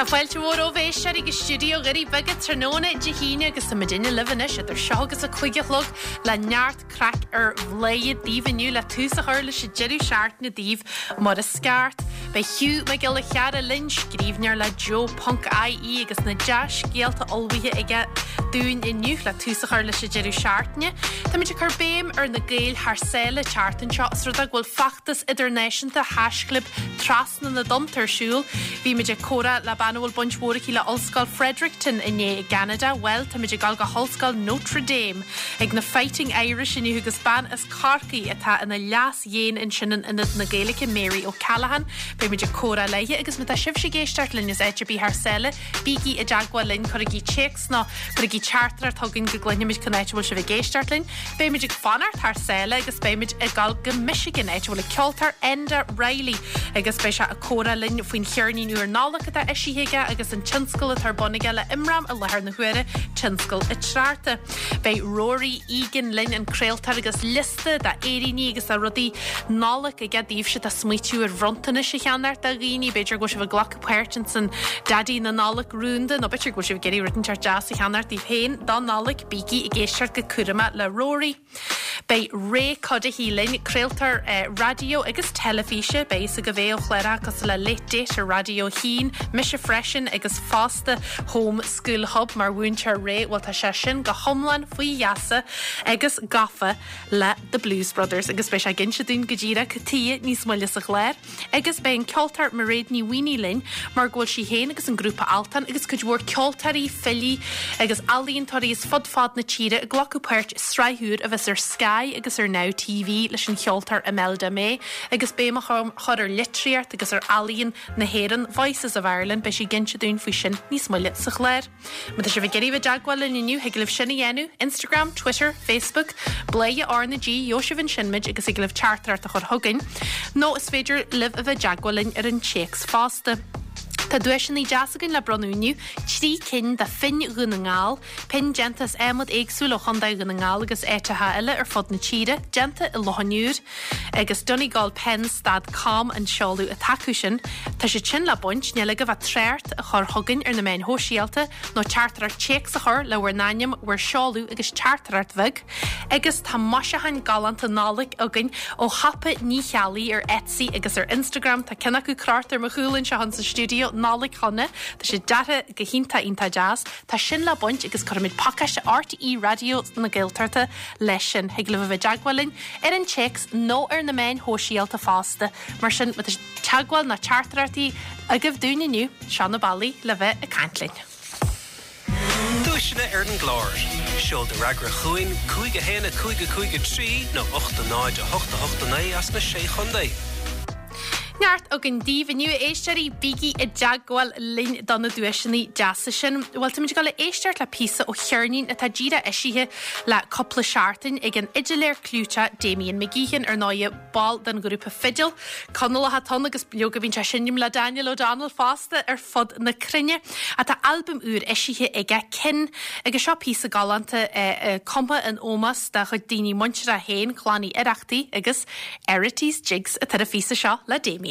fáilte mhór romhaibh a éisteoirí go stiúideo Dhoirí Beaga tráthnóna Dé hAoine agus tá muidinne libh anois idir seo agus a 5 a chlog le neart craic ar Bhladhaire daoibh inniu le tús a chur leis an deireadh seachtaine daoibh mar is ceart. Beidh Hugh Mac Giolla Chearra linn, scríbhneoir le Joe Ponc IE agus na dea-scéalta ullmhaithe aige dúinn inniu le tús a chur leis an deireadh seachtaine. Táimid ag cur béim ar na Gaeil thar sáile an tseachtain seo os rud é go bhfuil feachtas idirnáisiúnta haischlib Trasna na dTonnta ar siúl. Bhí muid ag comhrá le bean a bhfuil baint mhór aici le Ollscoil Fredericton inné i gCeanada. Bhuel, táimid ag dul go hOllscoil Notre Dame ag na Fighting Irish inniu agus bean as Corcaigh atá ina Leas-Dhéan ansin in Ionad na Gaeilge, Mary O'Callaghan. Beidh muid ag comhrá léi agus má tá sibhse ag éisteacht linn as áit ar bith thar sáile, bígí i dteagmháil linn, cuirigí téacs nó cuirigí teachtaireacht chugainn go gcluinfimid cén áit a bhfuil sibh ag éisteacht linn. Beimid ag fanacht thar sáile agus beimid ag dul go Michigan, áit a bhfuil an ceoltóir Enda Reilly agus beidh sé ag comhrá linn faoin cheirnín úr Nollag atá eisithe aige agus an tionscal atá ar bun aige le Imram i láthair na huaire, Tionscal Atreachta. Beidh Rory Egan linn, an craoltóir agus liosta de fhéiríní agus de rudaí Nollag aige daoibhse atá ag smaoitiú ar bhronntanais a cheannacht do dhaoine, b'fhéidir go bhfuil sibh ag glacadh páirt ins an Daidí na Nollag rúnda nó b'fhéidir go bhfuil sibh ag iarraidh rud inteacht deas a cheannacht daoibh féin don Nollaig, bígí ag éisteacht go cúramach le Rory. Beidh Ray Cuddihy linn, craoltóir raidió agus teilifíse, beidh fhios agaibh é ó chláracha cosúil le Late Date ar Raidió 1, mise freisin agus fosta Home School Hub mar mhúinteoir Ray, bhuel tá sé sin go hiomlán faoi gheasa agus gafa le The Blues Brothers agus beidh sé ag inse dúinn go díreach cad chuige níos moille sa chlár. Agus beidh an ceoltóir Mairéad Ní Mhaonaigh linn mar go bhfuil sí féin agus an grúpa Altan agus cuid mhór ceoltóirí, filí agus ealaíontóirí as fud fad na tíre ag glacadh páirt i sraith úr a bheas ar Sky agus ar Now TV leis an cheoltóir Imelda May agus béim á chur ar litríocht agus ar ealaíon na hÉireann, Voices of Ireland, beidh sí ag inse dúinn faoi sin níos moille sa chlár. Má tá sibh ag iarraidh bheith i dteagmháil linn inniu, thig libh sin a dhéanamh, Instagram, Twitter, Facebook, Bladhaire R na G, gheobhaidh sibh ansin muid agus thig libh teachtaireacht a chur chugainn, nó is féidir libh a bheith i dteagmháil linn ar an téacs fosta. Tá duaiseanna deas againn le bronnadh inniu, 3 cinn de phinn Dhún na nGall, pinn déanta as adhmad éagsúil ó Chontae Dhún na nGall agus áiteacha eile ar fud na tíre, déanta i Loch an Iúir. Agus Donegalpens dot com an seoladh atá acu sin. Tá siad sin le baint, níl agaibh ach trácht a chur chugainn ar na meáin shóisialta nó teachtaireacht téacs a chur le bhur n-ainm, bhur seoladh agus teachtaireacht bheag. Agus tá maisiúcháin galánta Nollag againn ó shiopa Ní Cheallaigh ar Etsy agus ar Instagram. Tá ceann acu crochta ar mo chúl anseo insa stiúideo, Nollaig Shona. Tá sé deartha go hiontach iontach deas. Tá sin le baint agus cuirfimid pacáiste RTÉ Raidió na Gaeltachta leis sin. Thig libh a bheith i dteagmháil linn ar an téacs nó ar na meáin shóisialta fosta. Mar sin, má tá teagmháil nó teachtaireachtaí agaibh dúinn inniu, seo na bealaí le bheith ag caint linn. Duaiseanna ar an gclár. Seol do fhreagra chugainn, 5 1 5 5 3 nó 8 0 8 8 9 as na Sé Chontae. Neart againn daoibh inniu, a éisteoirí, bígí i dteagmháil linn do na duaiseanna deasa sin. Bhuel, táimid ag dul a éisteacht le píosa ó cheirnín atá díreach eisithe le cúpla seachtain ag an fhidiléir clúiteach Damien McGeehan, ar ndóigh, ball den ghrúpa Fidil. Conallach atá ann agus leoga bíonn sé ag seinm le Daniel O'Donnell fosta ar fud na cruinne. Tá albam úr eisithe aige, Kin, agus seo píosa galánta cumtha in ómós dá chuid daoine muinteartha féin, Clann Uí Oireachtaigh agus Errity's Jigs atá ar an phíosa seo le Damien.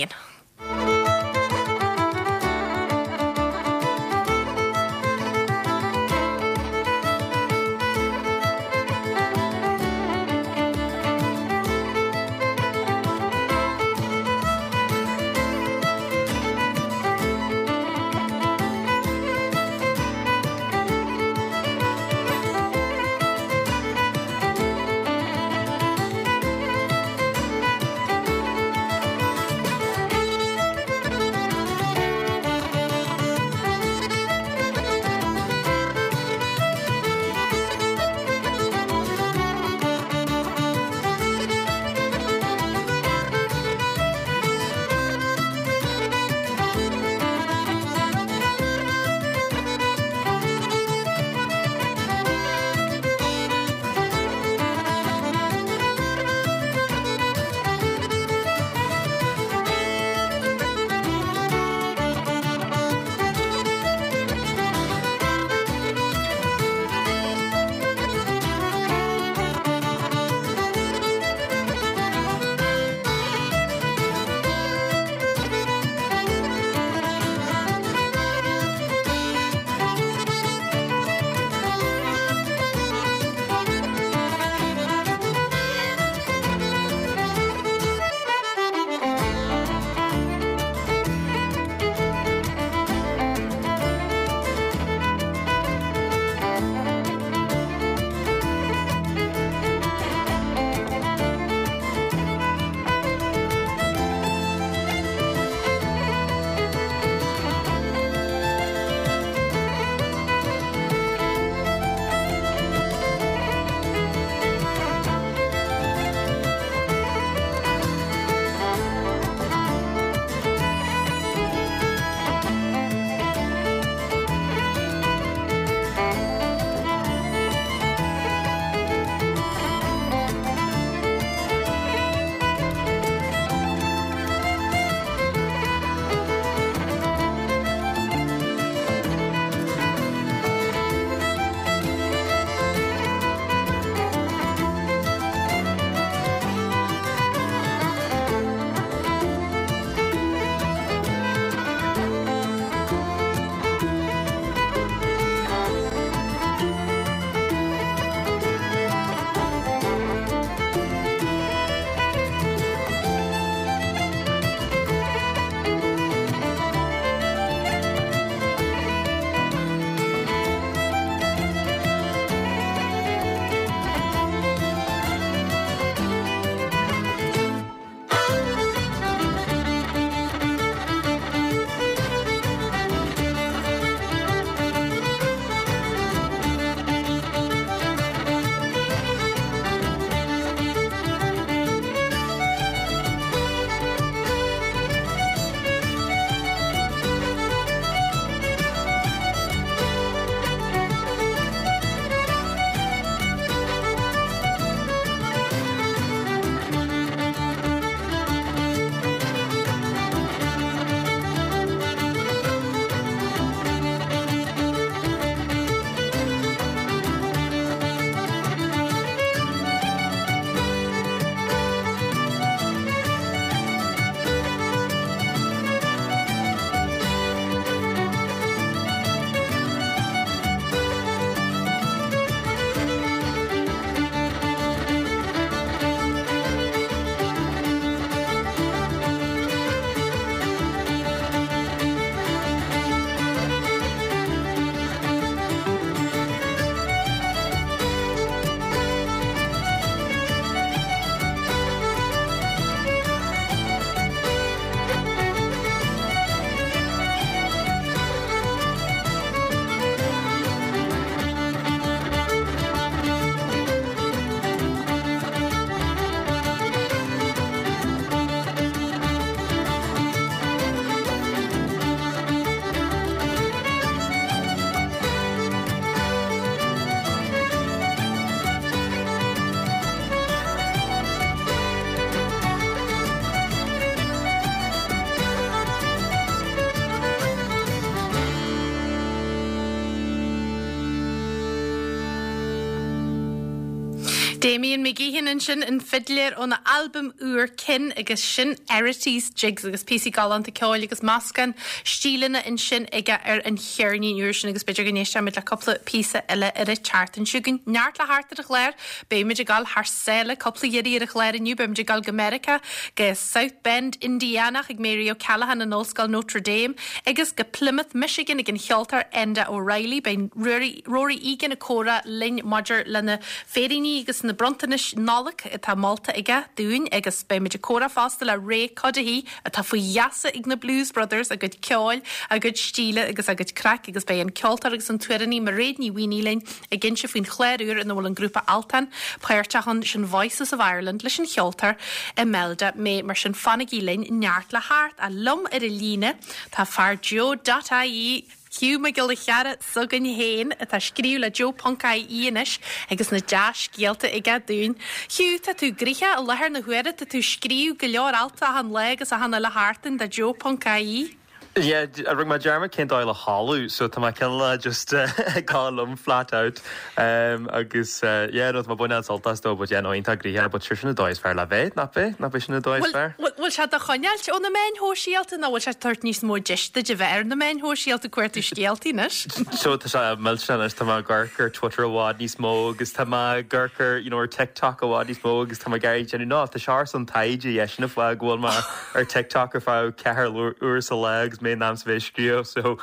Damian McGeehan ansin, an fidléir óna albam úr Kin agus sin Arities, Jigs agus píosaí galánta ceoil agus meascán stíleanna ansin aige ar an cheirnín úr sin agus b'fhéidir go n-éistfimid le cúpla píosa eile ar an tseachtain seo chugainn. Neart le theacht ar an chlár, beimid ag dul thar sáile cúpla iarraidh ar an chlár inniu, beimid ag dul go Meiriceá, go South Bend, Indiana chuig Mary O'Callaghan in Ollscoil Notre Dame agus go Plymouth, Michigan ag an cheoltóir Enda O'Reilly. Beidh Ruairí Rory Egan ag comhrá linn maidir le na féiríní agus na bronntanais Nollag atá molta aige dúinn agus beimid ag comhrá fosta le Ray Cuddihy atá faoi gheasa ag na Blues Brothers, a gcuid ceoil, a gcuid stíle agus a gcuid craic agus beidh an ceoltóir agus an t-amhránaí Mairéad Ní Mhaonaigh linn ag inse faoin chlár úr ina bhfuil an grúpa Altan páirteach ann, sin Voices of Ireland leis an cheoltóir Imelda May. Mar sin fanaigí linn, neart le theacht. Ach liom ar an líne tá fear Joe dot ie. Hugh Mac Giolla Chearra s'againn féin, atá ag scríobh le Joe ponc IE anois agus na dea-scéalta aige dúinn. Hugh, tá tú gnoitheach i láthair na huaire, tá tú ag scríobh go leor alt achan lá agus achan uile sheachtain do Joe ponc IE. Yeah, rinne mé dearmad cén dóigh le chodladh, so tá mé cineál just ag gabháil liom flat out agus yeah no tá mé ag baint an-sult as though but yeah no iontach gnoitheach but sure sin an dóigh is fearr le bheith, nach b'é? Nach b'é sin an dóigh is fearr? Bhfuil sé do choinneáilt ó na meáin shóisialta nó bhfuil sé ag tabhairt níos mó deis duit a bheith ar na meáin shóisialta ag cuartú scéaltaí anois? So tá sé millteanach anois, tá mé ag amharc ar Twitter i bhfad níos mó agus tá mé ag amharc ar you know ar TikTok i bhfad níos mó agus tá mé ag iarraidh déanamh no tá sé ar son taighde yeah sin an fáth go bhfuil mé ar TikTok ar feadh ceathair uair sa lá agus mé in am sa bheith ag scríobh so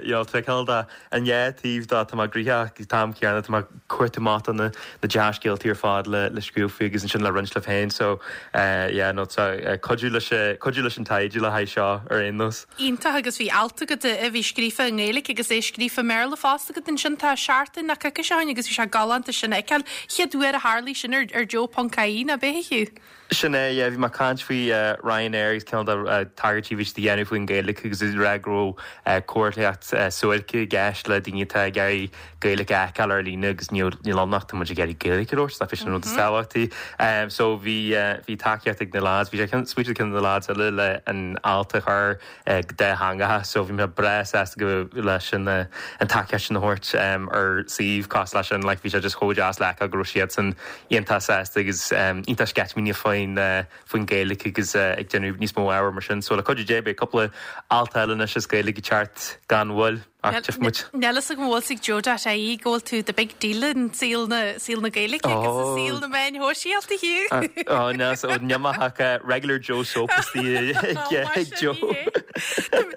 you know tá cineál de An dhá taobh de, tá mé gnoitheach ag an t-am céanna, tá mé ag cuartú amach do na dea-scéaltaí ar fad le scríobh faoi agus ansin le roinnt libh féin. So yeah, no, tá cuidiú leis, cuidiú leis an taighde le haghaidh seo ar aon nós. Iontach agus bhí alt agat a bhí scríofa i nGaeilge agus é scríofa i mBéarla fosta agat ansin tá seachtain nó coicís ó shin agus bhí sé galánta sin a fheiceáil. Chéad uair a tharlaigh sin ar Joe ponc ie, nach b'é a Hugh? Sin é, yeah, bhí mé ag caint faoi Ryanair agus cineál de tagairtí a bhí siad a dhéanamh faoin Ghaeilge agus ag rá go raibh comharthaíocht suairce i gceist le daoine atá ag iarraidh Gaeilge a fheiceáil ar líne agus níl ann ach tá muid ag iarraidh Gaeilge a labhairt, nach b'é sin an rud is tábhachtaí. So bhí bhí tacaíocht ag na lads, bhí sé smaoitiúil ag ceann de na lads eile le an alt a chur go dátheangach so bhí mé breá sásta go leis an an tacaíocht sin a thabhairt ar suíomh cosúil leis sin like bhí sé just chomh deas le feiceáil go raibh siadsan iontach sásta agus iontach sceitimíneach faoin faoin Ghaeilge agus ag déanamh níos mó ábhair mar sin so le cuidiú Dé beidh cúpla alt eile anois as Gaeilge ag teacht gan mhoill. Ach tchífidh muid. Níl fhios agam an bhfuil fhios ag Joe dot ie go bhfuil tú the big deal in saol na, saol na Gaeilge agus i saol na meáin shóisialta, Hugh. Ó, níl fhios agam, níl mé ach regular Joe soap istigh ag Joe.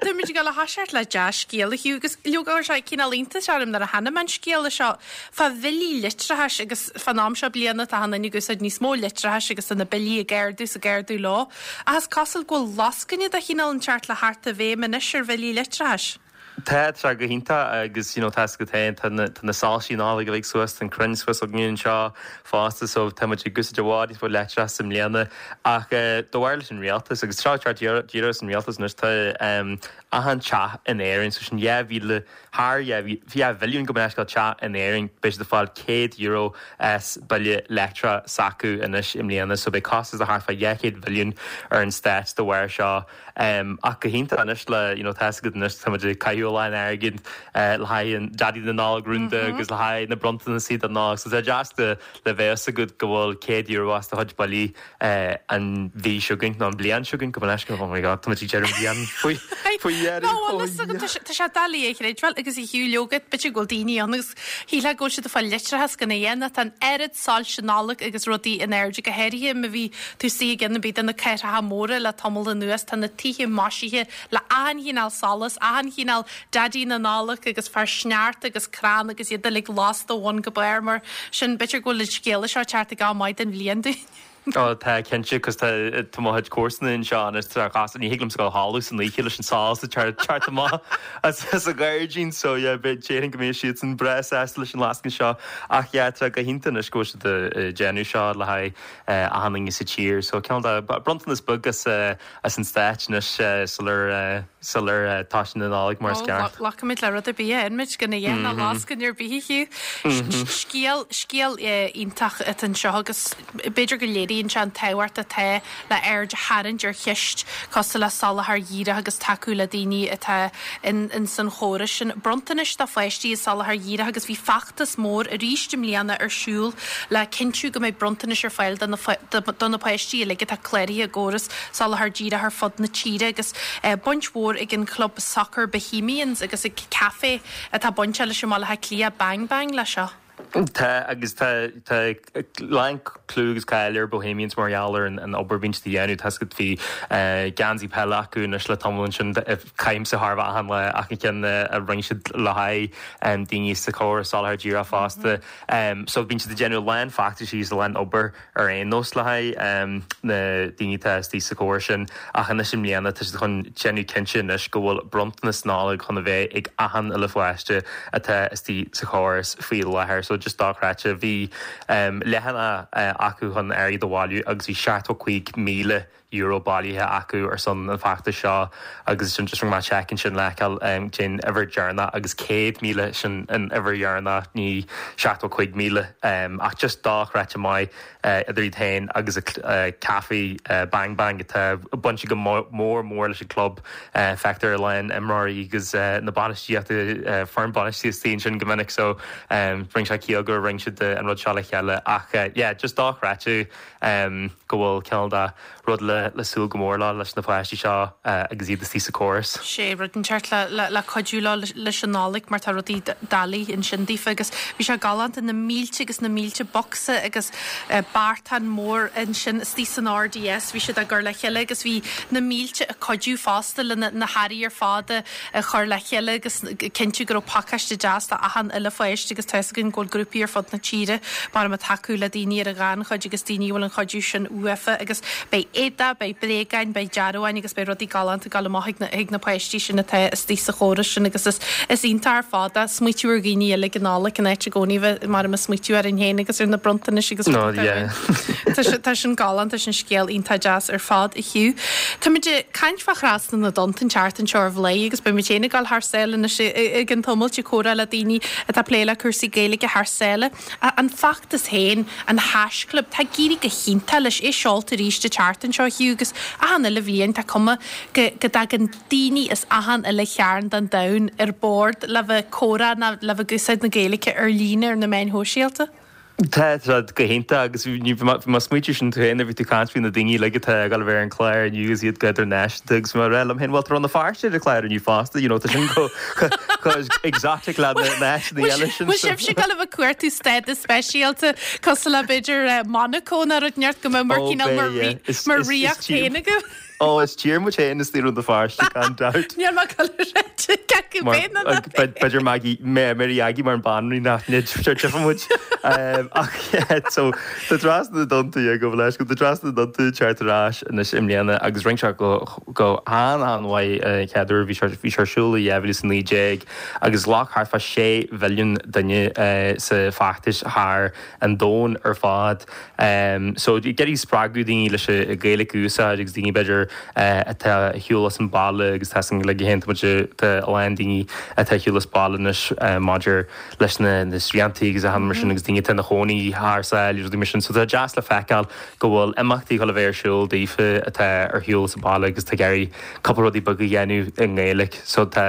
Táimid ag dul a thoiseacht le dea-scéal, a Hugh, agus leoga chuir sé cineál iontais orm nuair a chonaic mé an scéala seo fá bhillí leictreachais agus fán am seo bliana tá achan duine ag úsáid níos mó leictreachais agus tá na billí ag ardú is ag ardú leo. Ach is cosúil go bhfuil lascaine de chineál inteacht le theacht i bhfeidhm anois ar bhillí leictreachais. Tá, tá sé go hiontach agus you know tá fhios agat féin tá na tá na soilsí Nollag uilig suas, tá an crann suas againn anseo fosta so tá muid ag úsáid i bhfad níos mó leictreachas i mbliana ach eh de bharr leis an rialtas agus seo ag teacht díreach as an rialtas anois tá em achan teach in Éirinn so sin 2,000 thar 2 mhilliún gabh mo leithscéal teach in Éirinn beidh siad ag fáil €100 as bille leictreach s'acu anois i mbliana so beidh costas de thart fá 200 mhilliún ar an stát de bharr seo. Ach go hiontach anois le, you know, tá fhios agat anois, tá muid ag caitheamh a lán airgid le haghaidh an Daidí na Nollag rúnda agus le haghaidh na bronntanasí don Nollaig. So tá deas le bheith fhios agat go bhfuil €100 as do chuid billí an mhí seo chugainn, nó an bhliain seo chugainn, gabh mo leithscéal, oh my god, tá muid ag deireadh an bhliain faoi faoi dheireadh. Ná bhfuil fhios agat, tá sé doiligh a chreidbheáil agus a Hugh leoga, b'fhéidir go bhfuil daoine ann agus shílfeá go bhfuil siad ag fáil leictreachas gan a dhéanamh, tá an oiread soilse Nollag agus rudaí in airde, go háirithe má bhí tú istigh i gceann ar bith de na cathracha móra le tamall anuas, tá na tithe maisithe le achan chineál solas, achan chineál Daidí na Nollag agus fear sneachta agus crann agus iad uilig lasta ó bhun go barr, mar sin b'fhéidir go bhfuil an scéala seo ag teacht ag am maith den bhliain dúinn. Ó tá, cinnte, 'cause tá tá mo chuid comharsana anseo anois tá chas ní thig liomsa dul a chodladh san oíche leis an solas ag teacht amach as as an ghairdín so yeah beidh déarfainn go mbeidh siadsan breá sásta leis an lascaine seo ach yeah tá go hiontach anois go bhfuil siad ag déanamh seo le haghaidh achan duine sa tír so cineál de bronntanas beag as as an stát anois sular sular tosaíonn an Nollaig mar is ceart. Glacfaimid le rud ar bith a fhaigheann muid gan a dhath ná lascaine ar bith a Hugh. Scéal scéal iontach atá anseo agus b'fhéidir go léiríonn. léiríonn sé an tábhacht atá le aird a tharraingt ar cheist cosúil le soláthar dhíreach agus tacú le daoine atá in san chóras sin. Bronntanais do pháistí i soláthar dhíreach agus bhí feachtas mór arís i mbliana ar siúl le cinntiú go mbeidh bronntanais ar fáil do na páistí uilig atá cláraithe i gcóras soláthar díreach ar fud na tíre agus baint mhór ag an chlub sacair Bohemians agus ag caife atá bainteach leis i mBaile Átha Cliath, Bang Bang leis seo. Tá, agus tá tá a lán clú agus cáil ar Bohemians mar gheall ar an obair a bhíonn siad a dhéanamh. Tá a fhios agat bhí geansaí peile acu anois le tamall ansin. Caithimse thar a bheith achan lá achan cheann a rinne siad le haghaidh daoine sa chóras soláthar díreach fosta. So bíonn siad ag déanamh a lán feachtaisí agus a lán obair ar aon nós le haghaidh na daoine atá istigh sa chóras sin ach anois i mbliana tá siad chun déanamh cinnte anois go bhfuil bronntanas Nollag chun a bheith ag achan uile pháiste atá istigh sa chóras faoi láthair. So just dochreidte. Bhí leathanach acu chun airgead a bhailiú agus bhí €75,000 bailithe acu ar son an feachtais seo agus sin just rinne mé check ansin le feiceáil cén uimhir deireanach agus 100,000 sin an uimhir dheireanach ní 75,000 ach just dochreidte maith idir iad féin agus an caife Bang Bang atá bainte go mór mór leis an club feictear a lán imreoirí agus na bainistíochta foireann bainistíochta ansin go minic so rinne sé ciall gur rinne siad an rud seo le chéile ach yeah just dochreidte go bhfuil cineál de rud le súil go mór leo leis na páistí seo agus iad istigh sa chóras. Sé rud inteacht le cuidiú leo leis an Nollaig mar tá rudaí doiligh ansin daofa agus bhí sé galánta na mílte agus na mílte bocsa agus beartán mór ansin istigh san RDS bhí siad á gcur le chéile agus bhí na mílte ag cuidiú fosta le na hearraí ar fad a a chur le chéile agus cinntiú go raibh pacáiste deas do achan uile pháiste agus tá fhios againn go bhfuil grúpaí ar fud na tíre mar ag tacú le daoine ar an ghannchuid agus daoine a bhfuil an chuidiú sin uafa agus beidh éadaí, beidh bréagáin, beidh dearbháin agus beidh rudaí galánta ag dul amach chuig na, chuig na páistí sin atá istigh sa chóras sin agus is, is iontach ar fad é smaoitiú ar dhaoine eile ag an Nollaig in áit i gcónaí a bheith mar ag smaoitiú orainn féin agus ar na bronntanais agus No, rudaí yeah. Tá sé, tá sin galánta, sin scéal iontach deas ar fad a Hugh. Táimid ag caint fá Thrasna na dTonnta an tseachtain seo ar Bhladhaire agus beidh muid féin ag dul thar sáile anois i gcionn tamaill ag comhrá le daoine atá ag plé le cúrsaí Gaeilge thar sáile. An feachtas féin, an haischlib, tá ag éirí go hiontach leis, é seolta arís an tseachtain seo, Hugh, agus achan uile bhliain tá cuma go dtagann daoine as achan uile chearn den domhan ar bord le bheith ag comhrá nó le bheith ag úsáid na Gaeilge ar líne ar na meáin shóisialta. Tá sé go hiontach agus bhí mé ag smaointiú sin tú féin nuair a bhí tú ag caint faoi na daoine uilig atá ag dul a bheith ar an chlár inniu agus iad go hidirnáisiúnta agus bhí mé ag rá liom féin bhuel tá Rann na Feirste ar an chlár inniu fosta you know tá sin chomh exotic le na háiteanna eile sin. Bhfuil sibhse ag dul a bheith ag cuartú stádas speisialta cosúil le b'fhéidir Monaco nó rud inteacht go mbeadh mar cineál mar ríocht féin agaibh? Ó, is tír muid féin istigh i Rann na Feirste, gan dabht. Níl mé ag dul a rá cé acu féin nó ná féin. B'fhéidir Maggie, Mary Aggie mar an banríon nach dtifeadh muid. Ach yeah, so tá Trasna na dTonnta, yeah, gabh mo leithscéal, tá Trasna na dTonnta ag teacht ar ais anois i mbliana agus rinne sé go go han-an-mhaith an chéad uair bhí sé bhí sé ar siúl i 2019 agus ghlac thart fá 6 mhilliún duine sa feachtas thar an domhan ar fad. So ag iarraidh spreagadh daoine leis an Ghaeilge a úsáid agus daoine b'fhéidir atá ar shiúl as an baile agus tá san like tá muid tá a lán daoine atá ar shiúl as baile anois maidir leis na na sriantaí agus achan mar sin agus daoine atá ina chónaí thar sáile agus rudaí mar sin. So tá deas le feiceáil go bhfuil imeachtaí ag dul a bheith ar siúl daofa atá ar shiúl as an baile agus tá ag iarraidh cúpla rudaí beaga a dhéanamh i nGaeilge. So tá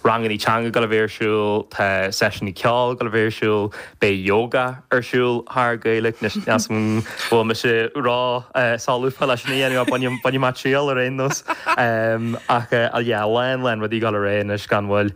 rangannaí teanga ag dul a bheith ar siúl, tá seisiúnaí ceoil ag dul a bheith ar siúl, beidh yoga ar siúl thar Gaeilge, anois níl 'fhios a'm an bhfuil mise ró-solúbtha leis sin a dhéanamh ach bainfidh mé triail ar aon nós. Ach yeah, a lán lán rudaí ag dul ar aghaidh anois gan mhoill.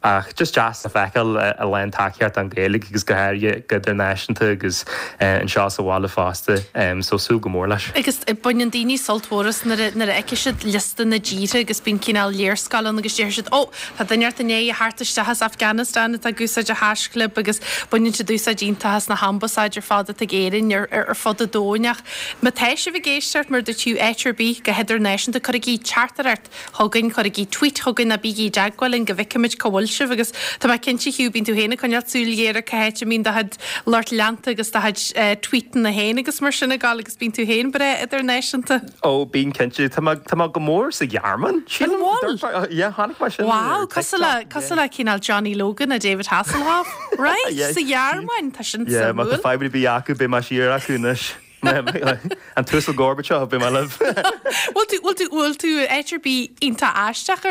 Ach just deas le feiceáil a lán tacaíocht don Ghaeilge agus go háirithe go hidirnáisiúnta agus anseo sa bhaile fosta. So súil go mór leis. Agus baineann daoine sult mhór as nuair a fheicfidh siad liosta na dtíortha agus bíonn cineál léarscáil ann agus déarfaidh siad 'Ó, tá duine inteacht i ndiaidh a theacht isteach as Afghanistan atá ag úsáid an haischlib' agus baineann siad úsáid iontach as na hambasáid ar fad atá ag Éirinn ar fud an domhain. Ach má tá sibh ag éisteacht, mar a dúirt tú, áit ar bith go hidirnáisiúnta, cuirigí teachtaireacht chugainn, cuirigí tweet chugainn ná bígí i dteagmháil linn go bhfeicfimid cá bhfuil sibh agus tá mé cinnte Hugh, bíonn tú féin ag coinneáil súil ghéar ar cá háit a mbíonn do chuid lucht leanta agus do chuid tweetanna féin agus mar sin ag dul agus bíonn tú féin breá idirnáisiúnta. Ó, bíonn cinnte. Tá mé, tá mé go mór sa Ghearmáin, sílim. An bhfuil? Yeah, chonaic mé sin Wow, cosúil le, cosúil le cineál Johnny Logan a David Hasselhoff. Right, sa Ghearmáin, tá sin Yeah, má tá suimiúil. fadhb ar bith acu, beidh mé siar acu anois. An tUasal Gorbachev, beidh mé libh. Bhfuil tú, bhfuil tú, bhfuil tú áit ar bith iontach aisteach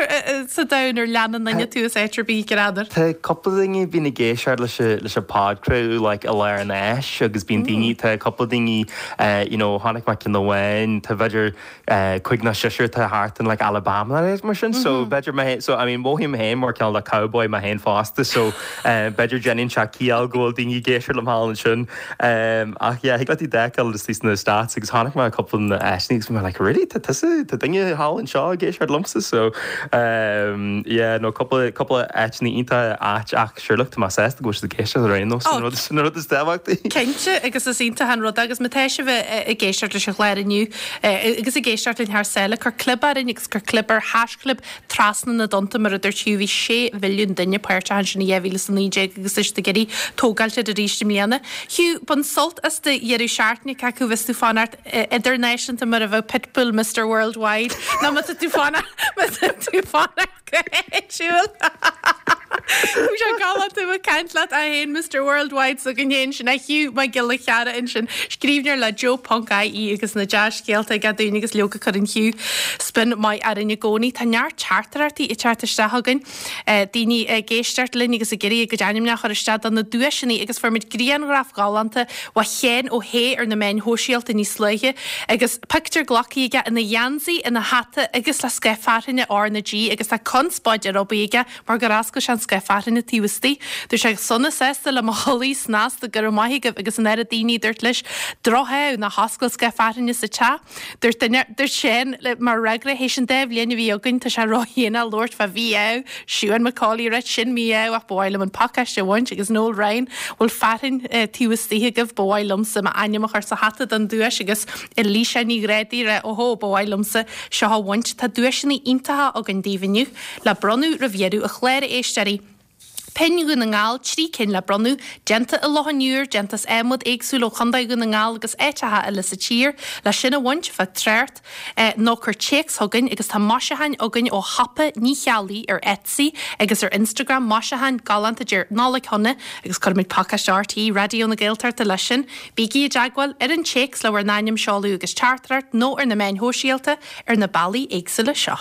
sa domhan ar leanann duine tú as áit ar bith, n'fheadar? Tá cúpla duine a bhíonn ag éisteacht leis an, leis an podchraoladh like i lár an fháis agus bíonn daoine, tá cúpla daoine you know chonaic mé ceann amháin, tá b'fhéidir cúig nó seisear atá thart in like Alabama nó mar sin so b'fhéidir mé so I mean mothaím féin mar cineál de cowboy mé féin fosta so b'fhéidir déanann sé ciall go bhfuil daoine ag éisteacht liom thall ansin ach yeah thig leat iad a fheiceáil istigh sna States agus chonaic mé cúpla na áiteanna agus bhí mé like really tá tusa tá duine thall anseo ag éisteacht liomsa so yeah no cúpla cúpla áiteanna iontach ait ach sure look tá mé sásta go bhfuil siad ag éisteacht ar aon nós sin an rud sin an rud is tábhachtaí. Cinnte agus is iontach an rud é agus má tá sibh ag éisteacht leis an chlár inniu Agus ag éisteacht linn thar sáile, cuir clib orainn agus cuir clib ar haischlib trasna na dtonnta mar a dúirt Hugh, bhí 6 mhilliún duine páirteach ansin i 2019 agus tá siad ag iarraidh tógáilt air arís i mbliana. Hugh, bain sult as do dheireadh seachtaine, cé acu bheas tú fanacht idirnáisiúnta mar a bheadh Pitbull Mister Worldwide nó má tá tú fanacht má tá tú fanacht go háitiúil. Bhí sé galánta ag caint leat é féin Mister Worldwide s'againn féin sin é Hugh Mac Giolla Cheara ansin, scríbhneoir le Joe Ponc IE agus na dea-scéalta aige dúinn agus leoga cuireann Hugh spion maith orainn i gcónaí. Tá neart teachtaireachtaí ag teacht isteach chugainn, daoine ag éisteacht linn agus ag iarraidh a gcuid ainmneacha a chur isteach do na duaiseanna agus fuair muid grianghraf galánta ó Sheán Ó hAodha ar na meáin shóisialta níos luaithe agus pictiúr glactha aige ina gheansaí, ina hata agus le scáth fearthainne R na G agus tá conspóid ar obair aige mar gur oscail sé an scáth fearthainne taobh istigh. Dúirt sé sona sásta le mo chulaith snasta go raibh maith agaibh agus an oiread daoine a dúirt leis droch-ádh ná hoscail scáth fearthainne sa teach. Dúirt duine, dúirt Seán mar fhreagra théis an dá bhliain a bhí againn tá sé ródhéanach labhairt fá mhí-ádh. Siún McCauley ag ráit sin mí-ádh ach ba mhaith liom an pacáiste a bhaint agus Noel Ryan bhfuil fearthainn taobh istigh agaibh ba mhaith liomsa m'ainm a chur sa hata don duais agus Elisa Ní Ghrádaigh ag rá óhó ba mhaith liomsa seo a bhaint. Tá duaiseanna iontacha againn daoibh inniu le bronnadh roimh dheireadh an chláir a éisteoirí. Pinn Dhún na nGall, 3 cinn le bronnadh, déanta i Loch an Iúir, déanta as adhmad éagsúil ó Chontae Dhún na nGall agus áiteacha eile sa tír. Le sin a bhaint, fág trácht nó cuir téacs chugainn agus tá maisiúcháin againn ó shiopa Ní Cheallaigh ar Etsy agus ar Instagram, maisiúcháin galánta a deir Nollaig Shona agus cuirfimid pacáiste RTÉ Raidió na Gaeltachta leis sin. Bígí i dteagmháil ar an téacs le bhur n-ainm, seoladh agus teachtaireacht nó ar na meáin shóisialta ar na bealaí éagsúla seo.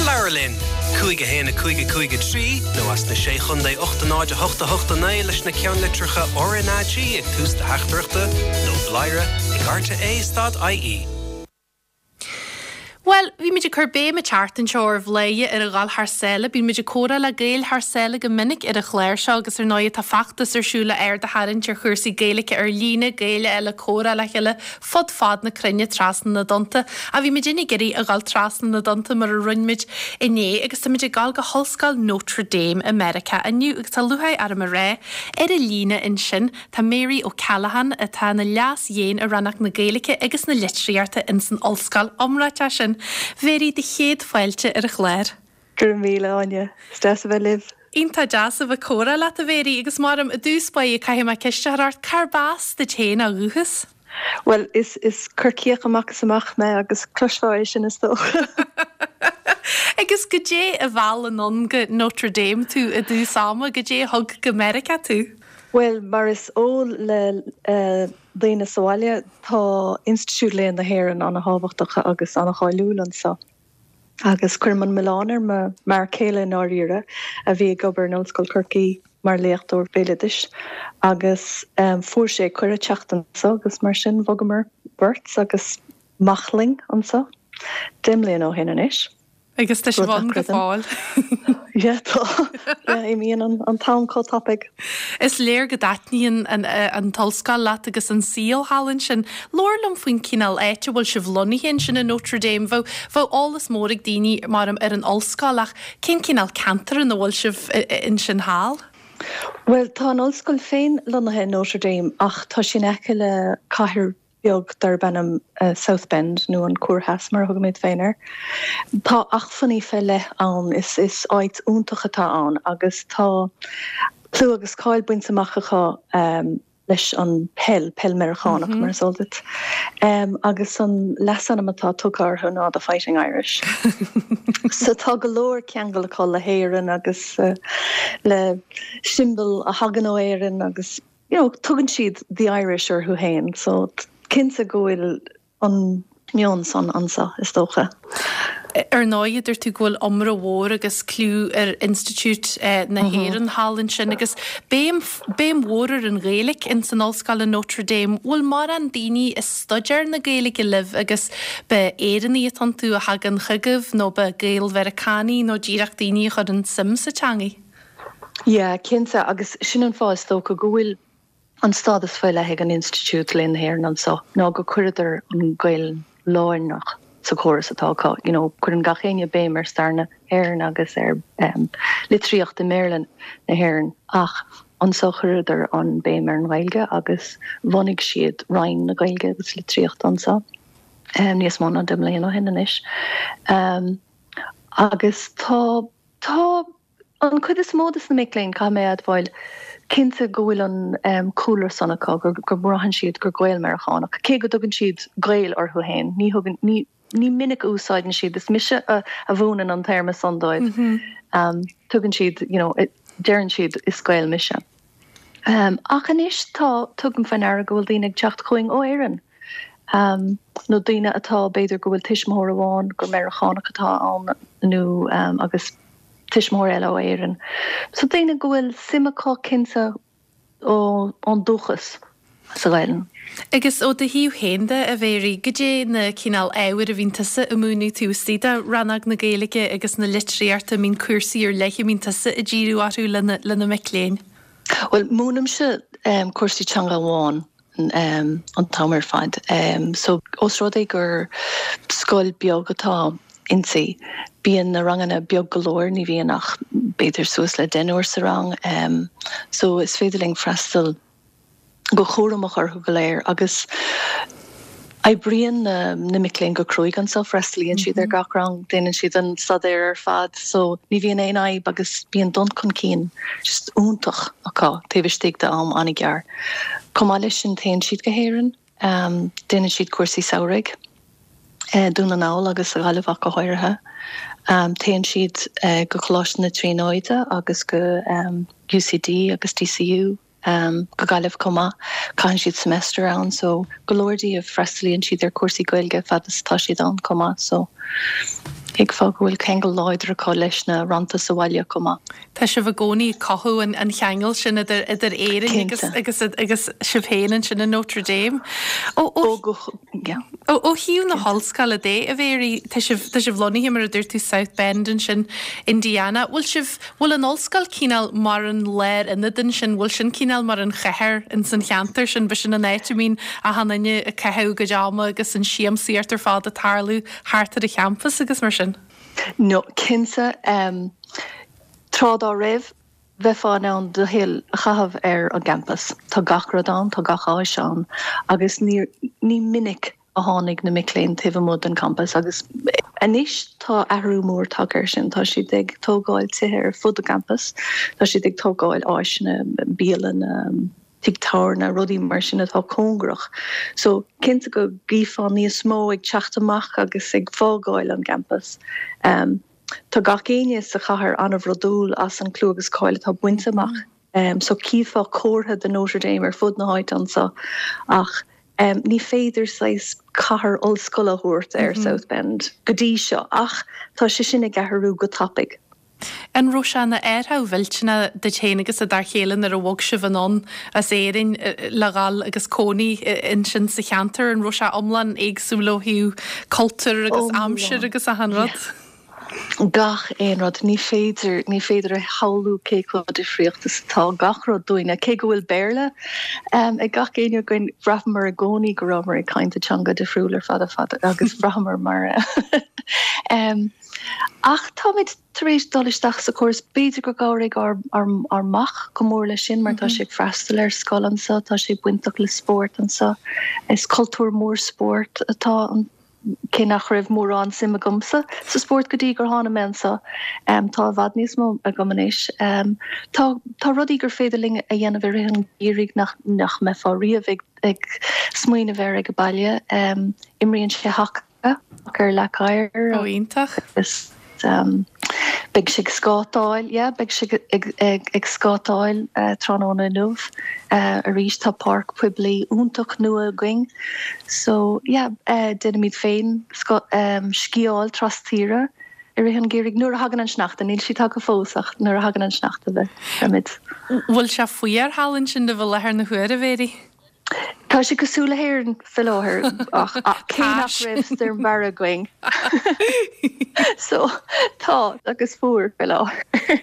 Labhair linn! 5 1 5 5 3 nó as na Sé Chontae 8 0 8 8 9 leis na ceannlitreacha RnaG ag tús do theachtaireachta nó bladhaire ag rte stad ie. Bhuel, bhí muid ag cur béim an tseachtain seo ar Bhladhaire ar a dhul thar sáile. Bíonn muid ag comhrá le Gaeil thar sáile go minic ar an chlár seo agus ar ndóigh tá feachtas ar siúl le aird a tharraingt ar chúrsaí Gaeilge ar líne, Gaeil a fháil ag comhrá le chéile fud fad na cruinne trasna na dtonnta. Ach bhí muidinne ag iarraidh a dhul trasna na dtonnta mar a rinne muid inné agus tá muid ag dul go hOllscoil Notre Dame i Meiriceá inniu agus tá lúcháir orm a rá ar an líne ansin tá Mary O'Callaghan atá ina Leas-Dhéan i Rannóg na Gaeilge agus na Litríochta ins an ollscoil iomráiteach sin. Mary, do chéad fáilte ar an chlár. Go raibh míle, Áine. Is deas a bheith libh. Iontach deas a bheith ag comhrá leat, a Mhary, agus maram, i dtús báire caithfidh mé ceist a chur ort, cárb as duit féin ó dhúchas? Bhuel, is, is Corcaíoch amach is amach mé agus cloisfeá é sin is dócha. Agus goidé a mheall anonn go Notre Dame tú i dtús ama, goidé a thug go Meiriceá tú? Bhuel, mar is eol le daoine sa bhaile, tá Institiúid Léann na hÉireann ana-thábhachtach agus ana-cháiliúil anso. Agus cuirim an milleán ar mo m'fhear céile i ndáiríre, a bhí ag obair in Ollscoil Chorcaí mar léachtóir béaloidis, agus fuair sé cuireadh teacht anso agus mar sin bhogamar beirt agus mac linn anso 10 mbliana ó shin anois. Agus tá sibh ann go fóill. Yeah, tá. Yeah, imíonn an t-am chomh tapaidh. Is léir go dtaitníonn an t-ollscoil leat agus an saol thall ansin. Labhair liom faoin cineál áit a bhfuil sibh lonnaithe ansin i Notre Dame. Bheadh, bheadh eolas mór ag daoine, maram, ar an ollscoil ach cén cineál ceantar ina bhfuil sibh ansin thall? Bhuel, tá an ollscoil féin lonnaithe i Notre Dame ach tá sí in aice le cathair beag darb ainm South Bend, nó an Cuar Theas mar a thugaimid féin air. Tá acmhainní fé leith ann, is is áit iontach atá ann agus tá clú agus cáil bainte amach acu leis an peil, peil Meiriceánach mar is eol duit, agus an leasainm atá tugtha orthu ná The Fighting Irish. So tá go leor ceangal acu le hÉirinn agus le siombail a thagann ó Éirinn agus. you know, tugann siad the Irish orthu féin, so. Cinnte go bhfuil an meon san anso, is dócha. Ar ndóigh, dúirt tú go bhfuil iomrá mhór agus clú ar Institiúid na hÉireann thall ansin agus béim, béim mhór ar an Ghaeilge ins an ollscoil i Notre Dame. Bhfuil mórán daoine ag staidéar na Gaeilge libh agus b'é Éireannaigh atá iontu a thagann chugaibh nó b'é Gael-Mheiriceánaigh nó díreach daoine a chuireann suim sa teangaidh? Yeah, cinnte, agus sin an fáth is dócha go bhfuil An stádas faoi leith ag an Institiúid Léann na hÉireann anso ná go cuireadar an Ghaelainn lárnach sa chóras atá acu. You know, cuireann gach éinne béim ar stair na hÉireann agus ar litríocht i mBéarla na hÉireann ach anso chuireadar an béim ar an Ghaeilge agus bhunaigh siad Roinn na Gaeilge agus Litríochta anso níos mó ná 10 mbliana ó shin anois. Agus tá, tá. An chuid is mó de na mic léinn, caithfidh mé a admháil, cinnte go bhfuil an cúlra san acu, go mbraitheann siad gur Gael-Meiriceánach, cé go dtugann siad Gaeil orthu féin, ní thugann, ní, ní minic a úsáideann siad, is mise a mhúineann an téarma san dóibh, tugann siad, you know, deireann siad is Gael mise. Ach anois tá, tugaim faoi ndeara go bhfuil daoine ag teacht chugainn ó Éirinn, nó daoine atá, b'fhéidir go bhfuil tuismitheoir amháin gur Meiriceánach atá ann nó agus tuismitheoir eile ó Éirinn. So daoine go bhfuil suim acu cinnte ón dúchas sa Ghaelainn. Agus ó do thaobh féin de, a Mhéirí, goidé na cineál ábhair a bhíonn tusa a múineadh taobh istigh de rannóg na Gaeilge agus na litríochta, an mbíonn cúrsaí ar leith a mbíonn tusa ag díriú orthu le na mic léinn? Bhuel, múinimse cúrsaí teanga amháin an t-am ar fad. So, ós rud é gur scoil beag atá inti, bíonn na ranganna beag go leor, ní bhíonn ach b'fhéidir suas le deichniúr sa rang. So, is féidir linn freastal go cúramach orthu go léir agus oibríonn na mic léinn go cruaidh anso, freastalaíonn siad ar gach rang, déanann siad an staidéar ar fad so ní bhíonn aon fhadhb agus bíonn dul chun cinn just iontach acu taobh istigh de am an-ghearr. Chomh maith leis sin téann siad go hÉirinn, déanann siad cúrsaí samhraidh, Dún na nGall agus sa Ghaillimh ach go háirithe. Téann siad go Coláiste na Tríonóide agus go UCD agus DCU go Gaillimh chomh maith. Caitheann siad semester ann so go leor díobh freastalaíonn siad ar chúrsaí Gaeilge fad is atá siad ann chomh maith so thuigfeá go bhfuil ceangal láidir acu leis na rannta sa bhaile chomh maith. Tá sibh i gcónaí ag cothú an cheangail sin idir idir Éirinn agus agus agus sibh féin ansin i Notre Dame. Ó ó ó thaobh na hollscoile de, a Mhéirí, tá sibh tá sibh lonnaithe mar a dúirt tú South Bend ansin, Indiana. Bhfuil sibh bhfuil an ollscoil cineál mar an lárionad ansin, bhfuil sin cineál mar an chathair ins an cheantar sin, b'shin an áit a mbíonn achan duine ag caitheamh a gcuid ama agus an siamsaíocht ar fad ag tarlú thart ar an champas agus mar sin? No, cinnte. Tráth dá raibh, bheifeá in ann do shaol a chaitheamh ar an gcampas. Tá gach rud ann, tá gach áis ann agus ní ní minic a tháinig na mic léinn taobh amuigh den champas agus anois tá athrú mór tagtha air sin. Tá siad ag tógáil tithe ar fud an champais, tá siad ag tógáil áiseanna, bialanna, tigh tábhairne, rudaí mar sin atá cóngarach. So, cinnte go gcífeá níos mó ag teacht amach agus ag fágáil an gcampas. Tá gach éinne sa chathair an-bhrodúil as an clú agus cáil atá bainte amach. So cífeá comhartha de Notre Dame ar fud na háite anso ach ní féidir saghas cathair ollscoile a thabhairt ar South Bend go dtí seo ach tá sé sin ag athrú go tapaidh. An raibh sé ina athrú mhillteanach duit féin agus do d'fhear chéile nuair a bhog sibh anonn as Éirinn le dhul agus cónaí ansin sa cheantar? An raibh sé iomlán éagsúil ó thaobh cultúir agus aimsir agus achan rud? Gach aon rud. Ní féidir, ní féidir a shamhlú cé chomh difríocht is atá gach rud dúinne. Cé go bhfuil Béarla ag gach éinne againn, bhraitheamar i gcónaí go rabhamar ag caint i teanga difriúil ar fad ar fad agus bhraitheamar mar Ach táimid tar éis dul isteach sa chóras. B'fhéidir gur chabhraigh ár mac go mór leis sin mar tá sé ag freastal ar scoil anso, tá sé bainteach le spórt anso. Is cultúr mór spóirt atá ann, cé nach raibh mórán suim agamsa sa spórt go dtí gur tháinig mé anso. Tá i bhfad níos mó agam anois. Tá tá rudaí gur féidir linn a dhéanamh i rith an gheimhridh nach nach mbeifeá riamh ag ag smaoineamh air ag baile. Imríonn sé haca. ar leac oighir. Ó, iontach. Agus. beidh sé ag scátáil, yeah, beidh sé ag scátáil tráthnóna inniu arís. Tá páirc poiblí iontach nua againn so yeah, déanaimid féin sciáil trastíre i rith an gheimhridh nuair a thagann an sneachta, níl sé tagtha fós ach nuair a thagann an sneachta beimid. Bhfuil sé fuar thall ansin libh i láthair na huaire, a Mhary? Tá sé cosúil le hÉirinn fé láthair ach cé nach raibh stoirm Barra againn. So tá agus fuar fé láthair.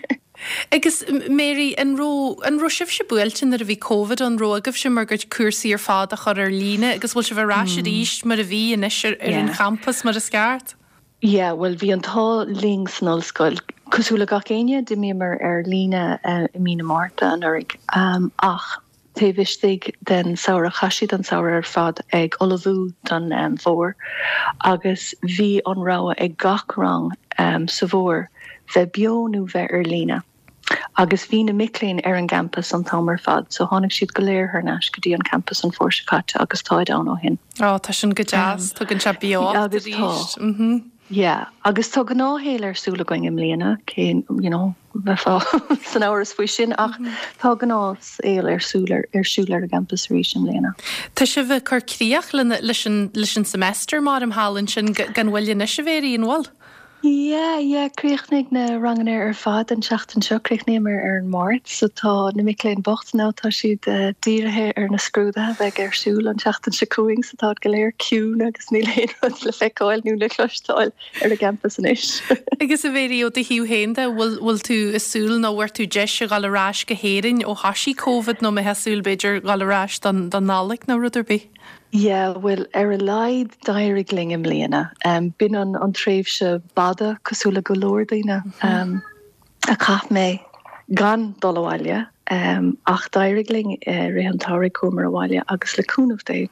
Agus Mary, an raibh, an raibh sibhse buailte nuair a bhí Covid ann, raibh agaibhse bhur gcuid cúrsaí ar fad a chur ar líne agus bhfuil sibh ar ais arís mar a bhí anois ar an champas mar is ceart? Yeah, bhuel bhí an t-ádh linn san ollscoil. Cosúil le gach éinne, d'imíomar ar líne i mí na Márta anuraidh ach taobh istigh den samhradh, chaith siad an samhradh ar fad ag ullmhú don bhfómhar agus bhí an rogha ag gach rang sa bhfómhar bheith beo nó bheith ar líne. Agus bhí na mic léinn ar an gcampas an t-am ar fad so tháinig siad go léir thar n-ais go dtí an campas an fómhar seo caite agus táid ann ó shin. Ó, tá sin go deas, tugann sé beocht Agus tá. arís. Yeah, agus tá gnáthshaol ar siúl againn i mbliana, cé, you know, bheifeá san amhras faoi sin ach tá gnáthshaol ar siúl ar siúl ar an gcampas arís i mbliana. Tá sibh ag cur críoch leis an leis an semester mar thall ansin gan mhoill anois a Mhary, an bhfuil? Yeah, yeah, chríochnaigh na ranganna ar fad an tseachtain seo, chríochnaíomar ar an Máirt, so tá na mic léinn bocht now, tá siad dírithe ar na scrúduithe a bheidh ar siúl an tseachtain seo chugainn, so táid go léir ciúin agus níl aon rud le feiceáil nó le cloisteáil ar an gcampas anois. Agus a Mhary, ó do thaobh féin de, bhfuil, bhfuil tú ag súil nó bhfuair tú deis a dhul ar ais go hÉirinn ó thoisigh Covid nó mbeifeá ag súil b'fhéidir dhul ar ais don, don Nollaig nó rud ar bith? Yeah, bhuel, ar a laghad d'éirigh linn i mbliana. B'in an tréimhse b'fhada, cosúil le go leor daoine, a chaith mé gan dul abhaile. Ach d'éirigh linn i rith an tsamhraidh, chuamar abhaile agus le cúnamh Dé,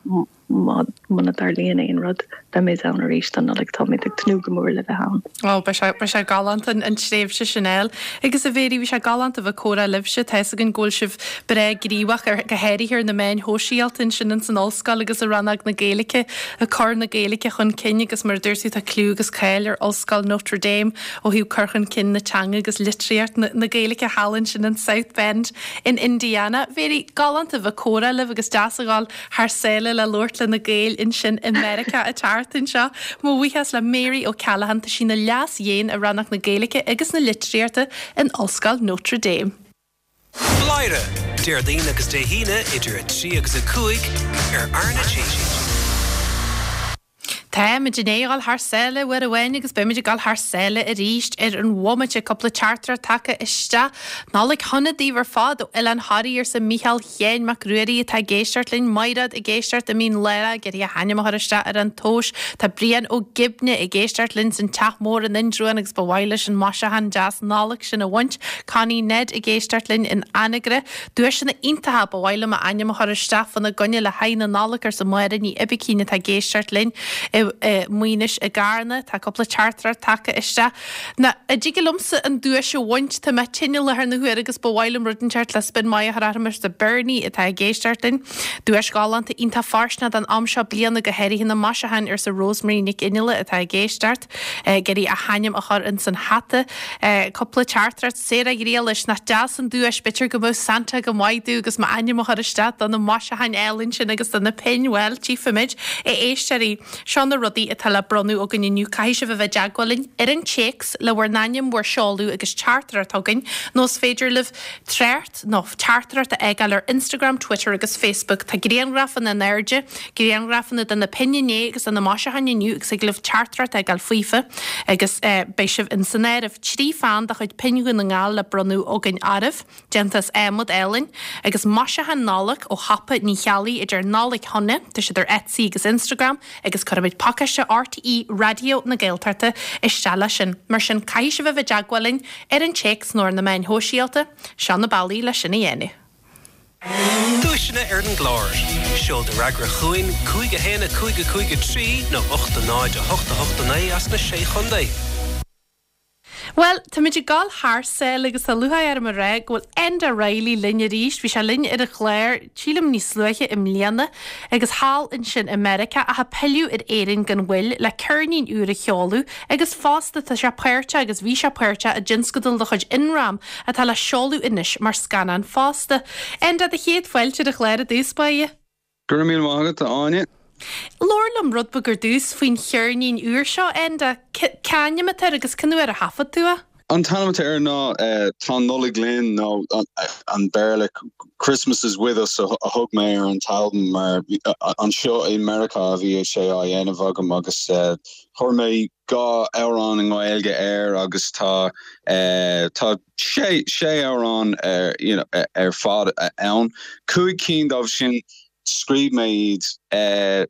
muna dtarlaíonn aon rud, beimid ann arís don Nollaig. Táimid ag tnúth go mór le bheith ann. Ó, beidh sé, beidh sé galánta an tréimhse sin a fháil. Agus a Mhary, bhí sé galánta a bheith ag comhrá libhse. Tá fhios againn go bhfuil sibh breá gníomhach ar, go háirithe ar na meáin shóisialta ansin ins an ollscoil agus i rannóg na Gaeilge, ag cur na Gaeilge chun cinn agus mar a dúirt tú tá cliú agus cáil ar Ollscoil Notre Dame ó thaobh cur chun cinn na teanga agus litríocht na, na Gaeilge thall ansin in South Bend in Indiana. Mhary, galánta a bheith ag comhrá libh agus deas a dhul thar sáile le labhairt le na Gaeil ansin i Meiriceá an tseachtain seo. Mo bhuíochas le Mary O'Callaghan, tá sí ina Leas-Dhéan i Rannóg na Gaeilge agus na Litríochta in Ollscoil Notre Dame. Bladhaire, Déardaoin agus Dé hAoine idir 3 agus 5 ar RnaG. Táimid i ndiaidh a dhul thar sáile uair amháin agus beimid ag dul thar sáile arís ar an bhomaite. Cúpla teachtaireacht tagtha isteach. Nollaig shona daoibh ar fad ó Oileán Thoraí, arsa Mícheál Sheáin Mac Ruairí atá ag éisteacht linn. Maighreád ag éisteacht i Mín Lárach ag iarraidh a hainm a chur isteach ar an tomhas. Tá Brian Ó Gibne ag éisteacht linn san Teach Mór in Indreabhán agus ba mhaith leis an maisiúchán deas Nollag sin a bhaint. Connie Ned ag éisteacht linn in Anagaire. Duaiseanna iontacha, ba mhaith liom m'ainm a chur isteach fána gcoinne le haghaidh na Nollag, arsa Máire Ní Oibicín atá ag éisteacht linn i Maínis i gCarna. Tá cúpla teachtaireacht tagtha isteach. Ná, an dtig liomsa an duais a bhaint, tá mé tinn i láthair na huaire agus ba mhaith liom rud inteacht le spion maith a chur orm, arsa Bernie atá ag éisteacht linn. Duais ghalánta iontach fóirsteanach don am seo bliana, go háirithe na maisiúcháin, arsa Rosemary Nic Fhionnghaile atá ag éisteacht. Ag iarraidh a hainm a chur ins an hata. Cúpla teachtaireacht. Sarah Ghriallais, nach deas an duais, b'fhéidir go mbeadh Santa go maith domh agus m'ainm a chur isteach do na maisiúcháin álainn sin agus do na pinn, bhuel, tchífimid. A éisteoirí, seo na rudaí atá le bronnadh againn inniu, caithfidh sibh a bheith i dteagmháil linn ar an téacs le bhur n-ainm, bhur seoladh agus teachtaireacht chugainn, nó is féidir libh trácht nó teachtaireacht a fhágáil ar Instagram, Twitter agus Facebook. Tá grianghrafanna in airde, grianghrafanna de na pinn inné agus de na maisiúcháin inniu agus thig libh teachtaireacht a fhágáil faofa agus beidh sibh in san áireamh. 3 pheann de chuid Pinn Dhún na nGall le bronnadh againn oraibh, déanta as adhmad álainn, agus maisiúcháin Nollag ó shiopa Ní Cheallaigh idir Nollaig Shona, tá siad ar Etsy agus Instagram, agus cuirfimid pacáiste RTÉ Raidió na Gaeltachta isteach leis sin. Mar sin, caithfidh sibh a bheith i dteagmháil linn ar an téacs nó ar na meáin shóisialta. Seo na bealaí leis sin a dhéanamh. Duaiseanna ar an gclár. Seol do fhreagra chugainn 5 1 5 5 3 nó 8 0 8 8 9 as na Sé Chontae. Bhuel, táimid ag dul thar sáile agus tá lúcháir orm a rá go bhfuil Enda Reilly linn arís. Bhí sé linn ar an chlár, sílim níos luaithe i mbliana, agus thall ansin i Meiriceá ach ag pilleadh ar Éirinn gan mhoill le ceirnín úr a sheoladh agus fosta tá sé páirteach agus bhí sé páirteach i dtionscadal de chuid Imram atá le seoladh anois mar scannán fosta. Enda, do chéad fáilte ar an chlár i dtús báire. Go raibh míle maith agat, a Áine. Labhair liom rud beag ar dtús faoin cheirnín úr seo, Enda. Cén ainm atá air agus cén uair a thaifead tú é? An t-ainm atá air ná Tá an Nollaig Linn nó an Béarla Christmas is with us a thug mé ar an t-albam mar anseo i Meiriceá a bhí sé á dhéanamh agam agus chuir mé 2 amhrán i nGaeilge air agus tá tá sé sé amhrán ar you know ar fad ann. 5 cinn dóibh sin scríobh mé iad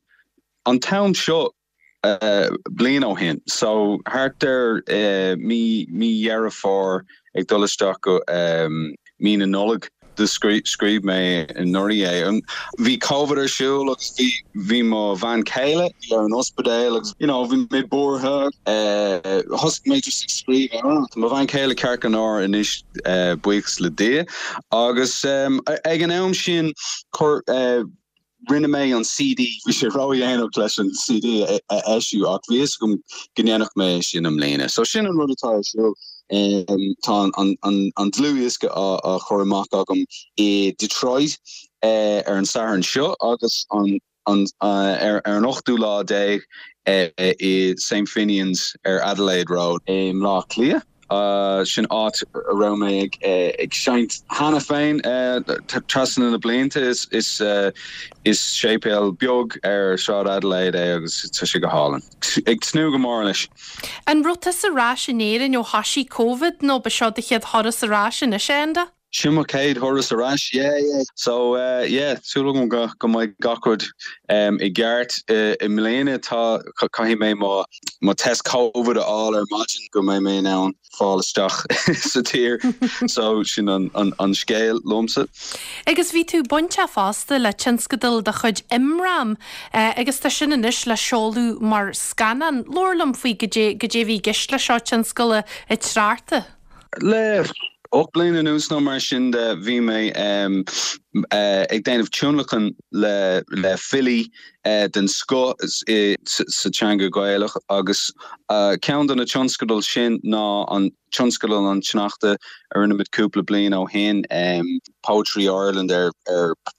an t-am seo bliain ó shin so thart ar mí mí Dheireadh Fómhair ag dul isteach go mí na Nollag. Do scríobh mé anuraidh é. Bhí Covid ar siúl agus bhí bhí mo bhean chéile ar an ospidéal agus you know bhí mé buartha. Thosaigh mé just ag scríobh amhrán. Tá mo bhean chéile ceart go leor anois buíochas le Dia agus ag an am sin chuir Rinne mé an CD, bhí sé ródhéanach leis an CD a eisiú ach bhí fhios agam go ndéanfadh mé é sin i mbliana. So sin an rud atá ar siúl. Tá an dlúthdhiosca á chur amach agam i Detroit ar an Satharn seo agus an ar an ochtú lá déag i St Finian's ar Adelaide Road i mBleá Cliath. Sin áit a raibh mé ag seinnt cheana féin trasna na blianta. Is séipéal beag ar Shráid Adelaide é agus tá sé go hálainn. Ag tnúth go mór leis. An raibh tusa ar ais in Éirinn ó thoisigh Covid nó ba seo do chéad thuras ar ais anois, a Enda? Sin mo chéad thuras ar ais, yeah, yeah. So, yeah, súil agam go go mbeidh gach rud i gceart i mbliana. Tá, caithfidh mé mo mo test Covid a fháil ar maidin go mbeidh mé in ann fáil isteach sa tír. So, sin an an an scéal liomsa. Agus bhí tú bainteach fosta le tionscadal de chuid Imram agus tá sin anois le seoladh mar scannán. Labhair liom faoi goidé goidé a bhí i gceist leis seo, tionscal an tSneachta. Le 8 bliana anuas nó mar sin de bhí mé ag déanamh tionlacan le filí den scoth sa teanga Ghaelach agus ceann de na tionscadail sin ná an tionscadal an tSneachta a rinne muid cúpla bliain ó shin, Poetry Ireland ar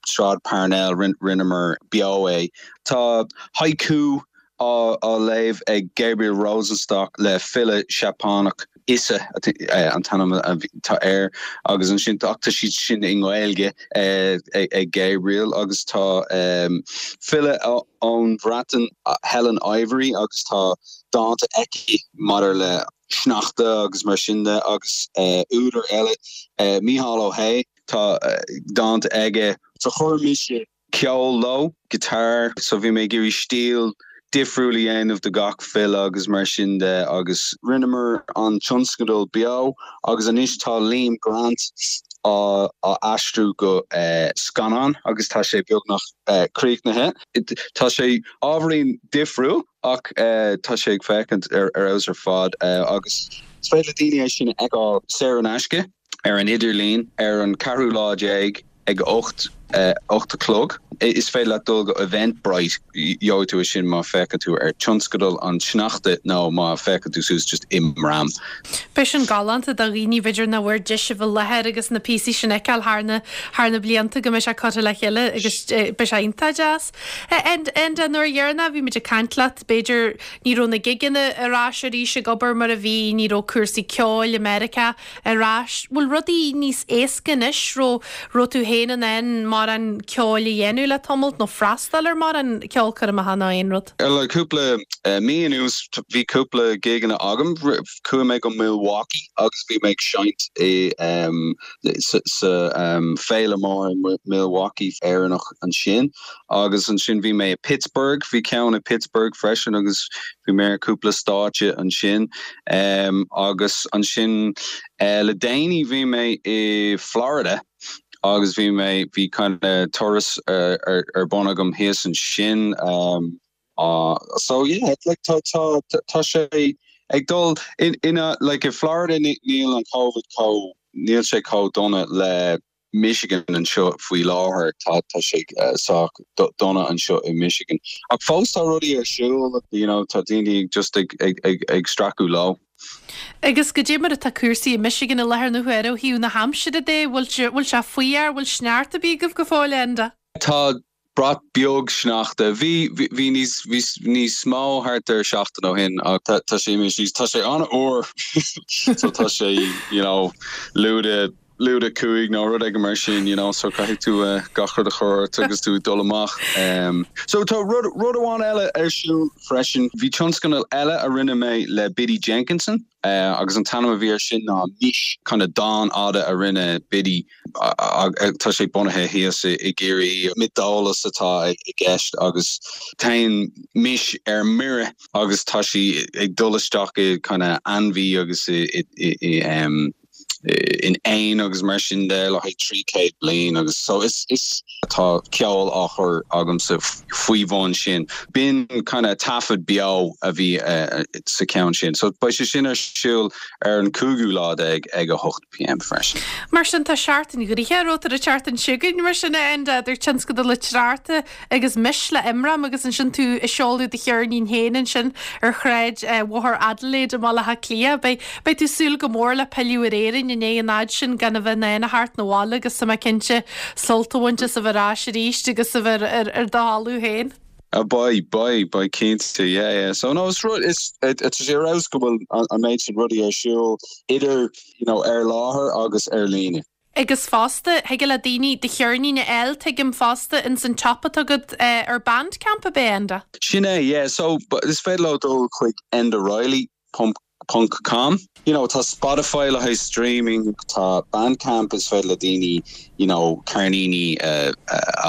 Sráid Parnell, rinneamar beo é. Tá haiku á léamh ag Gabriel Rosenstock le file Seapánach, Issa an t-ainm atá air, agus ansin ach tá siad sin i nGaeilge ag Gabriel agus tá file ón Bhreatain, Helen Ivory, agus tá dánta aici maidir le sneachta agus mar sin de agus údar eile, Mícheál Ó hAodha, tá dánta aige. So chuir mise ceol leo, guitar, so bhí mé ag iarraidh stíl difriúil a dhéanamh do gach file agus mar sin de agus rinneamar an tionscadal beo agus anois tá Liam Grant á aistriú go scannán agus tá sé beagnach críochnaithe. Tá sé ábhairín difriúil ach tá sé ag féachaint ar fheabhas ar fad agus is féidir le daoine é sin a fheiceáil saor in aisce. ar an idirlíon ar an ceathrú lá déag ag a 8, 8 a chlog. Is féidir leat dul go Eventbrite, gheobhaidh tú é sin má féachann tú ar Tionscadal an tSneachta nó má féachann tú suas just Imram. Beidh sin galánta do dhaoine b'fhéidir nach bhfuair deis a bheith i láthair agus na píosaí sin a fheiceáil thar na thar na blianta go mbeidh sé curtha le chéile agus beidh sé iontach deas. Enda, nuair dheireanach a bhí muid ag caint leat b'fhéidir ní raibh na gigeanna ar ais arís ag obair mar a bhí, ní raibh cúrsaí ceoil i Meiriceá ar ais. Bhfuil rudaí níos éasca anois? Raibh raibh tú féin in ann mórán ceoil a dhéanamh le tamalt nó freastal ar mórán ceolchoirmeacha nó aon rud? Le cúpla mí anuas bhí cúpla gigeanna agam. Chuaigh mé go Milwaukee agus bhí mé ag seinnt i sa féile mór i Milwaukee Éireannach ansin. Agus ansin bhí mé i Pittsburgh, bhí ceann i Pittsburgh freisin agus bhí mé ar cúpla stáitse ansin. Agus ansin le déanaí bhí mé i Florida agus bhí mé, bhí kind of turas ar bun agam thíos ansin. So yeah, like tá, tá, tá sé. ag dul in in a like i Florida níl an Covid chomh níl sé chomh dona le Michigan anseo faoi láthair tá tá sé sách dona anseo i Michigan. Ach fós tá rudaí ar siúl you know tá daoine just ag ag ag ag stracadh leo. Agus goidé mar atá cúrsaí i Michigan i láthair na huaire ó thaobh na haimsire de, bhfuil sé bhfuil sé fuar, bhfuil sneachta ar bith agaibh go fóill Enda? Tá brat beag sneachta. Bhí bhí níos bhí níos mó thart ar seachtain ó shin ach tá tá sé imithe síos. Tá sé an-fhuar so tá sé you know lúide lúide 5 nó rud éigin mar sin you know so caithfidh tú gach rud a chur ort agus tú ag dul amach. So tá rud rud amháin eile ar siúl freisin. Bhí tionscadal eile a rinne mé le Biddy Jenkinson agus an t-ainm a bhí air sin ná Mis, kind of dán fhada a rinne Biddy tá sé bunaithe thíos i gCiarraí. Miotaseolas atá i gceist agus téann Mis ar mire agus tá sí ag dul isteach i kind of ainmhí agus i i in éin agus mar sin de le haghaidh 300 bliain agus so is is tá ceol á chur agamsa faoi bhun sin. B'in kind of taifead beo a bhí sa cheann sin. So beidh sé sin ar siúl ar an cúigiú lá déag ag 8 pm freisin. Mar sin tá seachtain ghnoitheach romhat ar an tseachtain seo chugainn mar sin a Enda, idir tionscadal liteartha agus Mis le Imram agus ansin tú ag seoladh do cheirnín féin ansin ar shráid Bhóthar Adelaide i mBaile Átha Cliath. Beidh beidh tú ag súil go mór le pilleadh ar Éirinn i ndiaidh an fhaid sin gan a bheith in ann a theacht 'na bhaile agus tá mé cinnte sult a bhaint as a bheith ar ais arís agus a bheith ar ar do thalamh féin. Ah beidh, beidh, beidh cinnte, yeah, yeah. So no, is rud, is, tá sé ar fheabhas go bhfuil an méid sin rudaí ar siúl idir, you know, ar láthair agus ar líne. Agus fosta, thig le daoine do cheirnín a fháil, tuigim fosta, ins an tsiopa atá agat ar Bandcamp, ab é, Enda? Sin é, yeah. So, is féidir leo dul chuig endareilly ponc com. You know, tá Spotify le haghaidh streaming, tá Bandcamp is féidir le daoine, you know, ceirníní a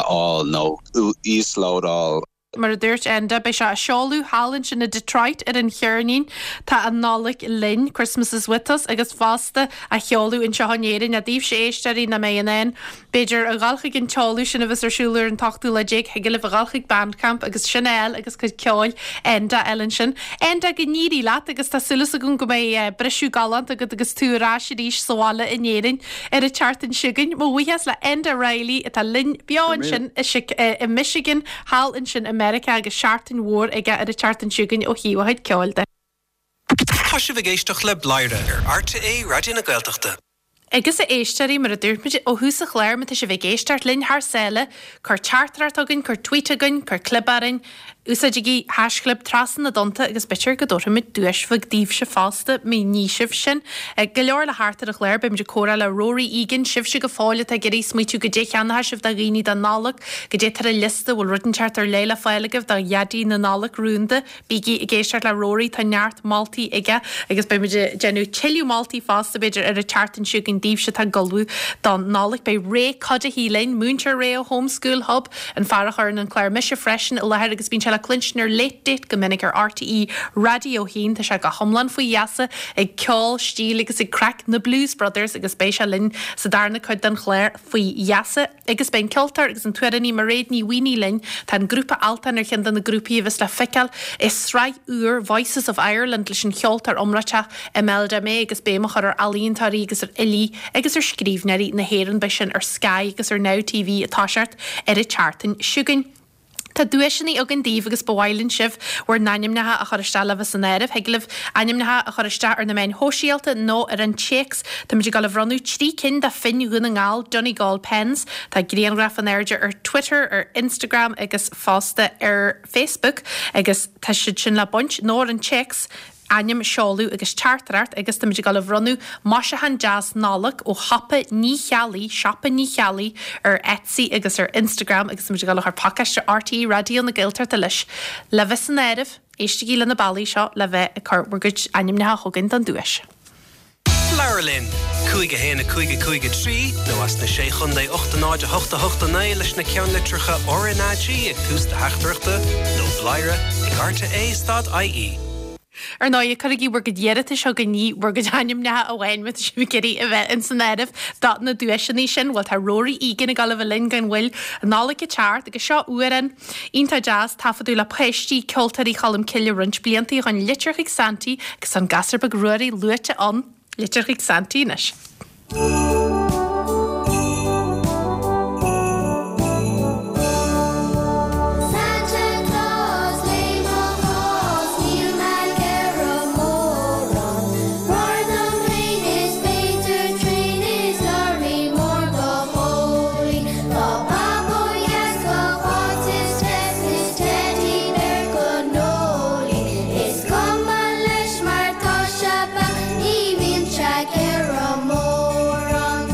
fháil nó íoslódáil. Mar a dúirt Enda, beidh sé á seoladh thall ansin i Detroit ar an cheirnín Tá an Nollaig Linn, Christmas is With Us, agus fosta á sheoladh anseo in Éirinn. Daoibhse éisteoirí nach mbeidh in ann, b'fhéidir, a dhul chuig an tseoladh sin a bheas ar siúl ar an t-ochtú lá déag, thig libh a dhul chuig Bandcamp agus sin a fháil agus cuid ceoil Enda a fháil ansin. Enda, go n-éirí leat agus tá súil agam go mbeidh briseadh galánta agat agus tú ar ais arís sa bhaile in Éirinn ar an tseachtain seo chugainn. Mo bhuíochas le Enda Reilly atá linn beo ansin i Michigan. Thall ansin i Meiriceá agus seachtain mhór aige ar an tseachtain seo chugainn ó thaobh a chuid ceoil de. Tá sibh ag éisteacht le Bladhaire ar RTÉ Raidió na Gaeltachta. Agus a éisteoirí, mar a dúirt muid ó thús an chláir, má tá sibh ag éisteacht linn thar sáile, cuir teachtaireacht chugainn, cuir tweet chugainn, cuir clib orainn, úsáidigí haischlib Trasna na dTonnta agus b'fhéidir go dtabharfaimid duais bheag daoibhse fosta má ní sibh sin. Go leor le theacht ar an chlár, beimid ag comhrá le Rory Egan, sibhse go fóill atá ag iarraidh smaoitiú goidé a cheannóidh sibh do dhaoine don Nollaig, goidé atá ar an liosta, bhfuil rud inteacht ar leith le fáil agaibh do Dhaidí na Nollag rúnda, Bígí ag éisteacht le Rory, tá neart moltaí aige agus beimid ag déanamh tuilleadh moltaí fosta b'fhéidir ar an tseachtain seo chugainn daoibhse atá ag ullmhú don Nollaig. Beidh Ray Cuddihy linn, Múinteoir Ray ó Home School Hub, an fear a chuireann an clár Mise Freisin i láthair agus bíonn sé le cluinstin ar Late Date go minic ar RTÉ Raidió 1. Tá sé go hiomlán faoi gheasa ag ceol, stíl agus ag craic na Blues Brothers agus beidh sé linn sa darna cuid den chlár faoi gheasa. Agus beidh an ceoltóir agus an t-amhránaí Mairéad Ní Mhaonaigh linn. Tá an grúpa Altan ar cheann de na grúpaí a bheas le feiceáil i sraith úr Voices of Ireland leis an cheoltóir iomráiteach Imelda May agus béim á chur ar ealaíontóirí agus ar fhilí agus ar scríbhneoirí na hÉireann. Beidh sin ar Sky agus ar Now TV ag toiseacht ar an tseachtain seo chugainn. Tá duaiseanna againn daoibh agus ba mhaith linn sibh bhur n-ainmneacha a chur isteach le bheith san áireamh. Thig libh ainmneacha a chur isteach ar na meáin shóisialta nó ar an téacs. Táimid ag dul a bhronnadh 3 cinn de phinn Dhún na nGall, Donegal Pens. Tá grianghraf in airde ar Twitter, ar Instagram agus fosta ar Facebook agus tá siad sin le baint nó ar an téacs. ainm, seoladh agus teachtaireacht agus táimid ag dul a bhronnadh maisiúchán deas Nollag ó Shiopa Ní Cheallaigh, Siopa Ní Cheallaigh ar Etsy agus ar Instagram agus táimid ag dul a chur pacáiste RTÉ Raidió na Gaeltachta leis. Le bheith san áireamh, éistigí le na bealaí seo le bheith ag cur bhur gcuid ainmneacha chugainn don duais. Labhair linn! 5 1 5 5 3 nó as na Sé Chontae 8 0 8 8 9 leis na ceannlitreacha RnaG ag tús do theachtaireachta nó bladhaire ag rte stad ie. Ar ndóigh, cuirigí bhur gcuid iarratais chugainn, ní bhur gcuid ainmneacha amháin má tá sibh ag iarraidh a bheith ins an áireamh do na duaiseanna sin. Bhuel, tá Rory Egan ag dul a bheith linn gan mhoill, an Nollaig ag teacht agus seo amhrán iontach deas, taifeadadh le páistí Ceoltóirí Cholm Cille roinnt blianta ó shoin, Litir chuig Santaí agus an gasúr beag Ruairí luaite ann. Litir chuig Santaí anois. Santa Claus, léigh mo chás, níl mé ag iarraidh mórán. Rothar dom féin is b'fhéidir traein is lorry mór go Chóilí. Tá bábó dheas go Cháit is Tess is teddy bear go Noelie. Is cuma leis mar tá sé beag, ní bhíonn sé ag iarraidh mórán.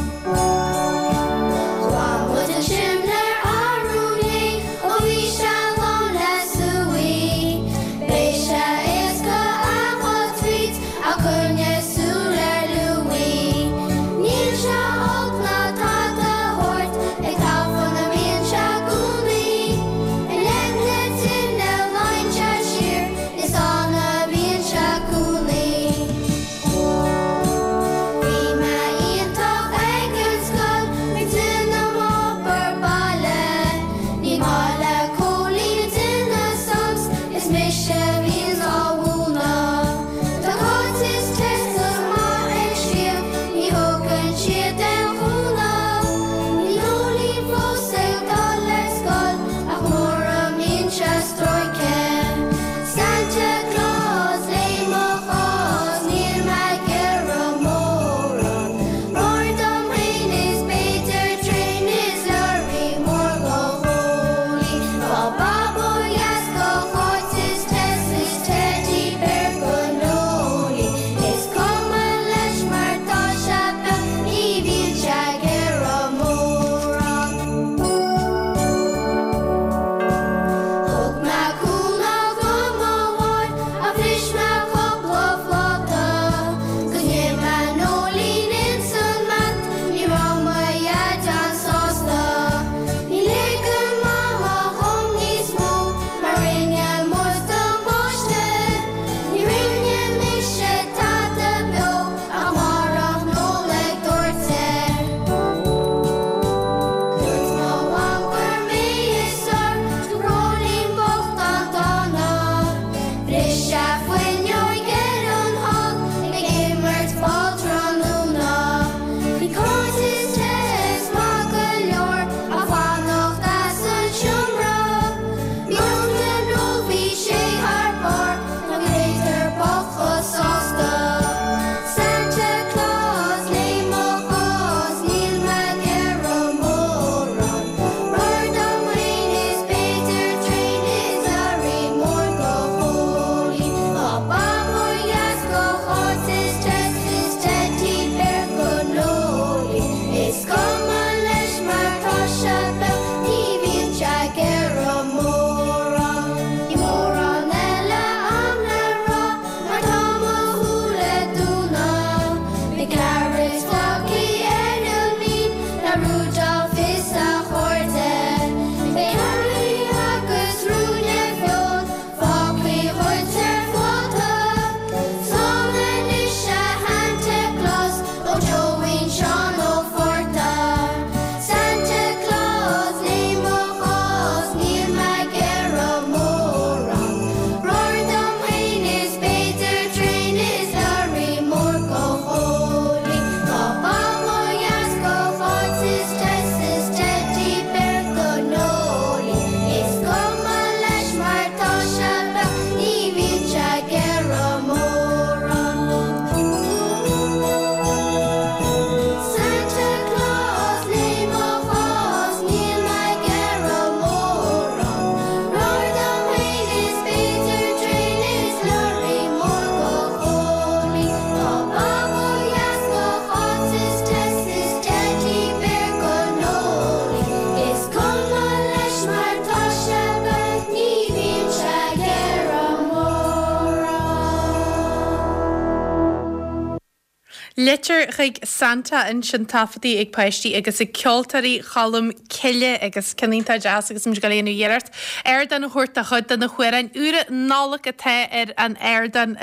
Litir chuig Santa ansin taifeadta ag páistí agus ag Ceoltóirí Cholm Cille agus ceann iontach deas agus muid ag dul a dhéanamh iarracht ardán a thabhairt do chuid de na hamhráin úra Nollag atá ar an ardán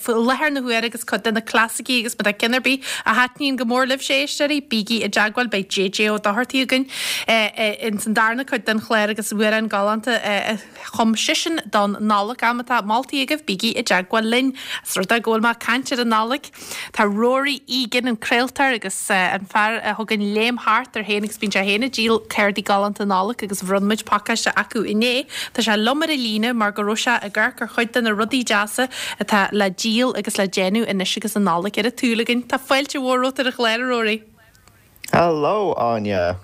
faoi láthair na huaire agus cuid de na clasaicí agus má tá ceann ar bith a thaitníonn go mór libhse éisteoirí, bígí i dteagmháil, beidh JJ Ó Dochartaigh againn ins an darna cuid den chlár agus amhráin galánta a chum seisean don Nollaig. Má tá moltaí agaibh, bígí i dteagmháil linn. Is rud é go bhfuil mé ag caint ar an Nollaig, tá Rory Egan, an craoltóir agus an fear a thugann Léim Thart air féin agus bíonn sé féin ag díol cártaí galánta Nollag agus bhronn muid pacáiste acu inné. Tá sé liom ar an líne mar go raibh sé ag amharc ar chuid de na rudaí deasa atá le díol agus le déanamh anois agus an Nollaig ar an tsúil againn. Tá fáilte mhór romhat ar an chlár, a Rory. Hello, Áine.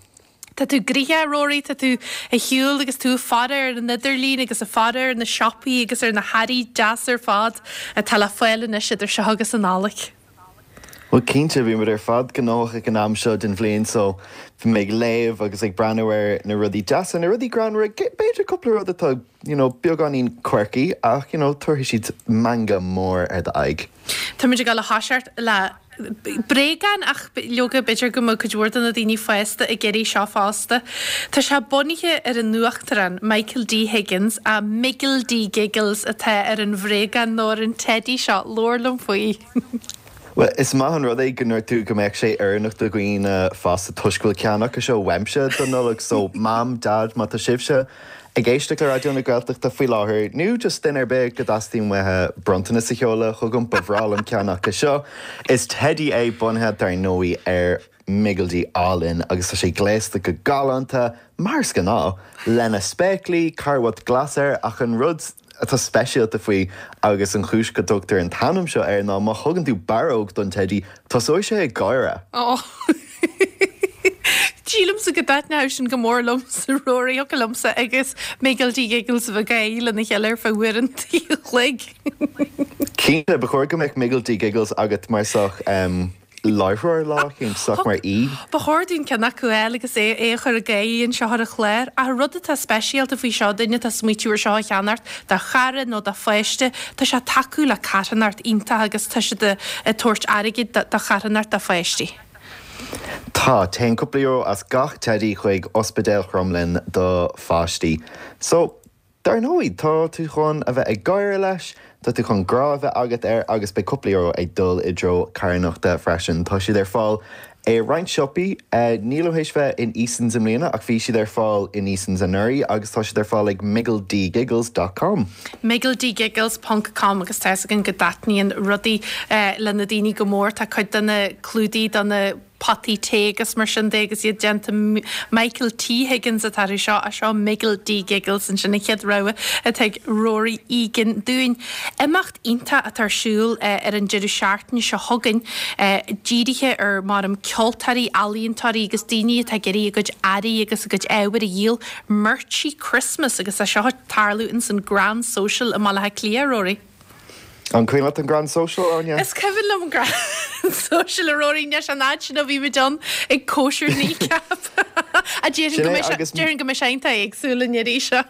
Tá tú gnoitheach, a Rory, tá tú ag siúl agus tú ag faire ar an idirlíon agus ag faire ar na siopaí agus ar na hearraí deasa ar fad atá le fáil anois idir seo agus an Nollaig. Bhuel, cinnte, bhí muid ar fad gnóthach ag an am seo den bhliain so bhí mé ag léamh agus ag breathnú ar na rudaí deasa, na rudaí greannmhara, b'fhéidir cúpla rud atá, you know, beagáinín quirky ach, you know, tabharfaidh siad meangadh mór ar d'aghaidh. Táimid ag dul a thoiseacht le bréagán ach leoga b'fhéidir go mbeadh cuid mhór de na daoine fásta ag iarraidh seo fosta. Tá sé bunaithe ar an Uachtarán Michael D Higgins ach Miggle D Giggles atá ar an bhréagán nó ar an teidí seo. Labhair liom faoi. Bhuel, is maith an rud é go ndúirt tú go mbeadh sé oiriúnach do dhaoine fásta toisc go bhfuil ceann acu seo uaimse don Nollaig so Mam, Dad, má tá sibhse ag éisteacht le Raidió na Gaeltachta faoi láthair, nó just duine ar bith go dteastaíonn uathu bronntanas a sheoladh chugam, ba bhreá liom ceann acu seo. Is teidí é bunaithe, dar ndóigh, ar Mhiggledy álainn agus tá sé gléasta go galánta, mar is gnáth, lena spéaclaí, carbhat glas air ach an rud atá speisialta faoi agus an chúis go dtugtar an t-ainm seo air ná má thugann tú barróg don teidí, tosóidh sé ag gáire. Ó. Sílimse go dtaitneodh sin go mór liomsa, Rory, thiocfadh liomsa agus Miggledy Giggles a bheith ag gáirí lena chéile ar feadh uair an chloig. Cinnte, ba chóir go mbeadh Miggledy Giggles agat mar sách láithreoir lá eicínt, sách mar aoi. Ba chóir dúinn ceann acu a fháil agus é a chur ag gáirí anseo ar an chlár. Ach an rud atá speisialta faoi seo, duine atá ag smaoitiú ar seo a cheannacht do chara nó do pháiste, tá sé ag tacú le carthanacht iontach agus tá siad ag tabhairt airgid do charthanacht do pháistí. Tá. Téann cúpla euro as gach teidí chuig Ospidéal Chromghlinn do pháistí. So, dar ndóigh, tá tú chun a bheith ag gáire leis, tá tú chun grá a bheith agat air agus beidh cúpla euro ag dul i dtreo carthanachta freisin. Tá siad ar fáil i roinnt siopaí. Nílim théis bheith in Easons i mbliana ach bhí siad ar fáil in Easons anuraidh agus tá siad ar fáil ag miggledygiggles dot com. miggledygiggles ponc com agus tá fhios againn go dtaitníonn rudaí le na daoine go mór. Tá cuid de na clúdaigh do na potaí tae agus mar sin de agus iad déanta Michael T Higgins atá orthu seo, ach seo Miggle D Giggles ansin an chéad rogha atá ag Rory Egan dúinn. Imeacht iontach atá ar siúl ar an deireadh seachtaine seo chugainn, dírithe ar, maram, ceoltóirí, ealaíontóirí agus daoine atá ag iarraidh a gcuid earraí agus a gcuid ábhair a dhíol, Merchy Christmas agus tá seo ag tarlú ins an Grand Social i mBaile Átha Cliath, Rory. An cuimhin leat an Grand Social, Áine? Is cuimhin liom an Grand Social, a Rory, anois an fhad sin ó bhí muid ann ag cóisir Kneecap. A déarfainn go mbeidh sé, déarfainn go mbeidh sé iontach éagsúil an iarraidh seo.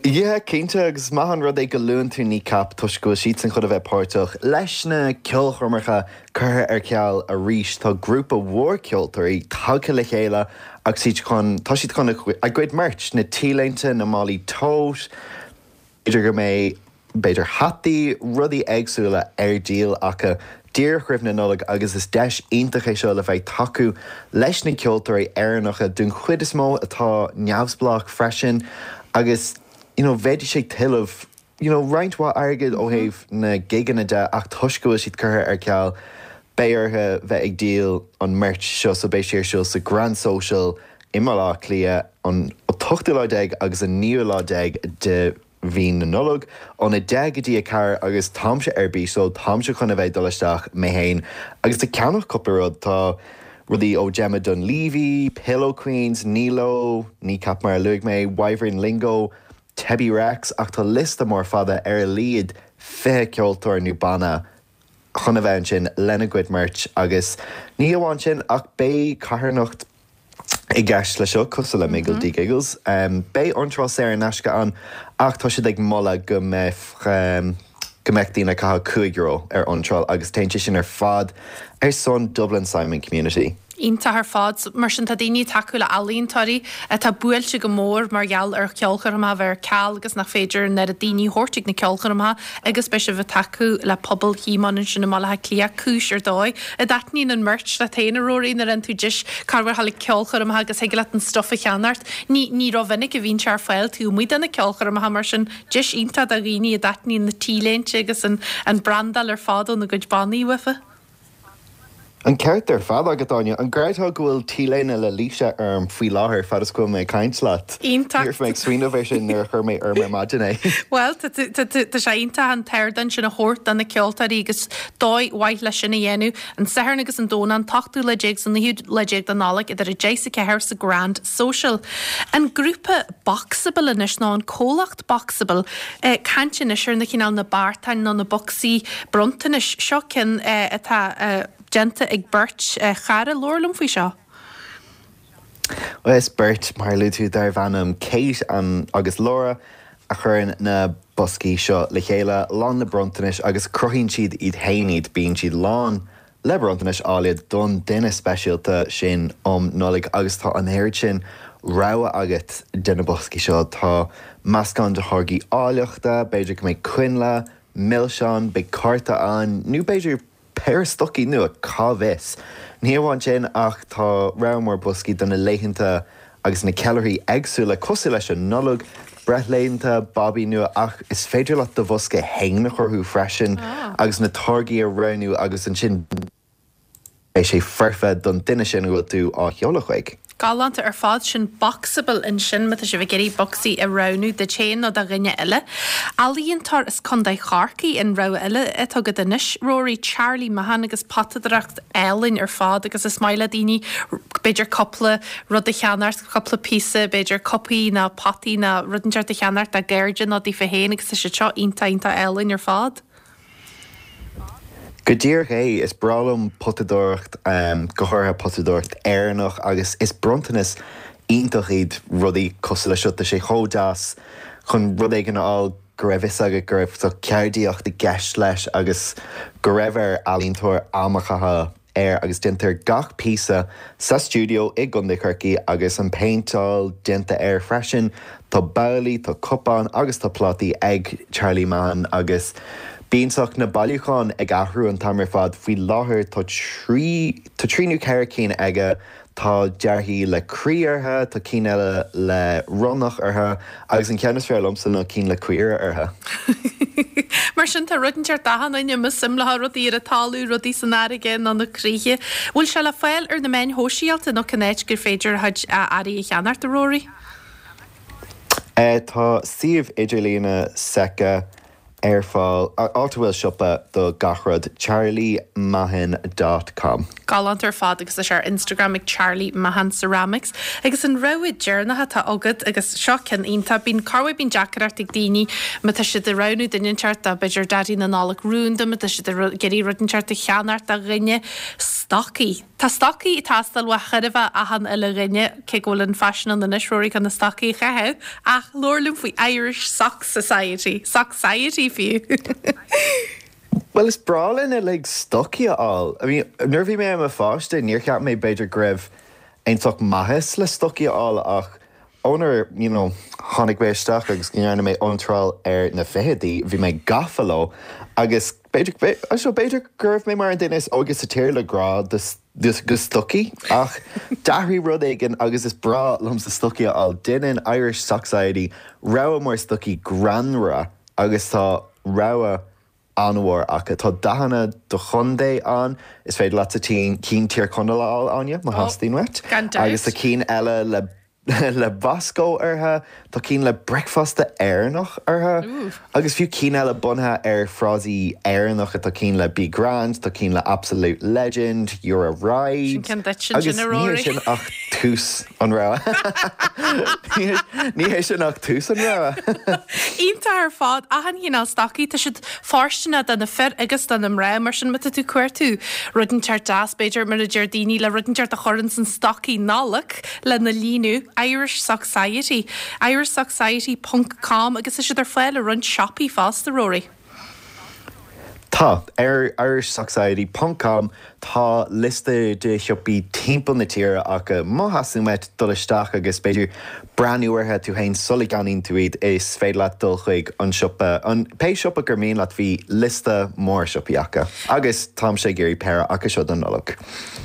Yeah, cinnte, agus is maith an rud é go luann tú Kneecap toisc go bhfuil siadsan chun a bheith páirteach leis na ceolchoirmeacha curtha ar ceal arís. Tá grúpa mhór ceoltóirí tagtha le chéile agus iad chun, tá siad chun a gcuid merch, na t-léinte, na málaí tote, B'fhéidir go mbeidh, b'fhéidir hataí, rudaí éagsúla ar díol acu díreach roimh na Nollag agus is deis iontach é seo le bheith ag tacú leis na ceoltóirí Éireannacha den chuid is mó atá neamhspleách freisin agus you know bheidís ag tuilleamh you know roinnt mhaith airgid ó thaobh na gigeanna de ach toisc go bhfuil siad curtha ar ceal beidh orthu bheith ag díol an merch seo so beidh sé ar siúl sa Grand Social i mBaile Átha Cliath an t-ochtú lá déag agus an naoú lá déag de mhí na Nollag, óna 10 go dtí 4 agus táimse ar bís so táimse chun a bheith ag dul isteach mé fhéin agus ag ceannach cúpla rud. Tá rudaí ó Gemma Dunleavy, Pillow Queens, Nilo, Kneecap mar a luaigh mé, Wyvern Lingo, Tebi Rex ach tá liosta mór fada ar a laghad 20 ceoltóir nó banna chun a bheith ansin lena gcuid merch agus ní hamháin sin ach beidh carthanacht i gceist leis seo, cosúil le Miggledy Giggles. Beidh iontráil saor in aisce ann ach tá siad ag moladh go mbeadh. go mbeadh daoine ag caitheamh €5 ar iontráil agus téann sé sin ar fad ar son Dublin Simon Community. Iontach ar fad. Mar sin tá daoine ag tacú le ealaíontóirí atá buailte go mór mar gheall ar cheolchoirmeacha a bheith ar ceal agus nach féidir an oiread daoine a thabhairt ag na ceolchoirmeacha agus beidh sibh ag tacú le pobal Shíomóin ansin i mBaile Átha Cliath, cúis ar dóigh. An dtaitníonn an merch leat féin, a Ruairí, nuair a fhaigheann tú deis corruair a ghabháil ag ceolchoirmeacha agus thig leat an stuif a cheannacht. Ní ní rómhinic a bhíonn sé ar fáil taobh amuigh de na ceolchoirmeacha mar sin deis iontach do dhaoine a dtaitníonn na T-léinte agus an an brandáil ar fad óna gcuid bannaí uafa. An ceart ar fad agat, Áine. An gcreidfeá go bhfuil T-léine le Laoise orm faoi láthair fad is go bhfuil mé ag caint leat? Iontach. Ní raibh mé ag smaoineamh air sin nuair a chuir mé orm ar maidin é. Bhuel, tá tá sé iontach an t-ardán sin a thabhairt do na ceoltóirí agus dóigh mhaith leis sin a dhéanamh. An Satharn agus an Domhnach, an t-ochtú lá déag 's an naoú lá déag de Nollaig idir 10 's 4 sa Grand Social. An grúpa Boxable anois, nó an comhlacht Boxable, caint anois ar na cineál na beartáin nó na bocsaí bronntanais. Seo ceann atá déanta ag beirt chara. Labhair liom faoi seo. Bhuel, is beirt, mar a luaigh tú, darbh ainm Kate agus Laura a chuireann na boscaí seo le chéile, lán le bronntanais agus cruthaíonn siad iad fhéin iad. Bíonn siad lán le bronntanais áille don duine speisialta sin um Nollaig agus tá an oiread sin rogha agat de na boscaí seo. Tá meascán de tháirgí áilleachta, b'fhéidir go mbeidh coinnle, milseáin, beidh cárta ann nó b'fhéidir péire stocaí nua, cá bhfios? Ní hamháin sin ach tá rogha mór boscaí do na laethanta agus na ceiliúrthaí éagsúla cosúil leis an Nollaig, breithlaethanta, babaí nua ach is féidir leat do bhosca fhéin a chruthú freisin agus na táirgí a roghnú agus ansin beidh sé foirfe don duine sin a bhfuil tú á sheoladh chuig. Galánta ar fad, sin Boxable ansin má tá sibh ag iarraidh bocsaí a roghnú duit féin nó do dhuine eile. Ealaíontóir as Contae Chorcaí an rogha eile atá agat anois, Rory, Charlie Mahon agus potadóireacht álainn ar fad agus is maith le daoine b'fhéidir cúpla rud a cheannacht, cúpla píosa, b'fhéidir cupaí nó potaí nó rud inteacht a cheannacht dá gcairde nó daofa féin agus tá siad seo iontach iontach álainn ar fad. Go díreach é, is breá liom potadóireacht, go háirithe potadóireacht Éireannach agus is bronntanas iontach iad rudaí cosúil leis seo. Tá sé chomh deas chun rud éigin a fháil go raibh fhios agat go raibh ceardaíocht i gceist leis agus go raibh ar ealaíontóir am a chaitheamh air agus déantar gach píosa sa stiúideo i gContae Chorcaí agus an péinteáil déanta air freisin. Tá babhlaí, tá cupáin agus tá plátaí ag Charlie Mahon agus bíonn saghas na bailiúcháin ag athrú an t-am ar fad. Faoi láthair tá trí tá trí nó ceithre cinn aige Tá dearthaí le croí orthu, tá cinn eile le ronnach orthu agus an ceann is fearr liomsa ná cinn le caora orthu. Mar sin tá rud inteacht d'achan duine, más suim leo rudaí ar an talamh, rudaí san fharraige nó na croíthe. Bhfuil sé le fáil ar na meáin shóisialta nó cén áit gur féidir a chuid earraí a cheannacht, a Rory? Tá suíomh idirlíne s'aici ar fáil, áit a bhfuil siopa do gach rud, charliemahon dot com. Galánta ar fad agus tá sé ar Instagram ag Charlie Mahon Ceramics. Agus an rogha deireanach atá agat agus seo ceann iontach, bíonn, corruair bíonn deacaireacht ag daoine má tá siad ag roghnú duine inteacht do b'fhéidir Daidí na Nollag rúnda, má tá siad ag iarraidh rud inteacht a cheannacht do dhuine, stocaí. Tá stocaí ag teastáil uaidh chóir a bheith achan uile dhuine, cé go bhfuil an faisean ann anois, Rory, chun na stocaí a chaitheamh, ach labhair liom faoi Irish Sock Society, Socksciety fiú! Bhuel, is breá linn uilig stocaí a fháil. I mean, nuair a bhí mé i mo pháiste, níor cheap mé b'fhéidir go raibh aon sórt maitheas le stocaí a fháil ach ónar, you know, tháinig mé isteach agus go ndearna mé iontráil ar na fichidí, bhí mé gafa leo agus b'fhéidir, so b'fhéidir go raibh mé mar an duine is óige sa tír le grá do do stocaí ach d'athraigh rud éigin agus is breá liomsa stocaí a fháil. Déanann Irish Socksciety rogha mór stocaí greannmhara agus tá rogha an-mhór acu. Tá dathanna do chontae ann, is féidir leatsa cinn Tír Chonaill a fháil, Áine, má theastaíonn uait. Gan dabht. Agus tá cinn eile le le Bosco orthu, tá cinn le bricfeasta Éireannach orthu, agus fiú cinn eile bunaithe ar frásaí Éireannacha, tá cinn le Be Grand, tá cinn le Absolute Legend, You're a Ride. Sin ceann duit ansin, a Agus ní hé Rory. sin ach tús an rogha. Ní hé sin ach tús an rogha. Iontach ar fad. Achan chineál stocaí. Tá siad fóirsteanach do na fir agus do na mná. Mar sin má tá tú ag cuartú rud inteacht deas, b'fhéidir, mar a deir daoine, le rud inteacht a chur ins an stocaí Nollag lena líonadh, Irish Socksciety, irishsocksciety ponc com agus tá siad ar fáil i roinnt siopaí fosta, Rory. Tá. Ar irishsocksiety ponc com tá liosta de shiopaí timpeall na tíre acu. Má theastaíonn uait dul isteach agus b'fhéidir breathnú orthu tú féin sula gceannaíonn tú iad, is féidir leat dul chuig an siopa, an pé siopa gur mian leat, bhí liosta mór siopaí acu. Agus táimse ag iarraidh péire acu seo don Nollaig.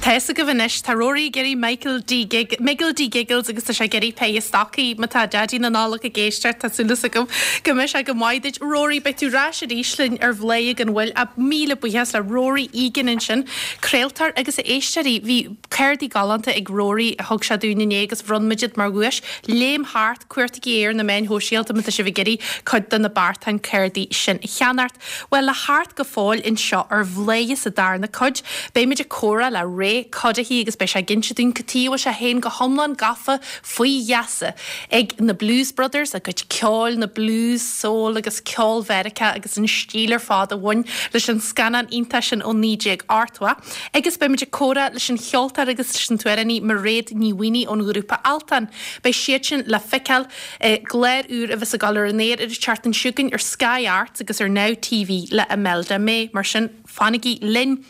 Tá fhios agaibh anois, tá Rory ag iarraidh Michael D. Gig, Miggle D. Giggles agus tá sé ag iarraidh péire stocaí. Má tá Daidí na Nollag ag éisteacht, tá súil agam go mbeidh sé go maith duit. Rory, beidh tú ar ais arís linn ar Bhladhaire gan Mhoill. Míle buíochas le Rory Egan ansin, craoltóir agus a éisteoirí, bhí cártaí galánta ag Rory a thug sé dúinn inné agus bhronn muid iad mar dhuais. Léim thart, cuartaigí é ar na meáin shóisialta má tá sibh ag iarraidh cuid de na beartáin cártaí sin a cheannacht. Bhuel, le theacht go fóill anseo ar Bhladhaire sa darna cuid, beidh muid ag comhrá le Ray Cuddihy agus beidh sé ag inse dúinn cad tuige a bhfuil sé féin go hiomlán gafa faoi gheasa ag na Blues Brothers, a gcuid ceoil, na blues, soul agus ceol Mheiriceá agus an stíl ar fad a bhain leis an scannán iontach sin ó 1980. Agus beidh muid ag comhrá leis an cheoltóir agus leis an t-amhránaí Mairéad Ní Mhaonaigh ón ghrúpa Altan. Beidh siad sin le feiceáil i gclár úr a bheas ag dul ar an aer ar an tseachtain seo chugainn ar Sky Arts agus ar Now TV le Imelda May. Mar sin, fanaigí linn!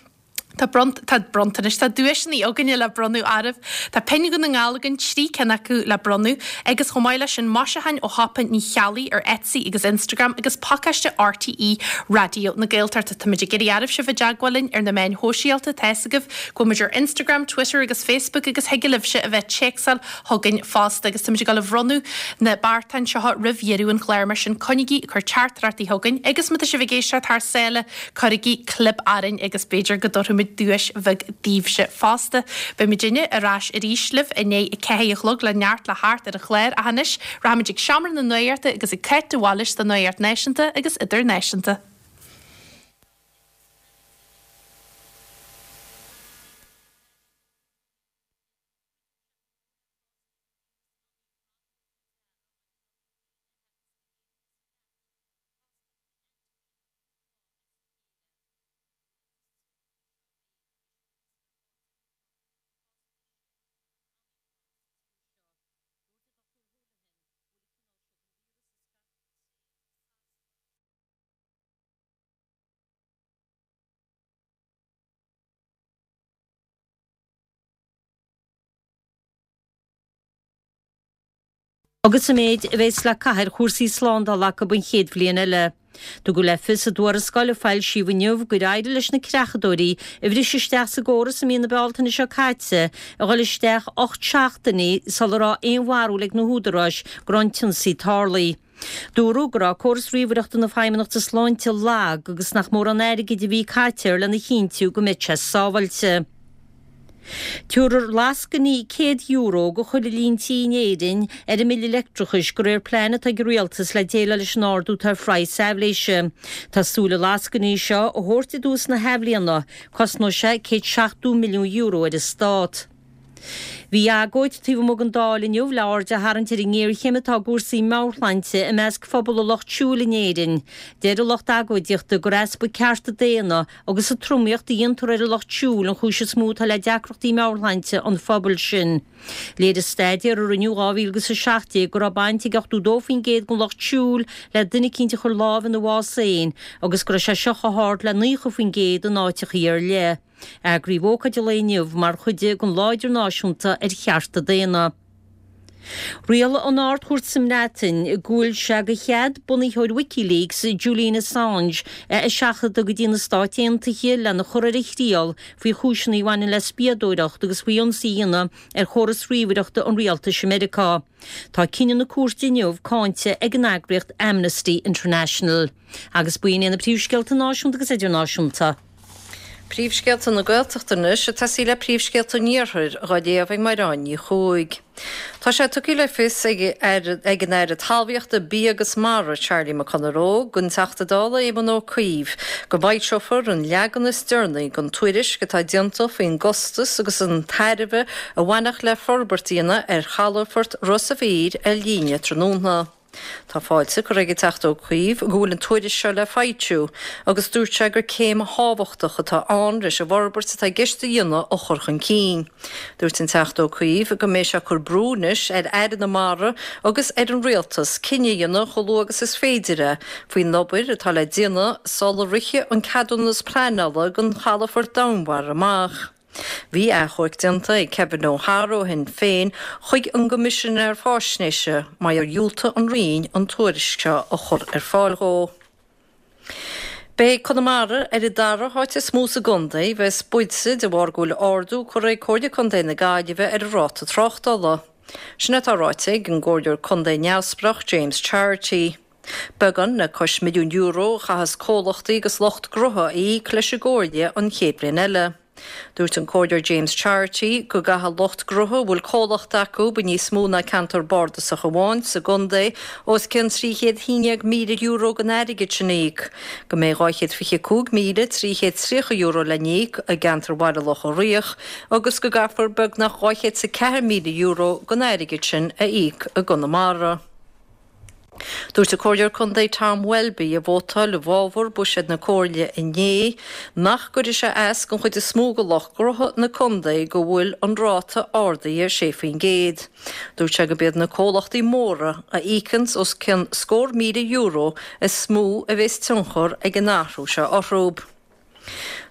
Tá bront, tá bronntanais, tá duaiseanna againne le bronnadh oraibh. Tá pinn Dhún na nGall againn, 3 cinn acu le bronnadh, agus chomh maith leis sin maisiúcháin ó shiopa Ní Cheallaigh ar Etsy agus Instagram agus pacáiste RTÉ Raidió na Gaeltachta. Táimid ag iarraidh oraibh sibh i dteagmháil linn ar na meáin shóisialta, tá fhios agaibh go bhfuil muid ar Instagram, Twitter agus Facebook agus thig libhse a bheith ag téacsáil chugainn fosta agus táimid ag dul a bhronnadh na beartáin seo roimh dheireadh an chláir mar sin coinnigí ag cur teachtaireachtaí chugainn agus má tá sibh ag éisteacht thar sáile cuirigí clib orainn agus b'fhéidir go dtabharfaimid duais bheag daoibhse fosta. Beidh muidinne ar ais arís libh i ndiaidh a 4 a chlog le neart le theacht ar an chlár ach anois rachaimid ag seomra na nuachta agus ag Cáit de Bhailís don nuacht náisiúnta agus idirnáisiúnta. agus an méid a bheas le caitheamh ar chúrsaí slándála acu an chéad bhliain eile. Tugadh le fios i dtuarascáil a foilsíodh inniu gur éirigh leis na creachadóirí a bhris isteach sa gcóras i mí na Bealtaine seo caite a dhul isteach 8 seachtainí sula raibh aon bharúil ag na húdaráis go raibh an t-ionsaí tarlaithe. Dúradh go raibh córas ríomhaireachta na Feidhmeannachta Sláinte lag agus nach mórán airgid a bhí caite air lena chinntiú go mbeadh sé sábháilte. Tabharfar lascainí €100 do chuile líon tí in Éirinn ar a mbille leictreachais de réir plean atá ag an Rialtas le déileáil leis an ardú atá ar phraghas aibhléise. Tá súil na lascainí seo a thabhairt i dtús na hathbhliana. Cosnóidh sé €170 milliún ar an Stát. Bhí agóid taobh amuigh den Dáil inniu le aird a tharraingt ar an ngéarchéim atá i gcúrsaí meabhairshláinte i measc phobal an lucht siúil in Éirinn. Deir an lucht agóidíochta gur easpa cearta daonna agus an tromaíocht a dhéantar ar an lucht siúil an chúis is mó atá le deacrachtaí meabhairshláinte an phobail sin. Léirigh staidéar a rinneadh 2017 go raibh baint ag 82% den lucht siúil le duine eicínt a chuir lámh ina bhás féin agus go raibh sé seo chomh hard le 90% in áiteachaí ar leith. Eagraíodh ócáid an lae inniu mar chuid den Lá Idirnáisiúnta ar Chearta Daonna. Rialaigh an Ard-Chúirt sa mBreatain go bhfuil sé de chead bunaitheoir WikiLeaks, Julian Assange, a eiseachadadh go dtí na Stáit Aontaithe lena chur ar a thriail faoi chúiseanna a bhaineann le spiadóireacht agus faoi ionsaí a dhéanamh ar chóras ríomhaireachta an rialtais i Meiriceá. Tá cinneadh na cúirte inniu cáinte ag an eagraíocht Amnesty International. Agus b'in iad na príomhscéalta náisiúnta agus idirnáisiúnta. Príomhscéalta na Gaeltachta anois, ag tosaí le príomhscéalta an Iarthair, dhá léamh ag Maireán Ní Chuaig. Tá sé tugtha le fios ag ag an Aire Talmhaíochta, Bia agus Mara, Charlie McConalogue, don Teachta Dála Éamon Ó Cuív, go bhfoilseofar an leagan is deireanaí den tuairisc atá déanta faoin gcostas agus an tairbhe a bhainfeadh le forbairt a dhéanamh ar chalafort Ros a' Mhíl ar líne tráthnóna. Tá fáilte curtha ag an Teachta Ó Cuív go bhfuil an tuairisc seo le foilsiú agus dúirt sé gur céim thábhachtach atá ann leis an bhforbairt atá i gceist a dhéanamh a chur chun cinn. Dúirt an Teachta Ó Cuív go mbeidh sé ag cur brú anois ar Aire na Mara agus ar an Rialtas cinneadh a dhéanamh chomh luath agus is féidir é faoin obair atá le déanamh sula rithfidh an ceadúnas pleanála don chalafort domhainmhara amach. Bhí achomharc déanta ag Kevin O'Hara ó Shinn Féin chuig an gCoimisinéir Faisnéise mar gur dhiúltaigh an Roinn an tuairisc seo a chur ar fáil dhó. Beidh Conamara ar an dara háit is mó sa gcontae a bheas buailte de bharr go bhfuil ardú curtha ag Comhairle Contae na Gaillimhe ar an ráta tráchtála. Sin atá ráite ag an gComhairleoir Contae neamhspleách James Charity. Beagán le cois €1 milliún a chaithfeas comhlachtaí agus lucht gnótha a íoc leis an gComhairle an chéad bhliain eile. Dúirt an Comhairleoir James Charity go gcaithfidh lucht gnótha a bhfuil comhlacht acu i níos mó ná ceantar bardasach amháin sa gcontae os cionn €311,000 den airgead sin a íoc, go mbeidh €225,330 le n-íoc i gceantar Bhaile Locha Riach agus go gcaithfear beagnach €204,000 den airgead sin a íoc i gConamara. Dúirt an Comhairleoir Contae Tom Welby, a vótáil i bhfabhar buiséad na Comhairle inné, nach gcuirfidh sé as don chuid is mó de lucht gnótha na contae go bhfuil an ráta ardaithe 6%. Dúirt sé gurb iad na comhlachtaí móra a íocanns os cionn scór €1,000 is mó a bheas tionchar ag an athrú seo orthu.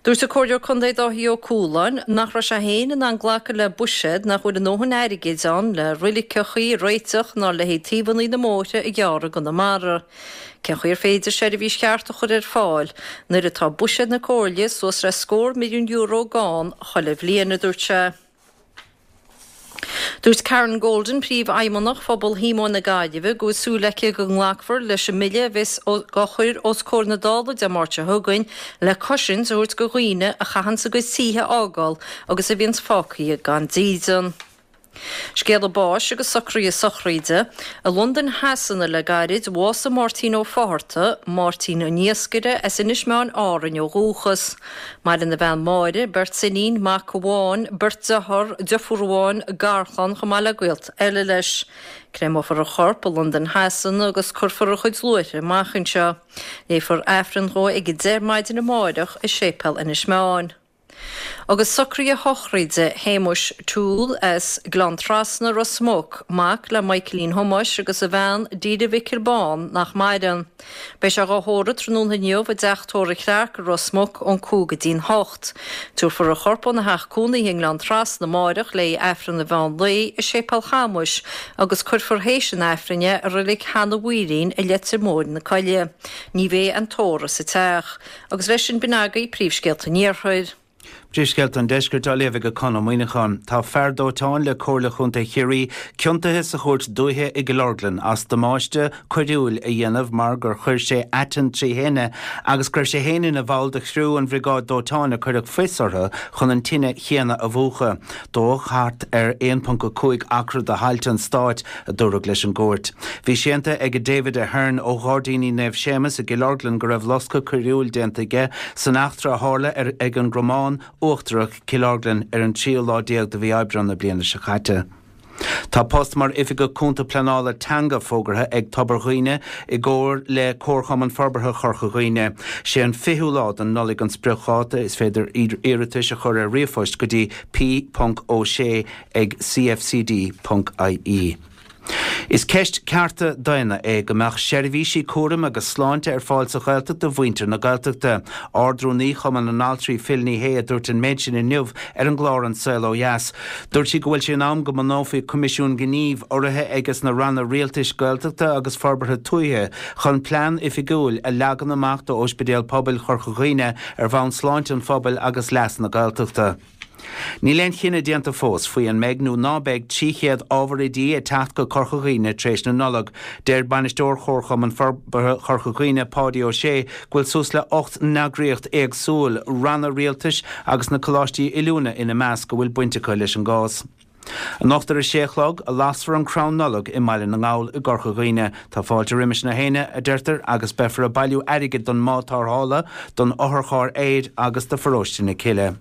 Dúirt an Comhairleoir Contae Dáithí Ó Cualáin nach raibh sé féin in ann glacadh le buiséad nach bhfuil a ndóthain airgid ann le roiliceachaí a réiteach ná le haghaidh taobhannaí na mbóithre a ghearradh i gConamara. Cén chaoi ar féidir seirbhís cheart a chur ar fáil nuair atá buiséad na Comhairle suas le scór €1 milliún gann chuile bhliain, a dúirt sé. Dúirt Karen Golden, Príomhfheidhmeannach Phobal Shíomóin na Gaillimhe, go bhfuil súil aici go nglacfar leis an mbille a bheas á chur os comhair na Dála Dé Máirt seo chugainn le cosaint a thabhairt do dhaoine a chaitheanns a gcuid tithe a fhágáil agus a bhíonns fágtha gan dídean. Scéala báis agus socruithe sochraide. I Londain Shasana le gairid, bhásaigh Máirtín Ó Fátharta, Máirtín an Iascaire, as Inis Meáin, Árainn ó dhúchas. Maireann a bhean Máire, beirt iníon, mac amháin, beirt dearthár, deirfiúr amháin, garchlann chomh maith le gaolta eile leis. Créamófar a chorp i Londain Shasana agus cuirfear a chuid luaithre amach anseo. Léifear Aifreann dhó ag 10 maidin amáireach i Séipéal Inis Meáin. Agus socruithe sochraide Shéamuis Toole as Gleann Trasna, Ros Muc, mac le Michaelín Thomáis agus a bhean Deirdre Mhicil Bán nach maireann. Beidh sé dhá thórramh tráthnóna inniu i dteach tórraimh Chlarke i Ros Muc ón 5 go dtí'n 8. Tabharfar a chorp óna theach cónaithe i nGleann Trasna amáireach le haghaidh Aifreann an mheán lae i Séipéal Chamuis agus cuirfear théis an Aifrinn é i Reilig Sheanadh Mhaoilín i Leitir Móir na Coille. Ní bheidh aon tórramh sa teach. Agus leis sin b'in agaibh príomhscéalta an Iarthair. Príomhscéalta an Deiscirt á léamh ag Conn Ó Muíneacháin. Tá fear dóiteáin le Comhairle Chontae Chiarraí ciontaithe sa chúirt dúiche i gCill Orglan as damáiste coiriúil a dhéanamh mar gur chuir sé aiteann trí thine agus go raibh sé féin ina bhall de chriú an bhriogáid dóiteáin a cuireadh fios orthu chun an tine chéanna a mhúchadh. Dódh thart ar 1.5 acra de thailte an stáit, a dúradh leis an gcúirt. Bhí séanta ag David Ahern ó Ghairdíní Naomh Séamus i gCill Orglan go raibh loscadh coiriúil déanta aige san eachtra a tharla ar ag an gCromán Uachtarach, Cill Orglan ar an tríú lá déag de mhí Aibreán na bliana seo caite. Tá post mar Oifigeach Cúnta Pleanála Teanga fógartha ag Tobar Dhuibhne i gcomhar le Comharchumann Forbartha Chorca Dhuibhne. Sé an 20ú lá den Nollaig an spriocdháta. Is féidir iarratais a chur ar ríomhphost go dtí p.o'shea ag cfcd.ie. Is ceist cearta daonna é go mbeadh seirbhísí cúraim agus sláinte ar fáil sa Ghaeltacht do mhuintir na Gaeltachta. Ard-Rúnaí Chumann na nAltraí Phil Ní Sheaghdha a dúirt an méid sin inniu ar an gclár An Saol Ó Dheas. Dúirt sí go bhfuil sé in am go mbunófaí Coimisiún Gnímh urraithe ages na ranna rialtais Gaeltachta agus Forbartha Tuaithe chun plean oifigiúil a leagan amach d'Ospidéal Pobail Chorca Dhuibhne ar bhonn sláinte an phobail agus leas na Gaeltachta. Níl aon chinneadh déanta fós faoi an mbeidh nó ná beidh 300 ábhar oidí ag teacht go Corca Dhuibhne tar éis na Nollag. Deir Bainisteoir Chomharchumann Forbartha Chorca Dhuibhne, Páidí Ó Sé, go bhfuil suas le 18 n-eagraíocht éagsúil, ranna rialtais agus na coláistí oiliúna ina measc, a bhfuil baint acu leis an gcás. Anocht ar a sé a chlog a lasfar an crann Nollag i mBaile na nGall i gCorca Dhuibhne. Tá fáilte roimis na héinne, a deirtear, agus beifear ag bailiú airgid don mbád tarrthála, don otharcharr aeir agus do Pharóiste na Cille.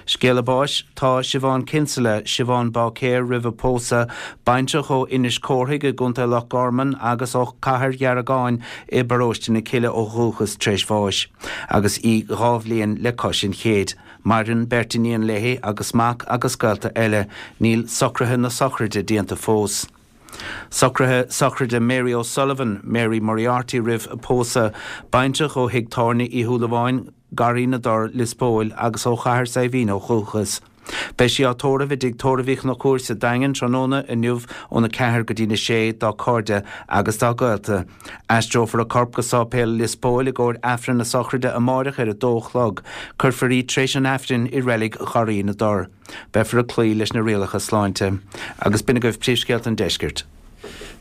Scéala báis, Tá Siobhán Kinsella, Siobhán Báicéir roimh a pósadh, baintreach ó Inis Córthaidh i gContae Loch Garman agus ó Chathair Dheargáin i bparóiste na Cille ó dhúchas tar éis bháis agus í 2 bhliain le cois an chéid. Maireann beirt iníon léi agus mac agus gaolta eile. Níl socruithe na sochraide déanta fós. Socruithe sochraide Mary O'Sullivan, Mary Moriarty roimh a pósadh, baintreach ó thigh tábhairne Uí Shúilleabháin, Garraí na dTor, Lios Póil, agus ó Chathair Saidhbhín ó dhúchas. Beidh sí á tórramh i dtigh tórraimh Uí Chonchúir sa Daingean tráthnóna inniu óna 4 go dtína 6 dá cairde agus dá gaolta. Aistreofar a corp go Sáipéal Lios Póil i gcomhair Aifreann na sochraide amáireach ar a dó a chlog. Cuirfear í tar éis an Aifrinn i reilig Gharraí na dTor. Beifear ag cloí leis na rialacha sláinte. Agus b'in agaibh príomhscéalta an deiscirt.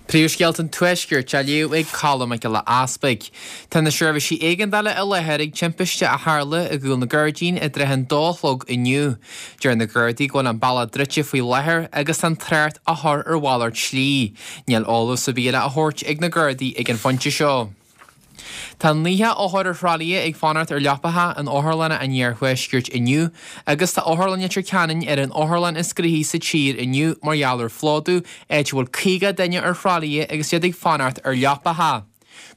Príomhscéalta an Tuaiscirt á léamh ag Colm Mac Giolla Easpaig. Tá na seirbhísí éigeandála i láthair ag timpiste a tharla i gCúil na gCuirdín i dtrátha an dó a chlog inniu. Deir na Gardaí go bhfuil an bealach druidte faoi láthair agus tá an trácht á chur ar mhalairt slí. Níl eolas ar bith eile á thabhairt ag na Gardaí ag an phointe seo. Tá 90 othar ar thralaithe ag fanacht ar leapacha in otharlanna an iarthuaiscirt inniu agus tá Otharlann Leitir Ceanainn ar an otharlann is gnoithí sa tír inniu mar gheall ar phlódú, áit a bhfuil 50 duine ar thralaithe agus iad ag fanacht ar leapacha.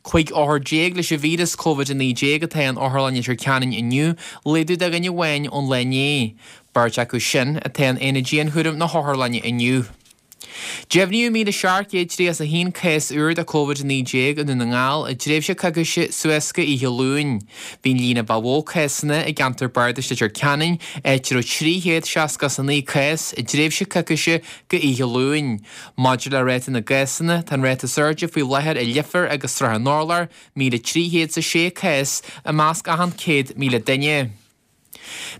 15 othar leis an víreas Covid-19 atá in Otharlann Leitir Ceanainn inniu, laghdú de dhuine amháin ón lá inné. Beirt acu sin atá in aonad dianchúraim na hotharlainne inniu. Deimhníodh 1,731 cás úr de Covid-19 i nDún na nGall i dtréimhse coicíse suas go oíche Luain. Bhí an líon a ba mhó cásanna i gceantar bardais Leitir Ceanainn, áit a raibh 369 cás i dtréimhse coicíse go oíche Luain. Maidir le ráta na gcásanna, tá an ráta is airde faoi láthair i Leifear agus Srath an Urláir, 1,306 cás i measc achan 100,000 duine.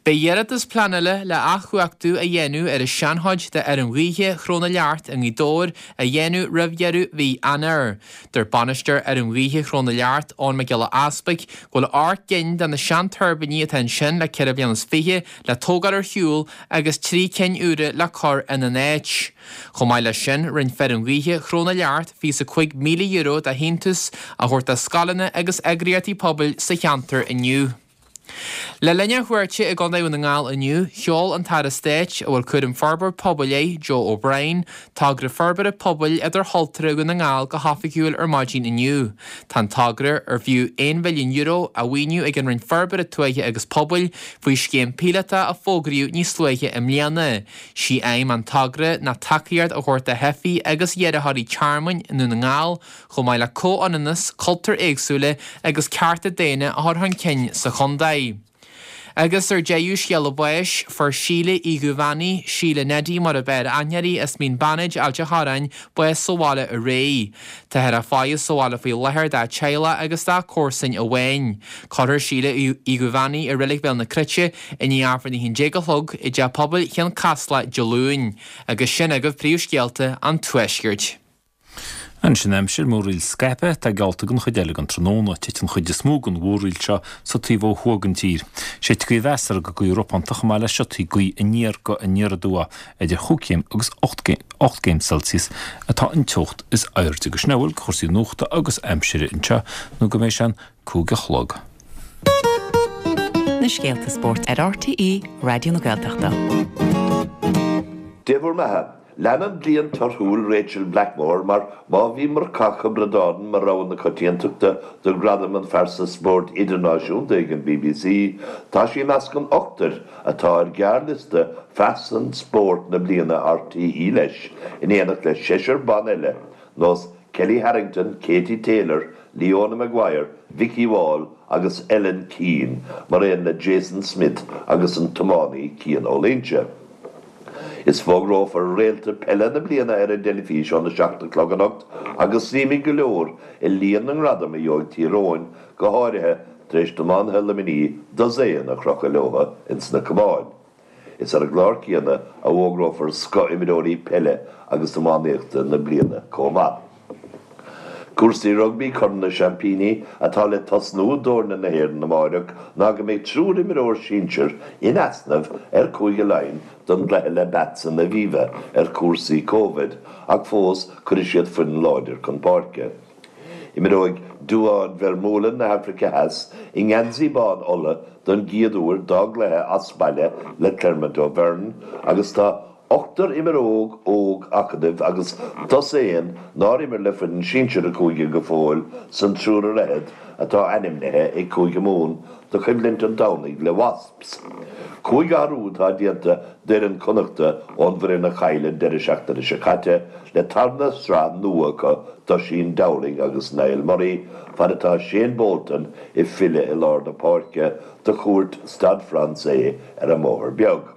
Beidh iarratas pleanála le athchumhachtú a dhéanamh ar an seanchuid de fheirm ghaoithe Chró na Leacht i nGaoth Dobhair a dhéanamh roimh dheireadh mhí Eanáir. Dúirt bainisteoir fheirm ghaoithe Chró na Leacht, Eoin Mac Giolla Easpaig, go bhfuil 8 gcinn de na seantuirbíní atá ansin le ceithre bliana is fiche le tógáil ar shiúl agus 3 cinn úra le cur ina n-áit. Chomh maith leis sin, rinne feirm ghaoithe Chró na Leacht €25,000 de shíntiús a thabhairt do scoileanna agus eagraíochtaí pobail sa cheantar inniu. Le linn a chuairte i gContae Dhún na nGall inniu, sheol an tAire Stáit, a bhfuil cúram Forbairt Pobail air, Joe O'Brien, togra forbartha pobail idirchultúrtha Dhún na nGall go hoifigiúil ar maidin inniu. Tá an togra, ar fiú €1 mhilliún, á mhaoiniú ag an Roinn Forbartha Tuaithe agus Pobail faoi scéim píolótach a fógraíodh níos luaithe i mbliana. Sí aidhm an togra ná tacaíocht a thabhairt do theifigh agus iarrthóirí tearmainn i nDún na nGall, chomh maith le comhionannas, cultúir éagsúla agus cearta daonna a chur chun cinn sa chontae. Agus ar deireadh, scéala báis, fuair Síle Uí Dhubheannaigh, Síle Neidí mar ab fhearr aithne uirthi, as Mín Bannaid, Ailt a' Chorráin, bás sa bhaile aréir. Táthar á faire sa bhaile faoi láthair dá teaghlach agus dá comharsain amháin. Cuirfear Síle Uí Dhubheannaigh i Reilig Bhéal na Cruite i ndiaidh Aifreann a 11 a chlog i dTeach Pobail Chionn Caslach Dé Luain. Agus sin agaibh príomhscéalta an Tuaiscirt. Anois an aimsir, múraíl scaipthe atá geallta don chuid eile den tráthnóna. Titfidh an chuid is mó den mhúraíl seo sa taobh ó thuaidh den tír. Séidfidh gaoth mheasartha go gaoth ropánta chomh maith le siotaí gaoithe aniar go aniar aduaidh. Idir chúig chéim agus 8 gcéim Celsius atá an teocht is airde. Agus sin a bhfuil de chúrsaí nuachta agus aimsire anseo nó go mbeidh sé an 5 a chlog. Na scéalta spóirt ar RTÉ Raidió na Gaeltachta. Dé bhur mbeatha. Leanann bliain torthúil Rachael Blackmore mar má bhí Murchadh Ó Braonáin mar rogha na coitiantachta do ghradam an Phearsa Spóirt Idirnáisiúnta ag an bbc, tá sí i measc an ochtair atá ar ghearrliosta Phearsan Spóirt na Bliana RTÉ leis, in éineacht le seisear ban eile, nós Kellie Harrington, Katie Taylor, Leona Maguire, Vikki Wall agus Ellen Keane, mar aon le Jason Smith agus an tiománaí Cian Ó Loingsigh. Is fógrófar réalta peile na bliana ar an dteilifís óna 7 a chlog anocht agus suímid go leor i líon na ngradam a gheobhaidh Tír Eoghain, go háirithe tar éis d'iománaithe Luimnigh dosaen a chrochadh leo ins na Cabháin. Is ar an gclár céanna a fhógrófar scoth-imreoirí peile agus iománaíochta na bliana chomh maith. Cúrsaí rugbaí Corn na Seaimpíní atá le tosnú d'fhoirne na hÉireann amáireach ná go mbeidh triúr imreoir sinsir in easnamh ar Chúige Laighean don gcluiche le Bats in Aviva ar chúrsaí Covid ach fós cuirfidh siad foireann láidir chun páirce. Imreoidh Duane Vermeulen na hAfraice Theas i ngeansaí bán Uladh don gcéad uair dá gcluiche as baile le Clermont Auvergne agus tá ochtar imreoir óg acadúil agus dosaen nár imir le foireann sinsir an chúige go fóill san triúr ar fhichead atá ainmnithe ag Cúige Mumhan do choimhlint an Domhnaigh le Wasps. Cúig athrú atá déanta d'fhoireann Connachta ón bhfoireann a chaill an deireadh seachtaine seo caite le tarna sraith nua acu d'Oisín Dowling agus Niall Murray fad atá Shane Bolton ag filleadh i lár na páirce do chuairt Stade Français ar an mBóthar Beag.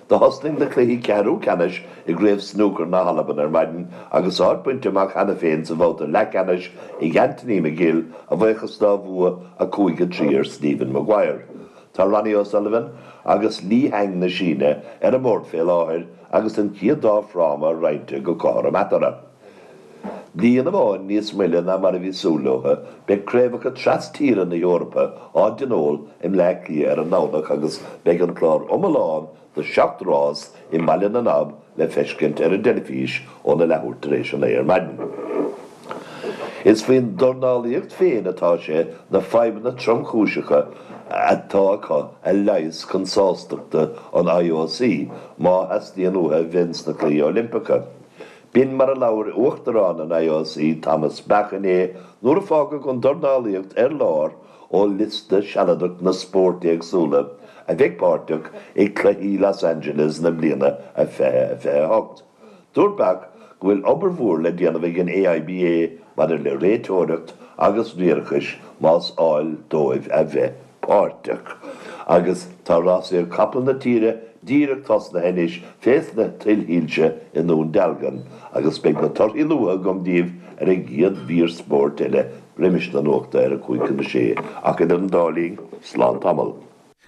Do thosnaigh na cluichí ceathrú ceannais i gCraobh Snúcair na hAlban ar maidin agus áit bainte amach cheana féin sa bhabhta leathcheannais ag Anthony McGill a bhuíochas dá bhua 5-3 ar Stephen Maguire. Tá Ronnie O'Sullivan agus Li Hang na Síne ar an mbord fé láthair agus an chéad dá fráma roinnte go cothrom eatarthu. Bliain amháin níos moille ná mar a bhí súil leo, beidh craobhacha tras-tíre na hEorpa á dtionól i mBleá Cliath ar an nDomhnach agus beidh an clár iomlán de sheacht rás i mBaile na nAb le feiscint ar an dteilifís óna leathuair tar éis a naoi ar maidin. Is faoin dornálaíocht féin atá sé na fadhbanna tromchúiseacha atá acu a leigheas chun sástachta an IOC má theastaíonn uathu a bheith ins na Cluichí Oilimpeacha. B'in mar a labhair Uachtarán an IOC Thomas Bach inné nuair a fágadh an dornálaíocht ar lár ó liosta sealadach na spóirt éagsúla a bheidh páirteach i gCluichí Los Angeles na bliana 2028. Dúirt Bach go bhfuil obair mhór le déanamh ag an AIBA maidir le réiteoireacht agus riarachais más áil dóibh a bheith páirteach. Agus tá rásaíocht capall na tíre díreach tosnaithe anois fés na tuilshoilse i nDún Dealgan agus beidh na torthaí luatha agam daoibh ar an gcéad mhír spóirt eile roimis na nuachta ar a cúig chun a sé. Ach idir an dá linn, slán tamall.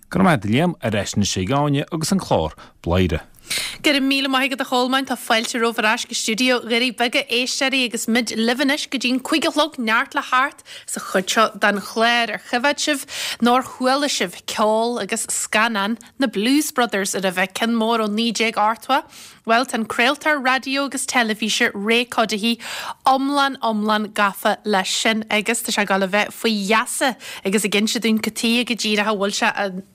Go raibh maith agat a Liam, ar ais anois ag Áine agus an clár Bladhaire. Go raibh míle maith agat a Cholmáin, tá fáilte romhaibh ar ais go stiúideo Dhoirí Beaga, a éisteoirí, agus muid libh anois go dtí'n 5 a chlog, neart le theacht sa chuid seo den chlár. Ar choimhéad sibh nó ar chuala sibh ceol agus scannán na Blues Brothers roimhe, ceann mór ó 1980? Bhuel, tá an craoltóir raidió agus teilifíse Ray Cuddihy iomlán iomlán gafa leis sin agus tá sé ag dul a bheith faoi gheasa agus ag inse dúinn cad tuige go díreach a bhfuil sé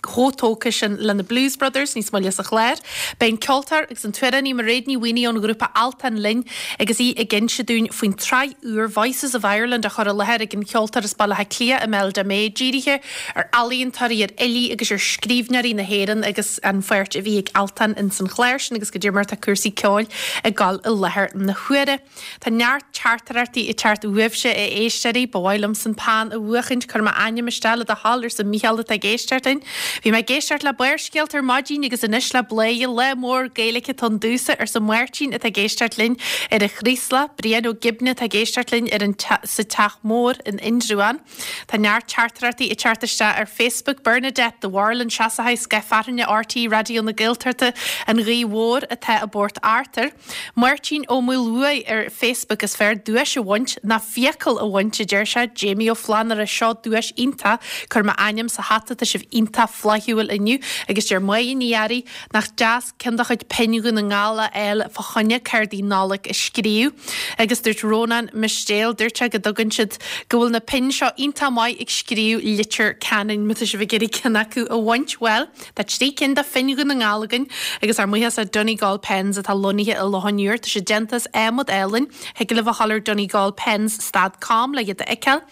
chomh tógtha sin le na Blues Brothers níos moille sa chlár. Beidh an ceoltóir agus an t-amhránaí Mairéad Ní Mhaonaigh ón ghrúpa Altan linn agus í ag inse dúinn faoin tsraith úr Voices of Ireland á chur i láthair ag an cheoltóir as Baile Átha Cliath Imelda May dírithe ar ealaíontóirí, ar fhilí agus ar scríbhneoirí na hÉireann agus an pháirt a bhí ag Altan ins an chlár sin agus goidé mar atá cúrsaí ceoil ag dul i láthair na huaire. Tá neart teachtaireachtaí ag teacht uaibhse a éisteoirí. Ba mhaith liomsa an peann a bhuachaint, cuir m'ainm isteach le do thoil arsa Mícheál atá ag éisteacht linn. Bhí mé ag éisteacht le Barrscéalta ar maidin agus anois le Bladhaire, lá mór Gaeilge atá ann domhsa arsa Máirtín atá ag éisteacht linn ar an Chraoslach, Brian Ó Gibne atá ag éisteacht linn ar an sa Teach Mór in Indreabhán. Tá neart teachtaireachtaí ag teacht isteach ar Facebook. Bernadette de Bharlann Seasaithe Scoth Fearthainne RTÉ Raidió na Gaeltachta, An Ghaoth Mhór atá i bPort Arthur. Máirtín Ó Maolmhuaidh ar Facebook Is fearr duais a bhaint ná fiacail a bhaint, a deir sé. Jamie Ó Flannúra Seo duais iontach, cuir m'ainm sa hata, tá sibh iontach flaithiúil inniu. Agus deir Máire Ní Fhearraigh Nach deas ceann de chuid pinn Dhún na nGall a fháil fá choinne cártaí Nollag a scríobh. Agus dúirt Rónán Mistéil, dúirt sé go dtugann siad, go bhfuil na pinn seo iontach maith ag scríobh litir ceanainn. Má tá sibh ag iarraidh ceann acu a bhaint, bhuel, tá 3 cinn de phinn Dhún na nGall againn agus ár mbuíochas le Donegal Pens atá lonnaithe i Loch an Iúir. Tá siad déanta as adhmad álainn. Thig libh a dhul ar donegalpens stad com le iad a fheiceáil.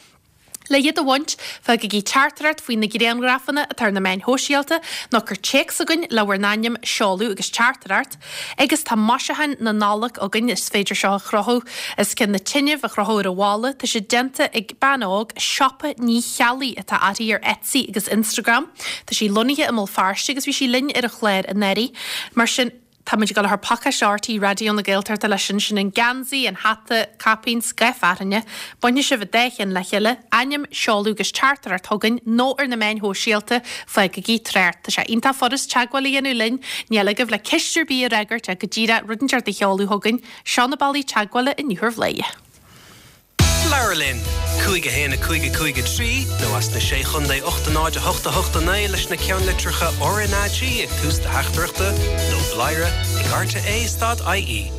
Le iad a bhaint, fágaigí teachtaireacht faoi na grianghrafanna atá ar na meáin shóisialta nó cuir téacs chugainn le bhur n-ainm, seoladh agus teachtaireacht. Agus tá maisiúcháin na Nollag againn, is féidir seo a chrochadh os cionn na tine, a chrochadh ar an bhalla. Tá siad déanta ag bean óg, Siopa Ní Cheallaigh atá uirthi ar Etsy agus Instagram. Tá sí lonnaithe i mBéal Feirste agus bhí sí linn ar an chlár anuraidh. Mar sin. Tá muid ag dul a chur pacáiste RTÉ Raidió na Gaeltachta leis sin, sin an geansaí, an hata, caipín, scoth fearthainne. Bainfidh sibh an dá cheann le chéile, ainm, seoladh agus teachtaireacht chugainn nó ar na meáin shóisialta, fágaigí trácht. Tá sé iontach furast teagmháil a dhéanamh linn, níl agaibh le ceist ar bith a fhreagairt ach go díreach rud inteacht a sheoladh chugainn. Seo na bealaí teagmhála inniu ar Bhladhaire. Labhair linn! 5 1 5 5 3 nó as na Sé Chontae 8 0 8 8 9 leis na ceannlitreacha RnaG ag tús do theachtaireachta nó bladhaire ag rte stad ie.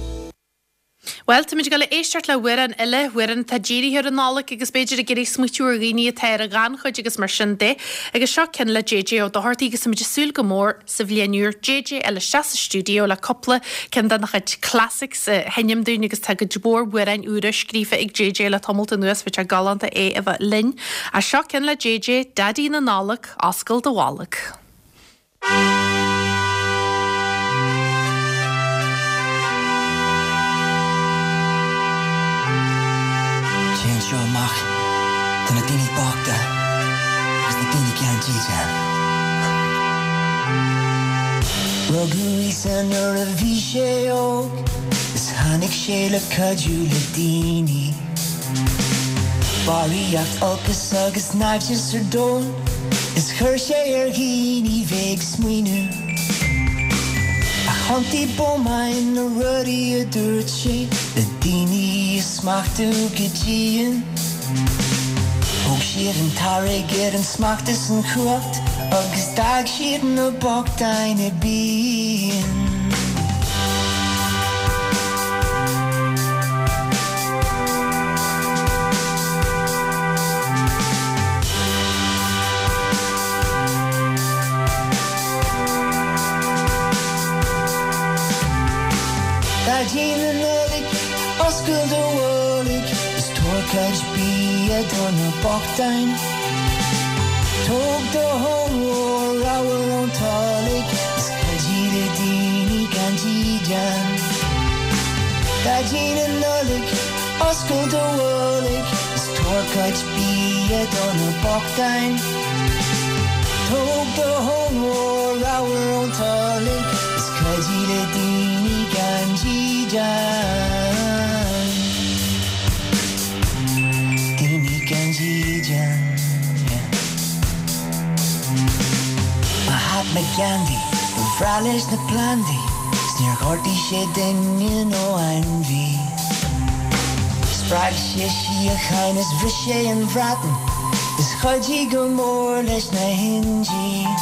Bhuel, táimid ag dul a éisteacht le hamhrán eile, amhrán atá dírithe ar an Nollaig agus b'fhéidir ag iarraidh smaoitiú ar dhaoine atá ar an ghannchuid agus mar sin de. Agus seo ceann le JJ Ó Dochartaigh agus táimid ag súil go mór sa bhliain úr JJ a fháil isteach sa stiúideo le cúpla ceann dena chuid classics a sheinm dúinn agus tá cuid mhór amhráin úra scríofa ag JJ le tamalt anuas, bheadh sé galánta é a bheith linn. Ach seo ceann le JJ, Daidí na Nollag, Oscail do Bholg. Téann seo amach do na daoine bochta agus na daoine gan dídean. Rugadh Íosa nuair a bhí sé óg is tháinig sé le cuidiú le daoine. Barraíocht olcas agus naimhdeas ar domhan is chuir sé ar dhaoine bheith ag smaoineamh. Ach thiontaigh bómáin na rudaí a dúirt sé le daoine a smachtú go dian. Thóg siad an t-airgead, an smacht is an chumhacht agus d'fhág siad na bochtáin i bpian. Daidí na Nollag, oscail do bholg is tabhair cuid bia do na bochtáin. Tóg do thóin mhór ramhar ón tolg is cuidigh le daoine gan dídean. Daidí na Nollag, oscail do bholg is tabhair cuid bia do na bochtáin. Tóg do thóin mhór ramhar ón tolg is cuidigh le daoine gan dídean. Daoine gan dídean, yeah. Mahatma Gandhi, ba bhreá leis na plandaí 's níor ghortaigh sé duine nó ainmhí. Spreag sé síocháin is bhris sé an Bhreatain is chuidigh go mór leis na hIndiaigh.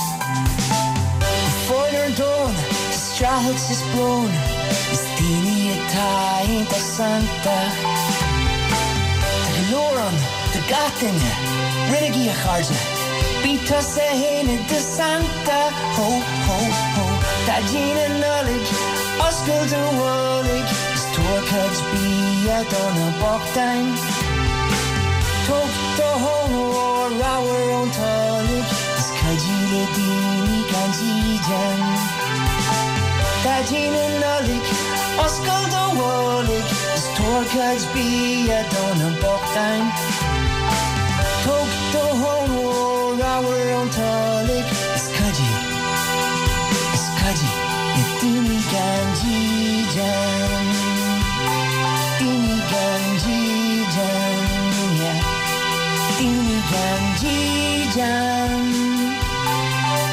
Go fóill ar an domhan tá streachailt is brón is daoine atá iontach santach. Tá go leor ann do gach duine, roinnigí a chairde, bí tusa fhéin i do Santa. Ho, ho, ho, Daidí na Nollag, oscail do bholg is tabhair cuid bia do na bochtáin. Tóg do thóin mhór ramhar ón tolg is cuidigh le daoine gan dídean. Daidí na Nollag, oscail do bholg is tabhair cuid bia do na bochtáin. Tóg do thóin mhór ramhar ón tolg is cuidigh, is cuidigh le daoine gan dídean. Daoine gan dídean, yeah. Daoine gan dídean.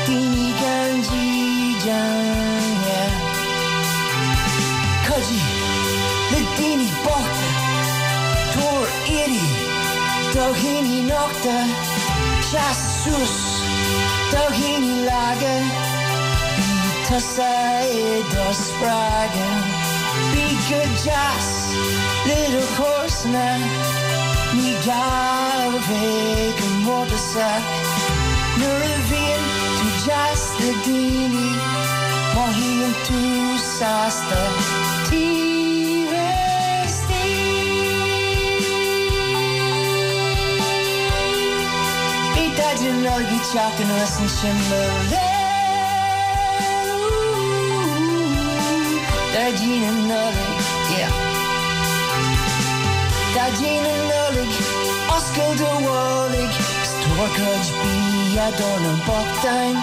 Daoine gan dídean, yeah. Cuidigh le daoine bochta, tabhair éadaí do dhaoine nochta, seas suas do dhaoine laga, bí tusa i do spreagadh. Bí go deas le do chomharsana, ní gá a bheith go mórtasach. Nuair a bhíonn tú deas le daoine, mothaíonn tú sásta taobh istigh. Beidh Daidí na Nollag ag teacht anuas ansin mo léir. Daidí na Nollag, yeah. Daidí na Nollag, oscail do bholg is tabhair cuid bia do na bochtáin.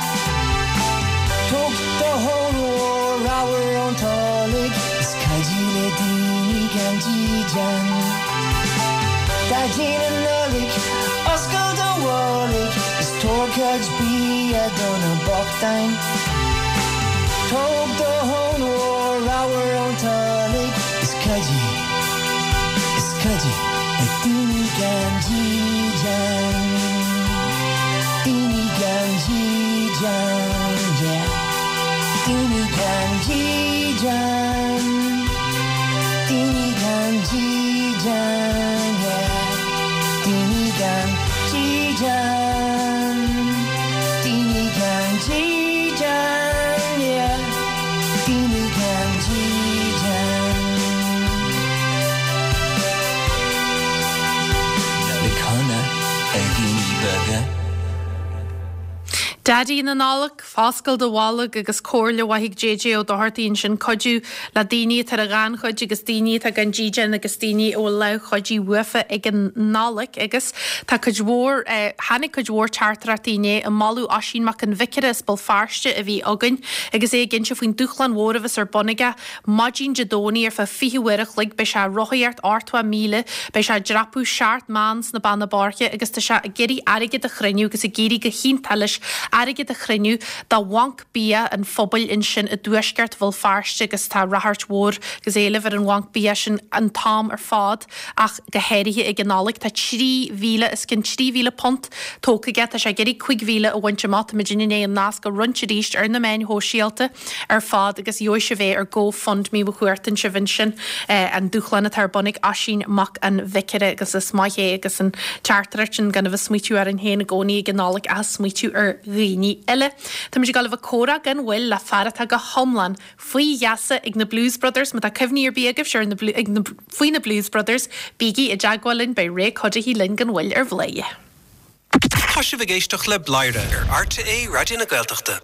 Tóg do thóin mhór ramhar ón tolg is cuidigh le daoine gan dídean. Daidí na Nollag, oscail do bholg is tabhair cuid bia do na bochtáin. Tóg do thóin mhór ramhar ón tolg is cuidigh, is cuidigh le daoine gan dídean. Daoine gan dídean, yeah. Daoine gan dídean. Daoine gan. Daidí na Nollag, foscail do bholg agus comhairle mhaith ag JJ Ó Dochartaigh ansin, cuidiú le daoine atá ar an ghannchuid agus daoine atá gan dídean agus daoine a bhfuil lámh chuidithe uafa ag an Nollaig agus tá cuid mhór, tháinig cuid mhór teachtaireachtaí inné ag moladh Oisín Mac an Bhiocaire as Béal Feirste a bhí againn agus é ag inse faoin dúshlán mhór a bheas ar bun aige Maidin Dé Domhnaigh ar feadh 20 uair a chloig beidh sé ag rothaíocht 80 míle, beidh sé ag dreapadh seacht mbán sna Beanna Boirche agus tá sé ag iarraidh airgead a chruinniú agus ag éirí go hiontach leis airgead a chruinniú do bhanc bia an phobail ansin i dtuaisceart Bhéal Feirste agus tá ráchairt mhór agus éileamh ar an bhanc bia sin an t-am ar fad ach go háirithe ag an Nollaig. Tá 3,000 os cionn £3,000 tógtha aige, tá sé ag iarraidh 5,000 a bhaint amach. Tá muid i ndiaidh an nasc a roinnt arís ar na meáin shóisialta. ar fad agus gheobhaidh sibh é ar Go Fund Me má chuartaíonn sibh ansin an dúshlán atá ar bun ag Oisín Mac an Bhiocaire agus is maith é agus an teachtaireacht sin gan a bheith smaoitiú orainn féin i gcónaí ag an Nollaig ach smaoitiú ar dhaoine eile. Táimid ag dul a bheith ag comhrá gan mhoill le fear atá go hiomlán faoi gheasa ag na Blues Brothers. Má tá cuimhní ar bith agaibhse ar na ag na faoi na Blues Brothers bígí i dteagmháil linn beidh Ray Cuddihy linn gan mhoill ar Bhladhaire. Tá sibh ag éisteacht le Bladhaire ar RTÉ Raidió na Gaeltachta.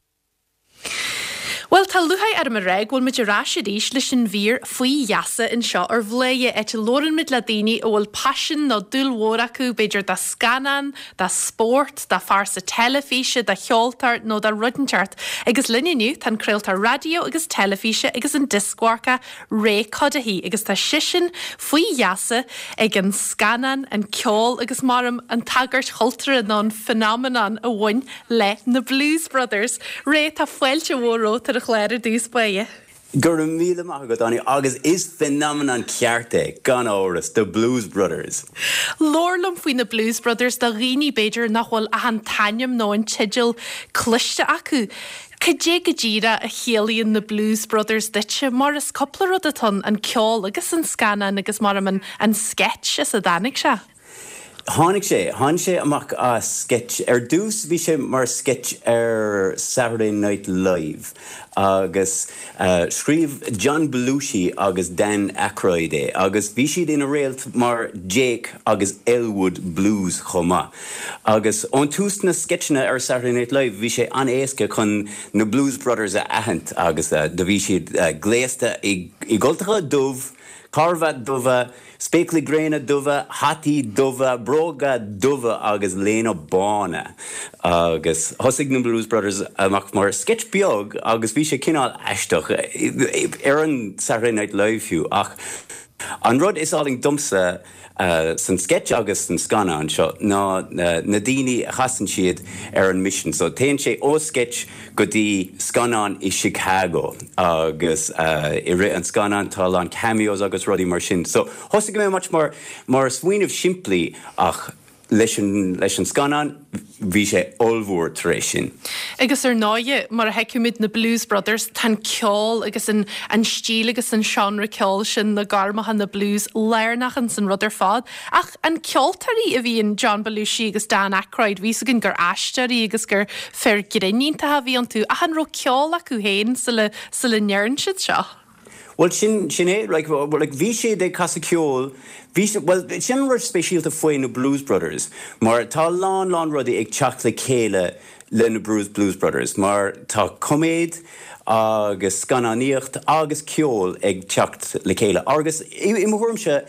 Bhuel, tá lúcháir orm a rá go bhfuil muid ar ais arís leis an mhír Faoi Gheasa anseo ar Bhladhaire, áit a labhrann muid le daoine a bhfuil paisean nó dúil mhór acu, b'fhéidir do scannán, do spórt, do phearsa teilifíse, do cheoltóir nó do rud inteacht. Agus linn inniu tá an craoltóir raidió agus teilifíse agus an dioscmharcach Ray Cuddihy agus tá seisean faoi gheasa ag an scannán, an ceol agus maram an tagairt chultúrtha nó an phenomenon a bhain le na Blues Brothers. Ray, tá fáilte mhór romhat ar an chlár ar dtús báire. Go raibh míle maith agat, Áine, agus is phenomenon ceart é, gan amhras, The Blues Brothers. Labhair liom faoi na Blues Brothers do dhaoine, b'fhéidir, nach bhfuil ach an t-ainm nó an teideal cloiste acu. Cad é go díreach a chiallaíonn na Blues Brothers duitse, mar is cúpla rud atá ann, an ceol agus an scannán agus maram an an sketch as a dtáinig sé? Tháinig sé, tháinig sé amach as sketch. Ar dtús bhí sé mar sketch ar Saturday Night Live agus scríobh John Belushi agus Dan Aykroyd é agus bhí siad ina réalt mar Jake agus Elwood Blues chomh maith. Agus ón tús na sceitseanna ar Saturday Night Live bhí sé an-éasca chun na Blues Brothers a aithint agus do bhí siad gléasta i gcultacha dubh, carbhat dubha, Spéaclaí gréine dubha, hataí dubha, bróga dubha agus léine bána. Agus thosaigh na Blues Brothers amach mar sketch beag agus bhí sé cineál aisteach, ar an Saturday Night Live fiú, ach an rud is álainn domsa san sketch agus san scannán seo ná na daoine a chasann siad ar an mission. So téann sé ó sketch go dtí scannán i Chicago agus i rith an scannáin tá a lán cameos agus rudaí mar sin. So thosaigh mé much mar mar smaoineamh simplí ach leis an leis an scannán bhí sé ollmhór tar éis sin. Agus ar ndóighe, mar a thuigimid na Blues Brothers, tá an ceol agus an an stíl agus an seánra ceoil sin, na gormacha, na blues, lárnach ins an rud ar fad. Ach an ceoltóirí a bhí in John Belushi agus Dan Aykroyd, bhí 'fhios againn gur aisteoirí agus gur fir grinn iontacha a bhí iontu, ach an raibh ceol acu féin sula, sula ndearn siad seo? Bhuel, sin, sin é, like, like, bhí siad ag casadh ceoil, bhí siad, bhuel, sin an rud speisialta faoi na Blues Brothers, mar tá a lán, lán rudaí ag teacht le chéile le na Blues, Blues Brothers, mar tá coiméad agus scannánaíocht agus ceol ag teacht le chéile, agus i, i mo thuairimse,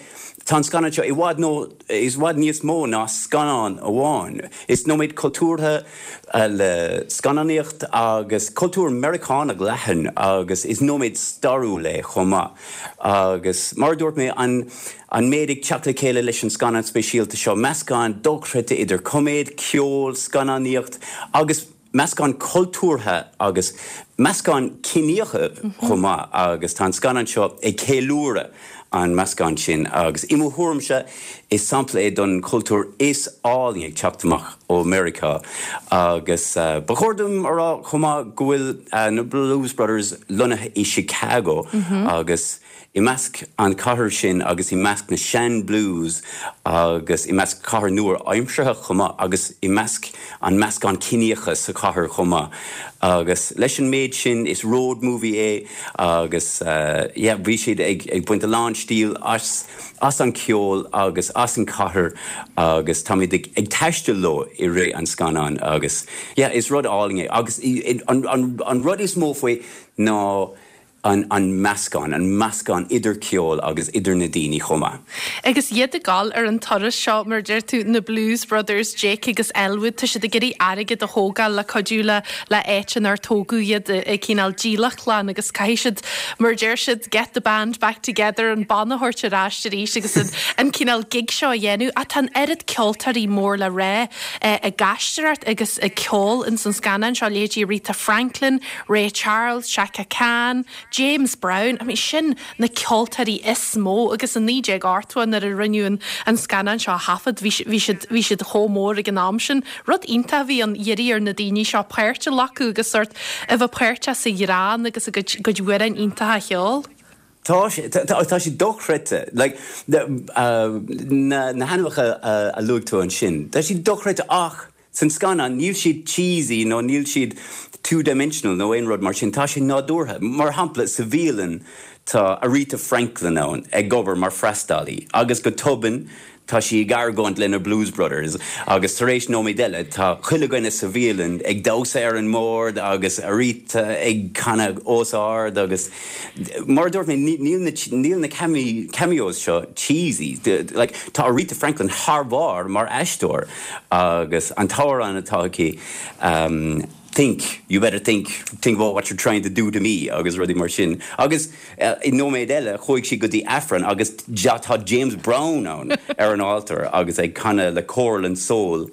Tá an scannán seo i bhfad nó i bhfad níos mó ná scannán amháin. Is nóiméad cultúrtha le scannánaíocht agus cultúr Meiriceánach leathan agus is nóiméad stairiúil é chomh maith. Agus mar a dúirt mé, an an méid ag teacht le chéile leis an scannán speisialta seo, meascán dochreidte idir coiméad, ceol, scannánaíocht agus. meascán cultúrtha agus meascán ciníocha chomh maith agus tá an scannán seo ag ceiliúradh an meascán sin agus i mo thuairimse is sampla é don chultúr is álainn ag teacht amach ó Meiriceá agus ba chóir dom a rá chomh maith go bhfuil na Blues Brothers lonnaithe i Chicago agus. i measc an chathair sin agus i measc na sean blues agus i measc cathair nua-aimseartha chomh maith agus i measc an meascán ciníocha sa chathair chomh maith agus leis an méid sin is road movie é agus yeah bhí siad ag ag baint a lán stíl as as an ceol agus as an cathair agus táimid ag ag taisteal leo i rith an scannáin agus yeah is rud álainn é agus an an an rud is mó faoi ná an an meascán, an meascán idir ceol agus idir na daoine chomh maith. Agus iad ag dul ar an turas seo, mar a deir tú, na Blues Brothers, Jake agus Elwood, tá siad ag iarraidh airgead a thógáil le cuidiú le le áit inar tógadh iad i gcineál dílleachtlann agus caithfidh siad, mar a deir siad, get the band back together, an banna a thabhairt ar ais arís agus an an cineál gig seo a dhéanamh. Ach tá an oiread ceoltóirí mór le rá ag aisteoireacht agus ag ceol ins an scannán seo, leithéidí Aretha Franklin, Ray Charles, Chaka Khan, James Brown, I mean sin na ceoltóirí is mó agus i 1980 nuair a rinneadh an an scannán seo a thaifead bhí bhí siad bhí siad chomh mór ag an am sin. Rud iontach a bhí ann iarraidh ar na daoine seo páirt a ghlacadh agus sórt a bheith páirteach sa ghreann agus a gcuid gcuid amhráin iontacha a cheol. Tá sé, tá sé dochreidte. Like, na na hainmneacha a luaigh tú ansin, tá siad dochreidte ach San scannán, níl siad cheesy nó níl siad two dimensional nó aon rud mar sin, tá sé nádúrtha. Mar shampla, sa bhialann tá Aretha Franklin ann ag obair mar freastalaí agus go tobann tá sí ag argóint le na Blues Brothers agus tar éis nóiméad eile tá chuile dhuine sa bhialann ag damhsa ar an mbord agus Aretha ag canadh os ard agus Mar a dúirt mé, níl na, níl na cameos seo cheesy. Like, tá Aretha Franklin thar barr mar aisteoir agus an t-amhrán atá aici, Think, you better think, think about what you're trying to do to me agus rudaí mar sin. Agus i nóiméad eile, chuaigh sí go dtí Aifreann agus tá James Brown ann ar an altar agus ag canadh le Choral and Soul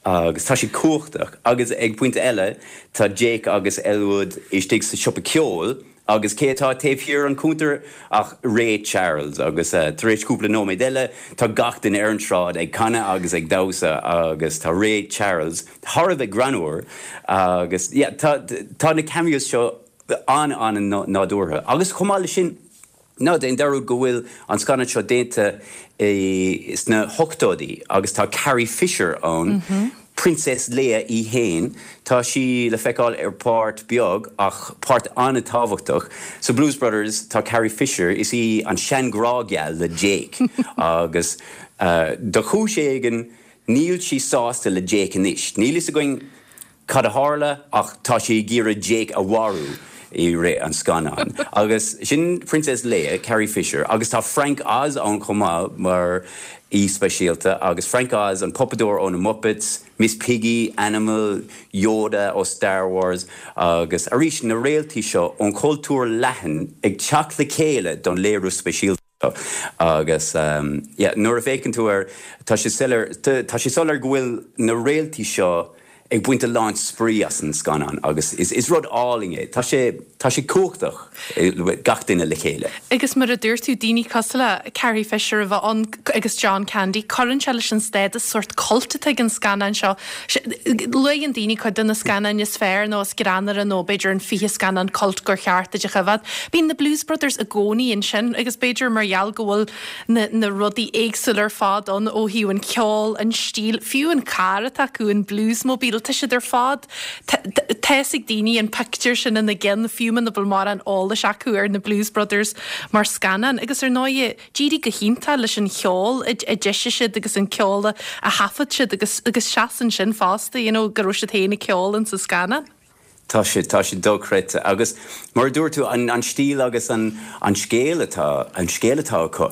agus tá sé cumhachtach. Agus ag pointe eile, Tá Jake agus Elwood istigh sa siopa ceoil agus cé atá taobh thiar an chuntair ach Ray Charles agus tar éis cúpla nóiméad eile tá gach duine ar an tsráid ag canadh agus ag damhsa agus tá Ray Charles thar a bheith greannmhar agus yeah tá tá na cameos seo an-an-nádúrtha agus chomh maith leis sin Ná déan dearúd go bhfuil an scannán seo déanta sna hochtóidí agus tá Carrie Fisher ann, Princess Leia í fhéin. Tá sí le feiceáil ar páirt beag ach páirt an-tábhachtach. Sa Blues Brothers tá Carrie Fisher, is í an sean-ghrá geal le Jake agus do chúis éigin níl sí sásta le Jake anois. Níl fhios againn Cad a tharla ach tá sí ag iarraidh Jake a mharú i rith an scannáin. Agus sin Princess Leia, Carrie Fisher, agus tá Frank Oz ann chomh maith mar aoi speisialta agus Frank Oz, an puipeadóir ó na Muppets, Miss Piggy, Animal, Yoda ó Star Wars agus arís na réaltaí seo ón chultúr leathan ag teacht le chéile don léiriú speisialta. Agus yeah, nuair a fhéachann tú air, tá sé soiléir, tá sé soiléir go bhfuil na réaltaí seo ag baint a lán spraoi as an scannán agus is rud álainn é. Tá sé, tá sé cumhachtach, gach duine le chéile. Agus mar a dúirt tú, daoine cosúil le Carrie Fisher a bheith ann agus John Candy, cuireann sé leis an stádas sórt cult atá ag an scannán seo. Luann daoine cuid de na scannáin is fearr nó is greannmhaire nó b'fhéidir an 20 scannán cult gur cheart duit a choimhéad. Bíonn na Blues Brothers i gcónaí ansin agus b'fhéidir mar gheall go bhfuil na na rudaí éagsúla ar fad ann ó thaobh an ceol, an stíl, fiú an carr atá acu, an Bluesmobile, tá siad ar fad, tá fhios ag daoine an pictiúr sin ina gceann fiú muna bhfuil mórán eolais acu ar na Blues Brothers mar scannán agus ar ndóigh D'éirigh go hiontach leis an cheol a d'eisigh siad agus an ceol a thaifead siad agus agus seasann sin fosta, you know, go raibh siad féin ag ceol in sa scannán. Tá sé, tá sé dochreidte. Agus mar a dúirt tú, an, an stíl agus an, an scéal atá, an scéal atá acu.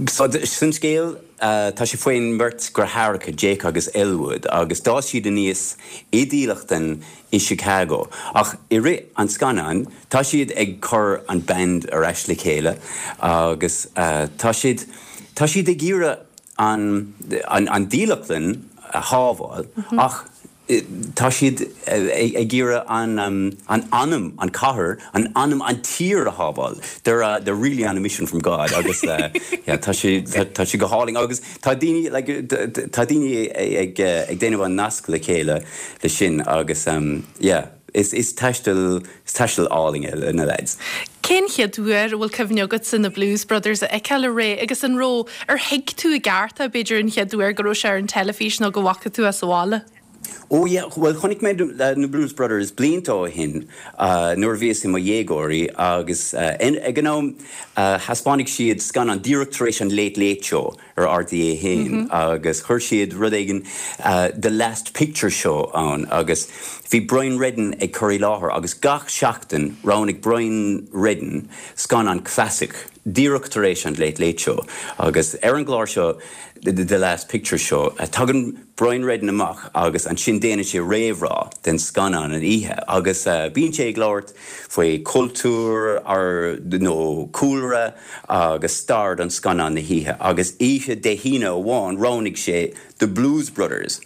So, san scéal, tá sé faoin mbeirt deartháireacha, Jake agus Elwood, agus d'fhás siad aníos i dílleachtlann i Chicago. Ach i rith an scannáin, tá siad ag cur an band ar ais le chéile agus tá siad, tá siad ag iarraidh an, an dílleachtlann a shábháil ach tá siad ag iarraidh an, an anam, an cathair, an anam, an tír a shábháil. They're, they're really on a mission from God agus yeah, tá sé, tá sé go hálainn agus tá daoine, like, tá daoine ag, ag déanamh an nasc le chéile le sin agus yeah. Is taisteal, is taisteal álainn é le na leaids. Cén chéad uair a bhfuil cuimhne agatsa na Blues Brothers a fheiceáil a Ray agus an raibh, ar thuig tú i gceart é b'fhéidir an chéad uair go raibh sé ar an teilifís nó go bhfaca tú é sa bhaile? Ó yeah, bhuel chonaic mé na Blues Brothers blianta ó shin nuair a bhíos i mo dhéagóirí agus ag an am thaispeánaigh siad scannán díreach tar éis an Late Late Show ar RTÉ 1 agus chuir siad rud éigin The Last Picture Show ann agus bhí Brian Reddin ag cur i láthair agus gach seachtain roghnaigh Brian Reddin scannán clasaic díreach tar éis an Late Late Show agus ar an gclár seo The Last Picture Show tagann Brian Reddin amach agus ansin déanann sé réamhrá den scannán an oíche agus bíonn sé ag labhairt faoi chultúr nó cúlra agus stair don scannán na hoíche agus oíche Dé hAoine amháin roghnaigh sé The Blues Brothers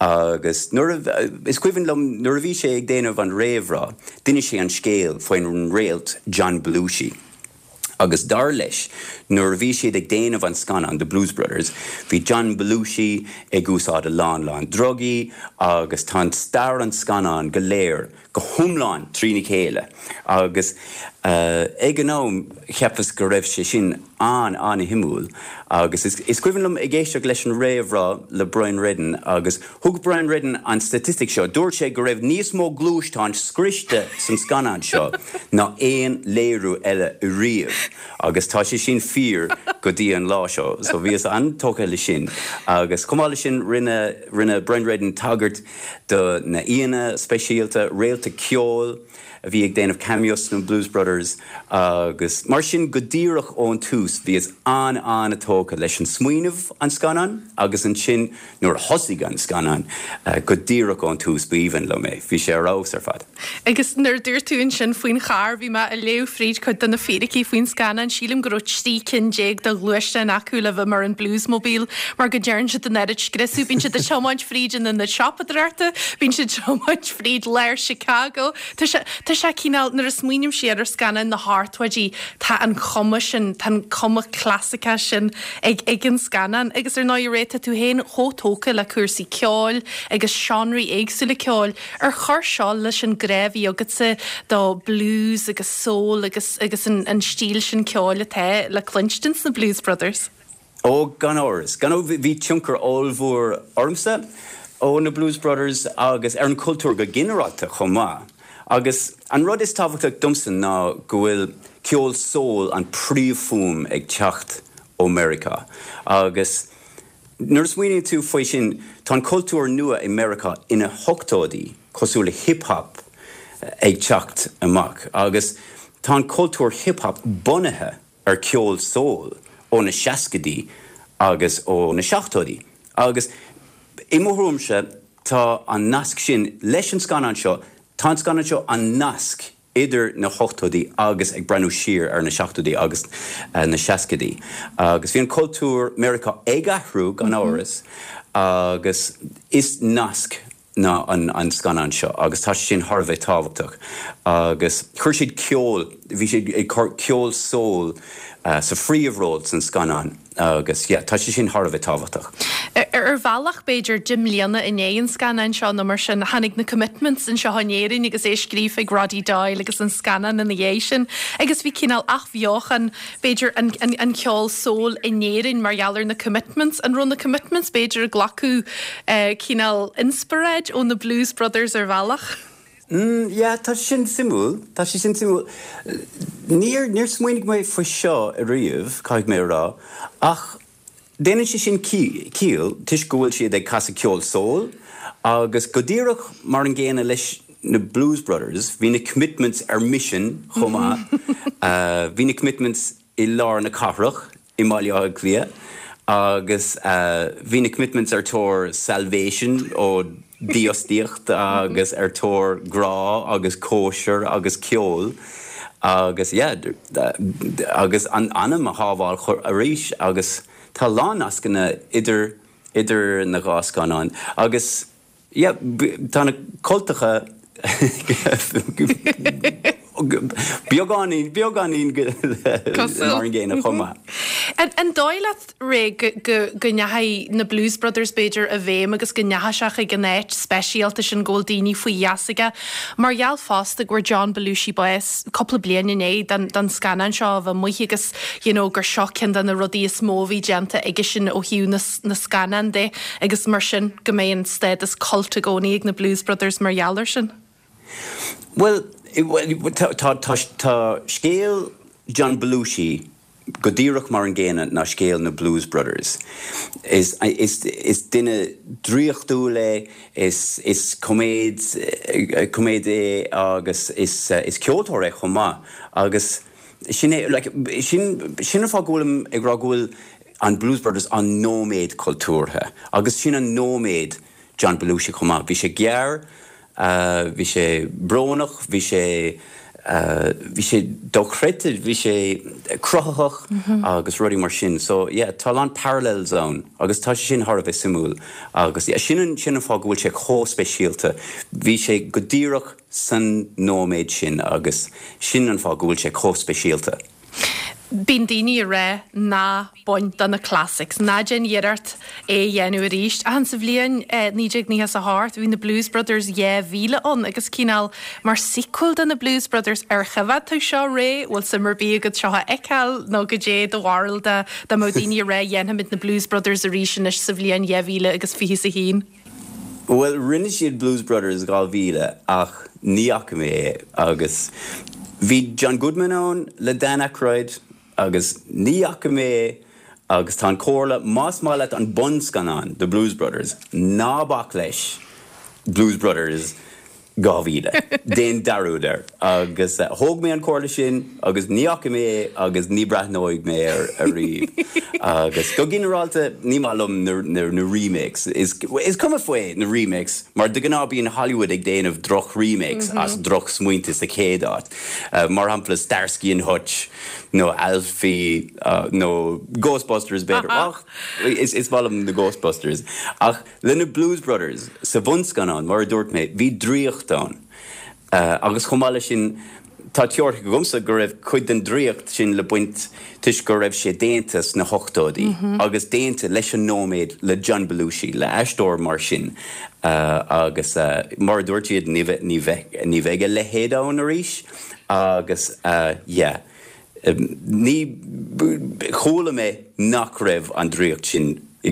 agus nuair a, is cuimhin liom nuair a bhí sé ag déanamh an réamhrá d'inis sé an scéal faoin réalt John Belushi agus dar leis nuair a bhí siad ag déanamh an scannán The Blues Brothers bhí John Belushi ag úsáid a lán lán drugaí agus tá an stair an scannán go léir go hiomlán trína chéile agus ag an am cheapas go raibh sé sin an-an-shuimiúil agus is cuimhin liom ag éisteacht leis an réamhrá le Brian Reddin agus thug Brian Reddin an staitistic seo, dúirt sé go raibh níos mó gluaisteáin scriosta san scannán seo ná aon léiriú eile riamh agus tá sé sin fíor go dtí an lá seo so bhíos an-tógtha le sin agus chomh maith le sin rinne rinne Brian Reddin tagairt do na aíonna speisialta, réalta ceoil a bhí ag déanamh cameos sna Blues Brothers agus mar sin go díreach ón tús bhíos an-an-tógtha leis an smaoineamh an scannán agus ansin nuair a thosaigh an scannán go díreach ón tús b'aoibhinn liom é, bhí sé ar fheabhas ar fad. Agus nuair a dúirt tú ansin faoin charr, bhí mé ag léamh fríd cuid de na fíricí faoin scannán, sílim go raibh 13 cinn de ghluaisteáin acu le bheith mar an Bluesmobile mar go dtearn siad an oiread scriosadh, bíonn siad ag tiomáint fríd an ionad siopadóireachta, bíonn siad ag tiomáint fríd lár Chicago. Tá sé, tá sé cineál, nuair a smaoiním siar ar scannáin na hochtóidí, tá an chuma sin, tá an cuma clasaiceach sin ag, ag an scannán. Agus ar ndóigh, a Ray, tá tú féin chomh tógtha le cúrsaí ceoil agus seánraí éagsúla ceoil. Ar chuir seo leis an grá a bhí agatsa do blues agus soul agus, agus an, an stíl sin ceoil atá le cluinstin sna Blues Brothers? Ó, gan amhras. Gan amhras, bhí tionchar ollmhór ormsa ó na Blues Brothers agus ar an chultúr go ginearálta chomh maith. Agus an rud is tábhachtach domsa ná go bhfuil ceol soul an príomhfhuaim ag teacht ó Meiriceá. Agus nuair a smaoiníonn tú faoi sin, tá an cultúr nua i Meiriceá ina hochtóidí, cosúil le hip hop, ag teacht amach. Agus tá an cultúr hip hop bunaithe ar ceol soul ó na seascaidí agus ó na seachtóidí agus i mo thuairimse tá an nasc sin leis an scannán seo, tá an scannán seo an nasc idir na hochtóidí agus ag breathnú siar ar na seachtóidí agus na seascaidí agus bhí an cultúr Meiriceá ag athrú gan amhras agus is nasc ná an scannán seo agus tá sé sin thar a bheith tábhachtach agus chuir siad ceol, bhí siad ag cur ceol soul sa phríomhról san scannán agus yeah tá sé sin thar a bheith tábhachtach. Ar bhealach b'fhéidir 10 mbliana i ndiaidh an scannáin seo nó mar sin tháinig na Commitments anseo in Éirinn agus é scríofa ag Roddy Doyle agus an scannán ina dhiaidh sin agus bhí cineál athbheochan b'fhéidir, an ceol soul in Éirinn mar gheall ar na Commitments. An raibh na Commitments, b'fhéidir, ag glacadh cineál inspioráid ó na Blues Brothers ar bhealach? Mm, yeah, tá sé sin suimiúil, tá sé sin suimiúil. Níor, níor smaoinigh mé faoi seo ariamh, caithfidh mé a rá, ach Déanann sé sin ciall toisc go bhfuil siad ag casadh ceol soul agus go díreach mar an gcéanna leis na Blues Brothers, bhí na Commitments ar misean chomh maith. Bhí na Commitments i lár na cathrach i mBaile Átha Cliath agus bhí na Commitments ar tóir salvation ó dífhostaíocht agus ar tóir grá agus cóisir agus ceol agus yeah agus an anam a shábháil arís agus tá a lán nascanna idir idir na dhá scannán agus yeah tá na cultacha beagáinín beagáinín mar an gcéanna chomh maith. An dóigh leat, Ray, go ndeachaigh na Blues Brothers, b'fhéidir, i bhfeidhm agus go ndeachaigh sé chuig an áit speisialta sin go bhfuil daoine faoi gheasa aige, mar gheall fosta go bhfuair John Belushi bás cúpla bliain i ndiaidh don scannán seo a bheith amuigh agus you know gur seo ceann de na rudaí is mó a bhí déanta aigesean ó thaobh na scannán de agus mar sin go mbeidh an stádas cult i gcónaí ag na Blues Brothers mar gheall air sin? Bhuel, tá scéal John Belushi go díreach mar an gcéanna ná scéal na Blues Brothers. Is duine draíochtúil é, is coiméad é agus is ceoltóir é chomh maith agus sin é, like, sin sin an fáth go bhfuilim ag rá go bhfuil an Blues Brothers an nóiméad cultúrtha agus sin an nóiméad John Belushi chomh maith. Bhí sé gearr, bhí sé brónach, bhí sé, bhí sé dochreidte, bhí sé cruthaitheach agus rudaí mar sin. So yeah, tá a lán parallels ann agus tá sé sin thar a bheith suimiúil agus yeah, sin an, sin an fáth go bhfuil sé chomh speisialta. Bhí sé go díreach san nóiméad sin agus sin an fáth go bhfuil sé chomh speisialta. Bíonn daoine ag rá ná bain de na classics, ná déan iarracht é a dhéanamh arís. Ach sa bhliain 1998 bhí na Blues Brothers 2000 ann agus cineál mar sequel de na Blues Brothers. Ar choimhéad tú seo, Ray? Bhfuil suim ar bith agat seo a fheiceáil nó goidé do bharúil dá mbeadh daoine ag rá dhéanfaimid na Blues Brothers arís anois sa bhliain 2021? Bhuel, rinne siad Blues Brothers 2000 ach ní fhaca mé é agus bhí John Goodman ann le Dan Aykroyd agus ní fhaca mé é agus tá an comhairle, más maith leat an bunscannán The Blues Brothers, ná bac leis Blues Brothers 2000. Déan dearúd air. Agus thóg mé an comhairle sin agus ní fhaca mé é agus ní breathnóidh mé air ariamh. Agus go ginearálta ní maith liom na remakes. Is cuma faoi na remakes mar de ghnáth bíonn Hollywood ag déanamh droch remakes as droch smaointe sa chéad áit. Mar shampla Starsky and Hutch nó Alfie nó Ghostbusters b'fhéidir. Ach is maith liom na Ghostbusters. Ach Le na Blues Brothers, sa bhunscannán, mar a dúirt mé, bhí draíocht ann. Agus chomh maith leis sin, tá teoiric agamsa go raibh cuid den draíocht sin le baint toisc go raibh sé déanta sna hochtóidí agus déanta leis an nóiméad le John Belushi, le aisteoir mar sin. Agus mar a dúirt siad, ní bheidh a leithéid ann arís. Agus yeah, ní, chuala mé nach raibh an draíocht sin i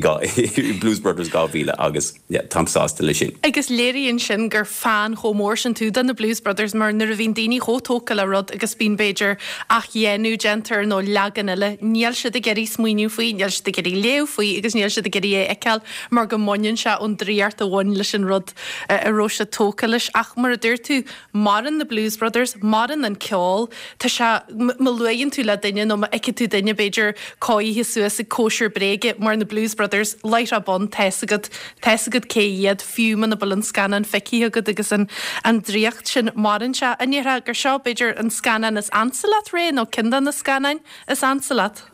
Blues Brothers 2000 agus yeah táim sásta leis sin. Agus léiríonn sin gur fan chomh mór sin tú de na Blues Brothers mar nuair a bhíonn daoine chomh tógtha le rud agus bíonn b'fhéidir athdhéanamh déanta air nó leagan eile, níl siad ag iarraidh smaoineamh faoi, níl siad ag iarraidh léamh faoi agus níl siad ag iarraidh é a fheiceáil mar go mbaineann sé ón draíocht a bhain leis an rud a raibh siad tógtha leis. Ach mar a dúirt tú, maireann na Blues Brothers, maireann an ceol, tá sé, má luaigheann tú le duine nó má fheiceann tú duine b'fhéidir cóirithe suas ag cóisir bréige mar na Blues Brothers, láithreach bonn, tá's agat, tá's agat cé hiad, fiú muna bhfuil an scannán feicthe agat agus an, an draíocht sin, maireann sé. An ndéarfá gur seo b'fhéidir an scannán is ansa leat, Ray, nó ceann de na scannáin is ansa leat?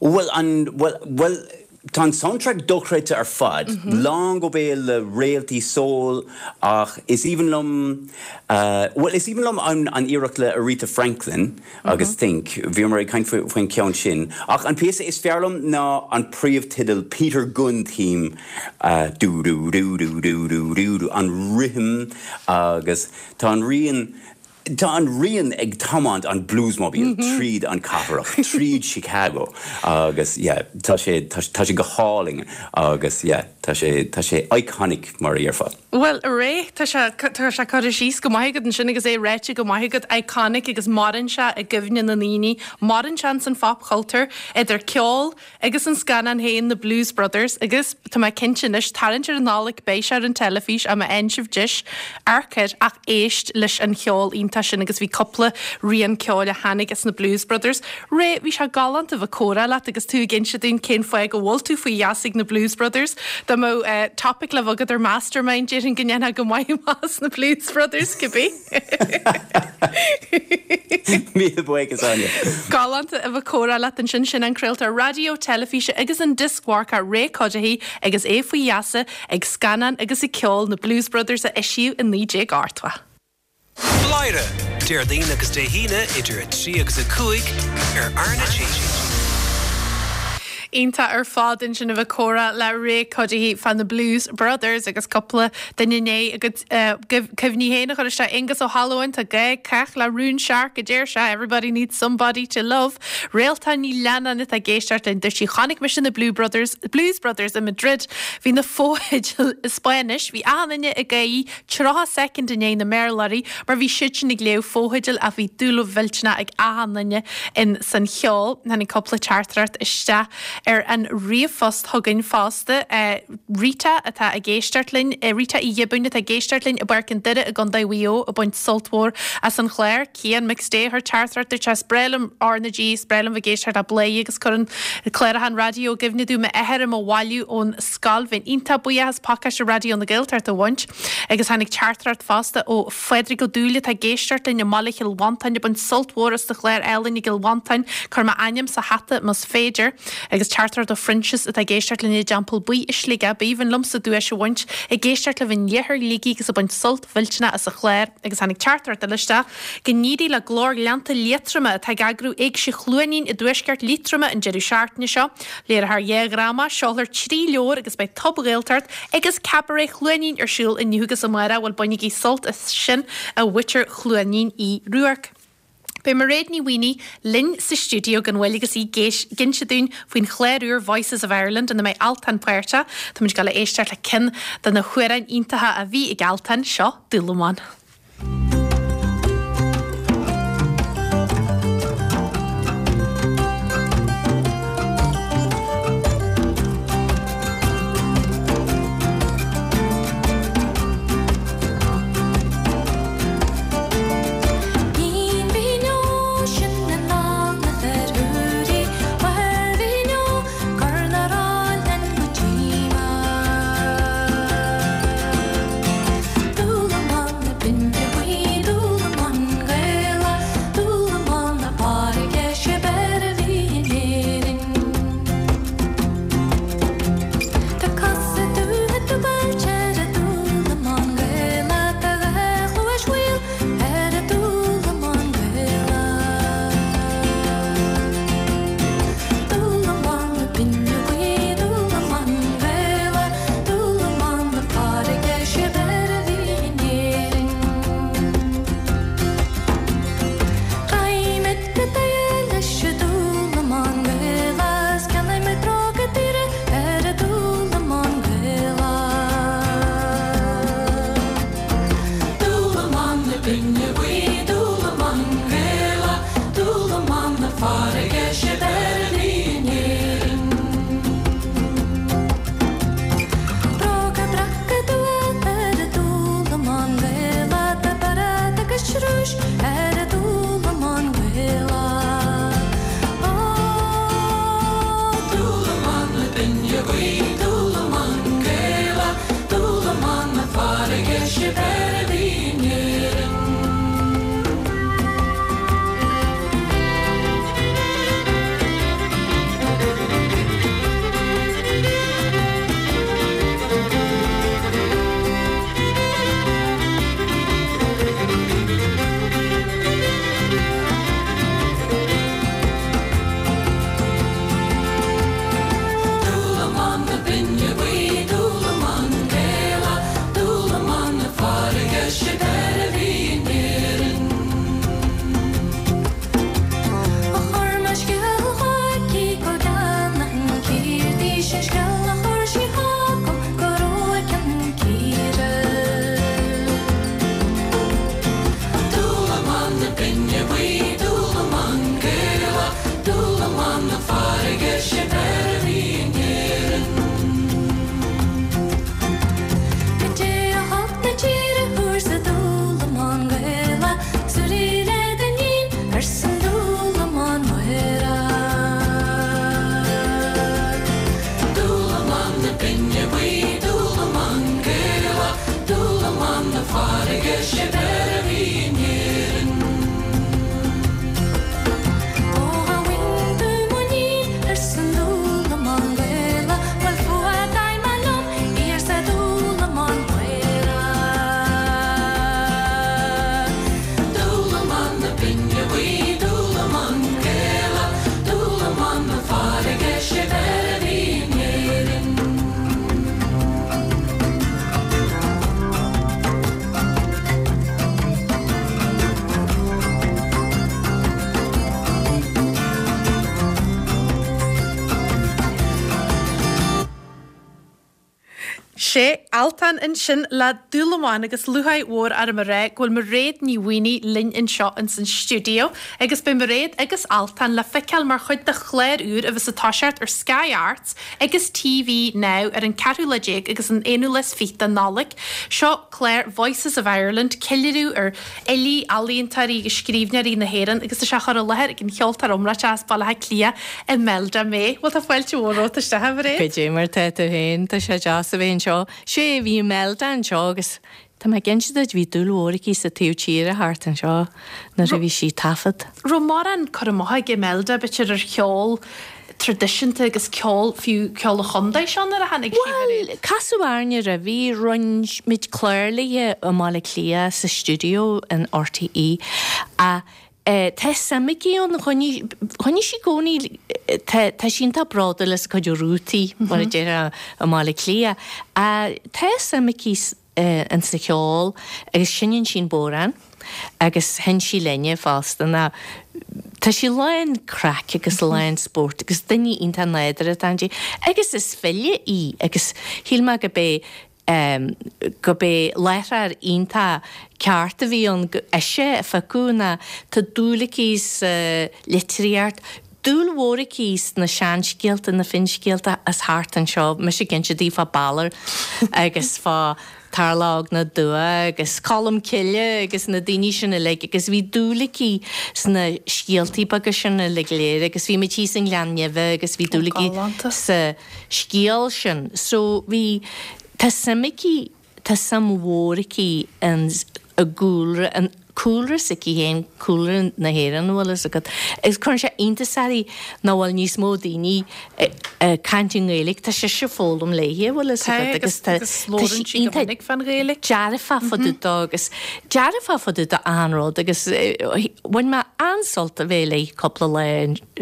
Bhuel, an, bhuel, bhuel, tá an soundtrack dochreidte ar fad, lán go béal le réaltaí soul ach is aoibhinn liom, bhuel, is aoibhinn liom an, an iarracht le Aretha Franklin agus Think, bhíomar ag caint faoin cheann sin. Ach an píosa is fearr liom ná an príomhteideal Peter Gunn theme, dú dú dú dú dú dú dú dú, an rithim agus tá an rian, Tá an rian ag tiomáint an Bluesmobile tríd an cathrach, tríd Chicago agus yeah, tá sé, tá sé go hálainn agus yeah, tá sé, tá sé iconic mar a dhéarfá. Bhuel, a Ray, tá sé, tá sé curtha síos go maith agat ansin agus é ráite go maith agat, iconic agus maireann sé i gcuimhne na ndaoine, maireann sé ins an phopchultúr, idir ceol, Agus an scannán féin, The Blues Brothers, agus tá mé cinnte anois, tarraingt ar an Nollaig, beidh sé ar an teilifís, má fhaigheann sibh deis, amharc air, ach éist leis an cheol iontach sin agus bhí cúpla rian ceoil a tháinig as na Blues Brothers. Ray, bhí sé galánta bheith ag comhrá leat agus tú ag inse dúinn cén fáth go bhfuil tú faoi gheasa ag na Blues Brothers. Dá mbeadh topic le bheith agat ar Mastermind, déarfainn go ndéanfá go maith amach as na Blues Brothers, cibé. Míle buíochas, Áine. Galánta a bheith ag comhrá leat ansin. Sin an craoltóir raidió, teilifíse agus an dioscmharcach Ray Cuddihy agus é faoi gheasa ag scannáin agus ag ceol na Blues Brothers a eisíodh i 1980. Bladhaire, Déardaoin agus Dé hAoine idir 3 agus 5 ar RnaG. Iontach ar fad ansin a bheith ag comhrá le Ray Cuddihy fá na Blues Brothers agus cúpla duine i ndiaidh a gcuid cuimhní féin a chur isteach. Aengus Ó hAlmhain, tá gá ag cách le rún searc a deir sé, everybody needs somebody to love. Réaltán Ní Leannáin atá ag éisteacht linn, dúirt sí chonaic mise na Blue Brothers, Blues Brothers i Madrid, bhí na fotheidil i Spáinnis, bhí achan duine ag gáirí 30 soicind i ndiaidh na mBéarlóirí mar bhí siadsan ag léamh fotheidil ach bhí dúil mhillteanach ag achan duine in san cheol. Tháinig cúpla teachtaireacht isteach ar an ríomhphost chugainn fosta. Rita atá ag éisteacht linn, Rita Uí Ghiobúin atá ag éisteacht linn i bPáirc an Doire i gContae Mhaigh Eo ag baint sult mhór as an chlár. Cian McStay a chuir teachtaireacht dúirt sé is breá liom RnaG, is breá liom bheith ag éisteacht le Bladhaire agus cuireann cláracha an raidió i gcuimhne domh m'athair i mo bhailiú ón scoil. Bheinn iontach buíoch as pacáiste Raidió na Gaeltachta a bhaint. Agus tháinig teachtaireacht fosta ó Phádraig Ó Dúill atá ag éisteacht linn i mbaile Chill Mhantáin ag baint sult mhór as do chlár álainn i gCill Mhantáin. Cuir m'ainm sa hata más féidir. Agus teachtaireacht ó Phroinsias atá ag éisteacht linn i dTeampall Buí i Sligeach. B'aoibhinn liomsa duais a bhaint ag éisteacht libh in iarthar Shligigh agus ag baint sult mhillteanach as an chlár. Agus tháinig teachtaireacht eile isteach Go n-éirí le Glór Ghleannta Liatroma atá ag eagrú Éigse Chluainín i dtuaisceart Liatroma an deireadh seachtaine seo. Léireofar 2 dhráma, seolfar 3 leabhar agus beidh Tob-Ghaeltacht agus Cabaret Chluainín ar siúl inniu agus amárach. Bhuel bainigí sult as sin a mhuintir Chluainín Uí Ruairc. Beidh Mairéad Ní Mhaonaigh linn sa stiúideo gan mhoill agus í ag inse dúinn faoin chlár úr Voices of Ireland ina mbeidh Altan páirteach. Táimid ag dul a éisteacht le ceann de na hamhráin iontacha a bhí ag Altan, seo Dúlamán. Sé Altan ansin le Dúlamán agus lúcháir mhór orm a rá go bhfuil Mairéad Ní Mhaonaigh linn anseo ins an stiúideo agus beidh Mairéad agus Altan le feiceáil mar chuid de chlár úr a bheas ag toiseacht ar Sky Arts agus TV Now ar an ceathrú lá déag agus an aonú lá is fiche de Nollaig. Seo clár Voices of Ireland, ceiliúradh ar fhilí, ealaíontóirí agus scríbhneoirí na hÉireann agus tá sé á chur i láthair ag an cheoltóir iomráiteach as Baile Átha Cliath, Imelda May. Bhuel tá fáilte mhór romhat isteach, a Mhairéad. Goidé mar tá tú féin, tá sé deas a bheith anseo. Sé, bhí Imelda anseo agus tá mé ag inse duit, bhí dúil mhór aici sa taobh tíre thart anseo nuair a bhí sí ag taifead. Raibh mórán cur amach ag Imelda, b'fhéidir, ar cheol traidisiúnta agus ceol, fiú ceol an chontae seo nuair a tháinig sí, a Mhairéad? Bhuel, casadh orainne roimhe, rinne muid clár léi i mBaile Átha Cliath sa stiúideo in RTÉ ach tá suim aici ann, choinnigh, choinnigh sí i gcónaí, tá, tá sí iontach bródúil as a cuid rútaí, mar a déarfá i mBaile Átha Cliath, ach tá suim aici in sa cheol agus seinneann sí an bodhrán agus sheinn sí linne fosta ná tá sí lán craic agus lán spóirt agus duine iontach nádúrtha atá inti agus is file í agus shíl mé go b'é go b'é láithreoir iontach ceart a bhí ann go ise a phiocadh ná tá dúil aici sa litríocht, dúil mhór aici sna seanscéalta, na finscéalta as thart anseo, mise ag inse di fá Balor agus fá Tarlach na dTuath agus Colm Cille agus na daoine sin uilig agus bhí dúil aici sna scéaltaí beaga sin uilig go léir agus bhí muid thíos i nGleann Neimhe agus bhí dúil aici sa scéal sin. So bhí, tá suim aici Tá suim mhór aici in i gcúlra, an cúlra s'aici féin, cúlra na hÉireann, an bhfuil fhios agat. Agus cuireann sé iontas uirthi nach bhfuil níos mó daoine ag caint i nGaeilge, tá sise ag foghlaim léi, an bhfuil fhios agat, agus tá sí iontach dearfach fá dtaobh dó agus dearfach fá dtaobh d'achan rud agus bhain mé an-sult a bheith léi cúpla lá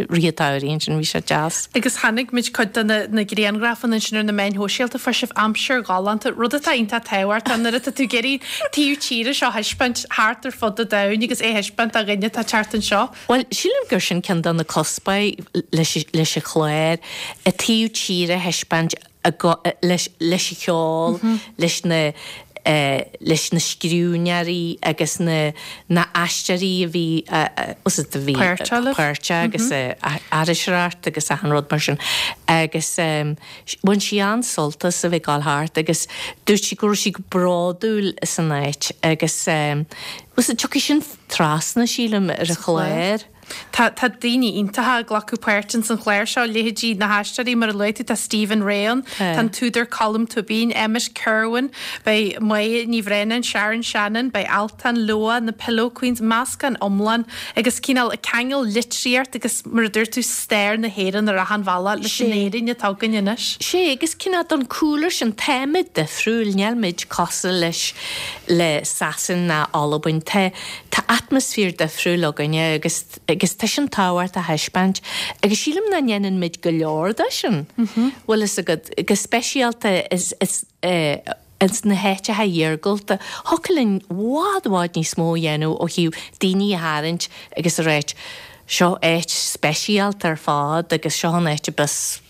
rith an tsamhraidh ansin, bhí sé deas. Agus chonaic muid cuid de na grianghrafanna ansin ar na meáin shóisialta, fuair sibh aimsir ghalánta, rud atá iontach tábhachtach nuair atá tú ag iarraidh taobh tíre seo a thaispeáint thart ar fud an domhain agus é a thaispeáint do dhuine atá ag teacht anseo. Bhuel, sílim gur sin ceann de na cuspóirí leis an chlár, an taobh tíre a thaispeáint leis an cheol, leis na leis na scríbhneoirí agus na na aisteoirí a bhí a bhí páirteach agus iriseoireacht agus achan rud mar sin agus bhain sí an-sult as a bheith ag gabháil thart agus dúirt sí go raibh sí go bródúil as an áit agus tiocfaidh sin trasna sílim ar an chlár. Tá tá daoine iontacha ag glacadh páirt ins an chlár seo, leithéidí na haisteoirí mar a luaigh tú, tá Stephen Rea ann, tá an t-údar Colm Tóibín, Emmet Kirwan, beidh Máire Ní Bhraonáin, Sharon Shannon, beidh Altan, Leabha, na Pillow Queens, meascán iomlán agus cineál ag ceangal litríocht agus mar a dúirt tú stair na hÉireann ar achan bhealach leis an Éirinn atá againn anois. Sé, agus cineál don cúlra sin, táimid difriúil, níl muid cosúil leis le Sasain ná Albain, tá Tá atmaisféar difriúil againne agus agus tá sin tábhachtach a thaispeáint agus sílim nach ndéanann muid go leor de sin. Bhfuil fhios agat, go speisialta is is ins na háiteacha iargúlta, thiocfadh linn bhfad bhfad níos mó a dhéanamh ó thaobh daoine a tharraingt agus a ráit seo áit speisialta ar fad agus seo an áit a bheas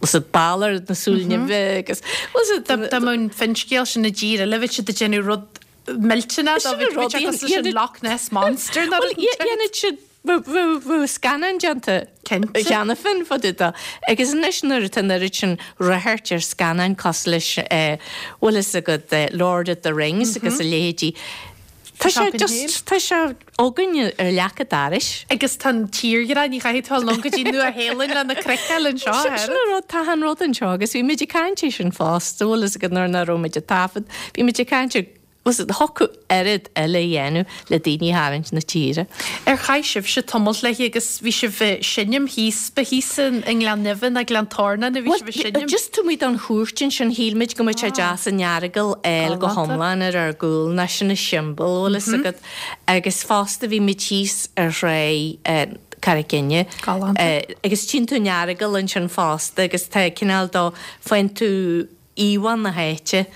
bhfuil fhios agat Balor na Súile Nimhe agus bhfuil fhios agat. Dá mbeadh an finscéal sin i dtír eile bheadh siad ag déanamh rud millteanach dó bhí sé cosúil leis an Loch Ness Monster nó rud inteacht. Dhéanfadh siad bheadh scannán déanta cheana féin fá dtaobh dó. Agus anois nuair atá an oiread sin ráchairt ar scannáin cosúil leis bhfuil fhios agat Lord of the Rings agus a leithéidí, tá sé just, tá sé againn ar leac an dorais. Agus tá an tírdhreach, ní chaithfidh tú a dhul go dtí Nua Shéalainn lena craiceáil anseo, a Sin an rud, tá an rud anseo agus bhí muid ag caint air sin fosta, bhfuil fhios agat nuair nach raibh muid ag taifead, bhí muid ag caint ar, bhfuil fhios agat, thiocfadh oiread eile a dhéanamh le daoine a tharraingt na tíre. Ar chaith sibhse tamalt léi agus bhí sibh ag seinm thíos, ba thíos i nGleann Neimhe ná Gleann Tornáin a bhí sibh ag seinm? Just taobh amuigh den chúirt ansin, shíl muid go mbeadh sé deas an Earagail a fháil go hiomlán ar ár gcúl, ná sin an siombail, bhfuil fhios agat. Agus fosta bhí muid thíos ar thráigh Carraig Fhinne. Galánta. Agus tchíonn tú an Earagail ansin fosta agus tá cineál dó, faigheann tú íomhá na háite,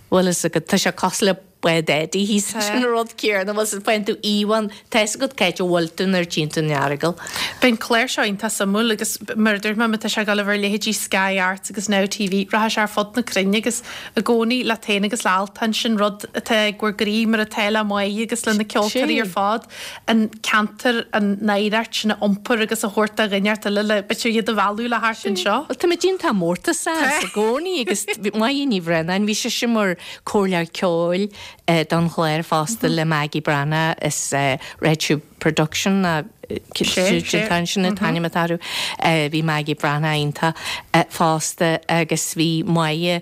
bhfuil fhios agat, tá sé cosúil le. Bád Eddie thíos sin an rud céanna bhfuil 's faigheann tú íomhá tá fhios agat cá háit a bhfuil tú nuair a tchíonn tú an Earagail. Beidh an clár seo iontach suimiúil agus mar a dúirt mé má tá sé ag dul a bheith ar leithéidí Sky Arts agus Now TV rachaidh sé ar fud na cruinne agus i gcónaí leat féin agus le Altan sin rud atá ag bhur gcroí mar atá le Máire agus le na ceoltóirí ar fad an ceantar an oidhreacht sin a iompar agus a thabhairt do dhuine eile le b'fhéidir iad a mhealladh le theacht anseo. Bhuel tá muid iontach mórtasach as i gcónaí agus Máire Ní Bhraonáin bhí sise mar comhairleoir ceoil don chlár fosta le Maggie Breathnach as Red Shoe Production sin an t-ainm atá orthu. Bhí Maggie Breathnach iontach fosta agus bhí Máire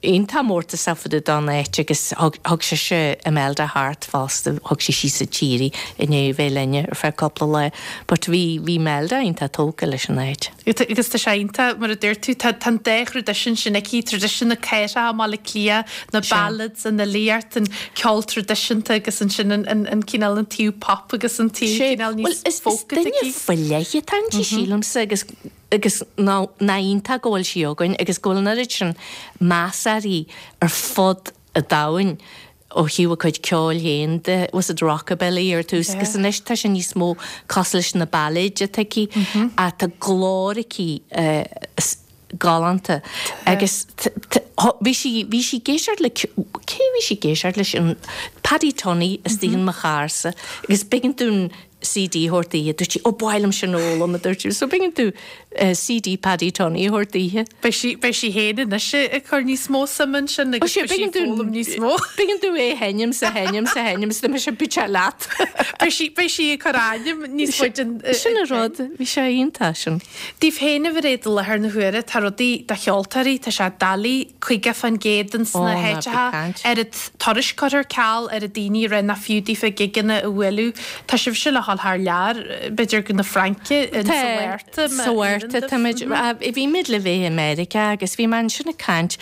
iontach mórtasach fá dtaobh don áit agus thug sise Imelda thart fosta, thug sí síos an tír í i ndiaidh a bheith linne ar feadh cúpla lá. But bhí bhí Imelda iontach tógtha leis an áit. Agus tá sé iontach, mar a dúirt tú, tá an dá thraidisiún sin aici, traidisiún na cathrach i mBaile Átha Cliath, na ballads, an fhilíocht, an ceol traidisiúnta agus ansin an cineál, an taobh pop agus an taobh cineál níos folk atá aici. Is duine faoi leith atá inti, sílimse, agus agus nach iontach go bhfuil sí againn agus go bhfuil an oiread sin meas uirthi ar fud an domhain. ó thaobh a cuid ceoil féin de, was it rockabilly ar tús agus anois tá sé níos mó cosúil leis na bailéid atá aici ach tá glór aici galánta agus bhí sí, bhí sí ag éisteacht le, cé bhí sí ag éisteacht leis an Paddy Tunney istigh in mo charr-sa agus b'éigean dúinn CD a thabhairt daoithe. Dúirt sí, Ó, ba mhaith liom sin a fhoghlaim, a dúirt sí. So b'éigean dúinn CD Paddy Tunney a thabhairt daoithe. Beidh sí, beidh sí féin anois ag cur níos mó suime ansin agus beidh sí ag foghlaim níos mó. B'éigean dúinn é a sheinm 's a sheinm 's a sheinm 's d'imigh sé bit leat. Beidh sí, beidh sí ag cur ainm níos faide in. Sin an rud, bhí sé iontach sin. Daoibh féin a Mhairéad i láthair na huaire, tá rudaí do cheoltóirí, tá sé doiligh, 50% ins na háiteacha, oiread turais curtha ar ceal, oiread daoine ag rá nach fiú daofa gigeanna a bhualadh. Tá sibhse le dhul thar lear, b'fhéidir go na Fraince, in sa Mhárta, Sa Mhárta táimid, bhí muid le bheith i Meiriceá agus bhí mé ansin ag caint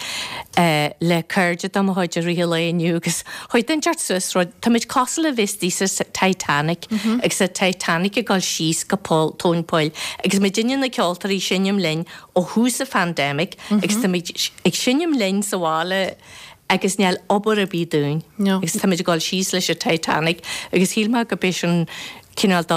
le cairde de mo chuid i rith an lae inniu agus chuaigh duine inteacht suas rud, táimid cosúil le bheith istigh sa Titanic agus an Titanic ag dul síos go poll, tóin poill agus muidinne na ceoltóirí ag seinm linn ó thús an phandemic agus táimid ag seinm linn sa bhaile agus níl obair ar bith dúinn agus táimid ag dul síos leis an Titanic agus shíl mé go b'é sin cineál de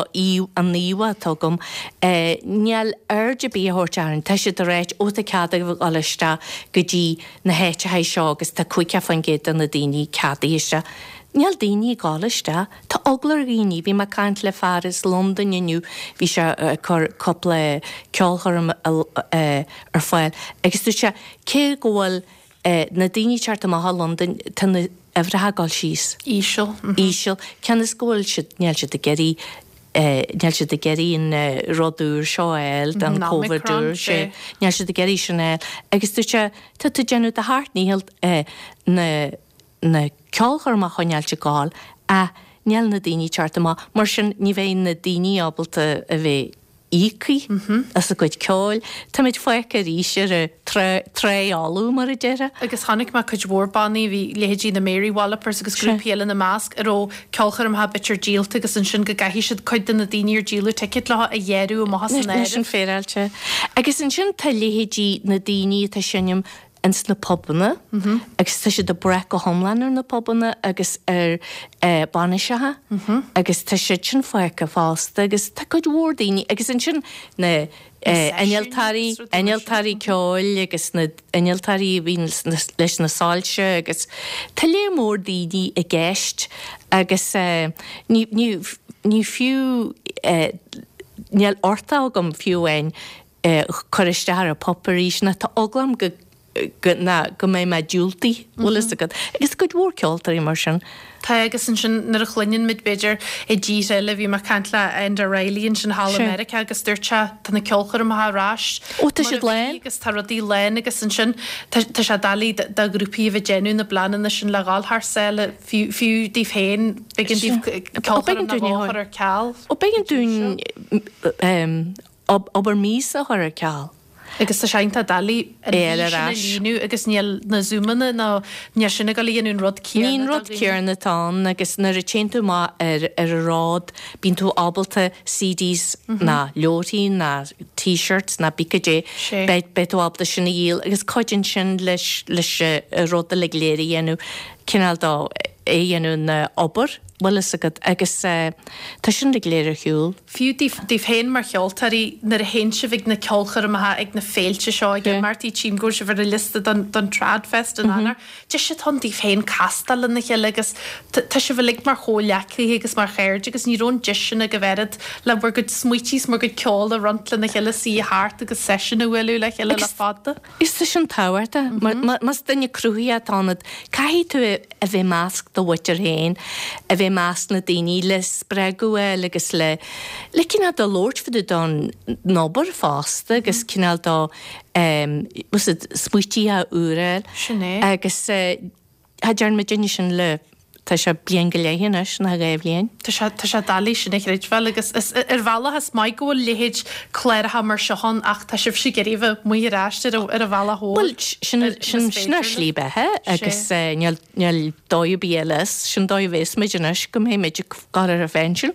an íomhá atá agam. Níl aird ar bith á thabhairt orainn. Tá siad ag ráit, ó tá cead agaibh a dhul isteach go dtí na háiteacha seo agus tá 50% de na daoine ceadaithe isteach. Níl daoine ag dul isteach. Tá eagla ar dhaoine. Bhí mé ag caint le fear as Londain inniu, bhí sé ag cur cúpla ceolchoirm ar fáil agus dúirt sé cé go bhfuil na daoine ag teacht amach i Londain, tá na huimhreacha ag dul síos. Íseal. Íseal. Cionn is go bhfuil siad, níl siad ag iarraidh, níl siad ag iarraidh an rud úr seo a fháil, an Covid úr, sé. Níl siad ag iarraidh sin a fháil. Agus dúirt sé, tá tú ag déanamh do sheacht ndícheall na, na ceolchoirmeacha a choinneáilt ag gabháil ach níl na daoine ag teacht amach. Mar sin ní bheidh na daoine ábalta a bheith íoctha as a gcuid ceoil. Táimid fágtha arís ar an trá fholamh, mar a déarfá. Agus chonaic mé cuid mhór bannaí, bhí leithéidí na Mary Wallopers agus grúpaí eile ina measc, a raibh ceolchoirmeacha b'fhéidir díolta agus ansin go gcaithfidh siad cuid de na daoine ar díoladh ticéid leo a ghearradh amach as an áireamh. Sin féaráilte. Agus ansin tá leithéidí na daoine atá ag seinm ins na pubanna agus tá siad ag brath go hiomlán ar na pubanna agus ar bainiseacha agus tá siad sin fágtha fosta agus tá cuid mhór daoine agus ansin na innealtóirí, innealtóirí ceoil agus na innealtóirí a bhíonn leis na soilse agus tá léar mór daoine i gceist agus ní, ní, ní fiú, níl uchtach agam fiú amháin cur isteach ar an bpub arís ná tá eagla orm go go ná go mbeidh mé diúltaithe, bhfuil fhios agat. Agus cuid mhór ceoltóirí mar sin. Tá agus ansin nuair a chluineann muid b'fhéidir i dtíortha eile, bhí mé ag caint le Enda Reilly ansin thall i Meiriceá agus dúirt sé tá na ceolchoirmeacha ar ais Ó tá siad lán. agus tá rudaí lán agus ansin tá tá sé doiligh do ghrúpaí a bheith ag déanamh na bpleananna sin le dhul thar sáile fiú fiú daoibh féin b'éigean daoibh ceolchoirm nó dhó a chur ar ceal. Ó b'éigean dúinn obair míosa a chur ar ceal. Agus tá sé iontach doiligh an É mhí ar sin a ais. líonadh agus níl na Zoomanna nó níl sin ag dul a dhéanamh an rud Ní céanna an do rud dhaoine. céanna atá ann agus nuair a téann tú amach ar ar an ród bíonn tú ábalta CDs ná leabharthaí ná T-shirts ná pé caidé Sé. beidh beidh tú ábalta sin a dhíol agus cuidíonn sin leis leis an rud uilig go léir a dhéanamh cineál de é a dhéanamh ina obair bhfuil fhios agat agus tá sin uilig go léir ar shiúl. Fiú daoibh féin mar cheoltóirí, nuair a théann sibh ag na ceolchoirmeacha, ag na féilte seo, ag imeachtaí, tchím go bhfuil sibh ar an liosta don don Tradfest in Eanáir, deis atá ann daoibh féin castáil lena chéile agus tá sibh uilig mar chomhghleacaithe agus mar chairde agus ní raibh an deis sin agaibh oiread le bhur gcuid smaoití is bhur gcuid ceoil a roinnt lena chéile, suí thart agus seisiún a bhualadh le chéile le fada. Is tá sin tábhachtach. Más duine cruthaitheach atá ionat, caithfidh tú a bheith i measc do mhuintir féin, a bheith i measc na daoine le spreagadh a fháil agus le le cineál de labhairt fá dtaobh don obair fosta agus cineál de smaoití úra a fháil. Sin é. Agus Cha dtearn muidinne sin le, tá sé bliain go leith anois, nó 2 bhliain. Tá sé, tá sé doiligh sin a chreidbheáil agus is, ar bhealach is maith go bhfuil leithéid cláracha mar seo ann ach tá sibhse ag iarraidh a bheith amuigh ar ais ar an, ar an bhealach mhór. Bhuel, sin, sin, sin ár slí beatha agus níl, níl dóigh ar bith eile as, sin dóigh a bheas muid anois go mbeidh muid ag gabháil ar an phensiún.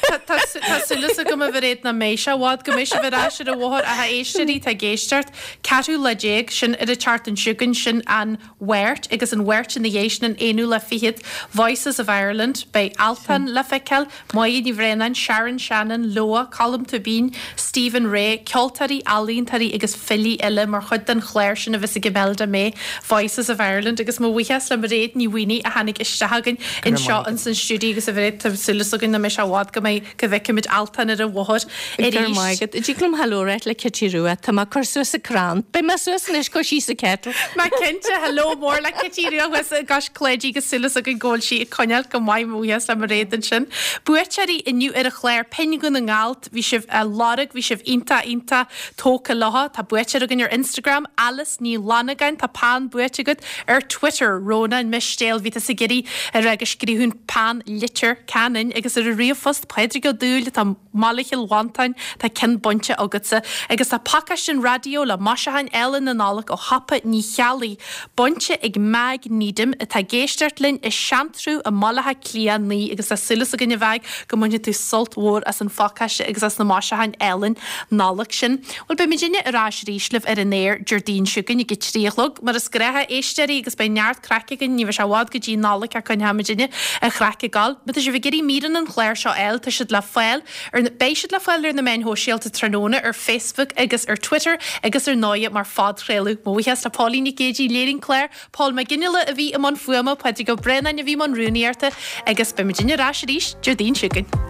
Tá, tá, tá súil agam a Mhairéad nach mbeidh sé i bhfad go mbeidh sibh ar ais ar an bhóthar ach a éisteoirí atá ag éisteacht, 14ú lá, sin ar an tseachtain seo chugainn, sin an Mháirt agus an Mháirt ina dhiaidh sin an aonú lá fichead, Voices of Ireland, beidh Altan le feiceáil, Máire Ní Bhraonáin, Sharon Shannon, Leabha, Colm Tóibín, Stephen Rea, ceoltóirí, ealaíontóirí agus filí eile mar chuid den chlár sin a bheas ag Imelda May, Voices of Ireland agus mo bhuíochas le Mairéad Ní Mhaonaigh a tháinig isteach againn anseo ins an stiúideo agus a Mhairéad tá súil againn nach mbeidh sé i bhfad go mbeidh go bhfeicfimid Altan ar an bhóthar Go raibh maith agat. Dtig liom hello a ráit le Kitty Rua. Tá mé ag cur suas an crann. Beidh mé suas anois cur síos an kettle. Má cinnte, hello mór le Kitty Rua thuas i gCois Cláidí agus súil againn go bhfuil sí ag coinneáil go maith mo bhuíochas le Mairéad ansin. Buaiteoirí inniu ar an chlár Pinn Dhún na nGall, bhí sibh á lorg, bhí sibh iontach iontach tógtha leo. Tá buaiteoir againn ar Instagram, Alice Ní Fhlannagáin, tá peann buaite agat ar Twitter, Rónán Mistéil, bhí tusa ag iarraidh a rá go scríobhfainn peann Leitir Ceanainn agus ar an ríomhphost, Pádraig Ó Dúill atá i mBaile Chill Mhantáin, tá ceann bainte agatsa. Agus tá pacáiste an raidió le maisiúcháin álainn na Nollag ó Shiopa Ní Cheallaigh bainte ag Meaig Needham atá ag éisteacht linn i Seantrú i mBaile Átha Cliath 9 agus tá súil againn a Mheaig go mbainfidh tú sult mhór as an phacáiste agus as na maisiúcháin álainn Nollag sin. Bhuel, beidh muidinne ar ais arís libh ar an aer Déardaoin seo chugainn ag a 3 a chlog, mar is gnách, a éisteoirí, agus beidh neart craic againn, ní bheidh sé i bhfad go dtí Nollaig ach coinneoidh muidinne an chraic ag gabháil. Má tá sibh ag iarraidh míreanna an chláir seo a fháil, tá siad le fáil ar na, beidh siad le fáil ar na meáin shóisialta tráthnóna, ar Facebook agus ar Twitter agus ar ndóighe mar phodchraoladh. Mo bhuíochas le Póilín Nic Géidigh, a léirigh an clár, Pól Mac Fhionnghaile a bhí i mbun fuaime, Pádraig Ó Braonáin a bhí i mbun rúnaíochta agus beidh muidinne ar ais arís Déardaoin seo chugainn.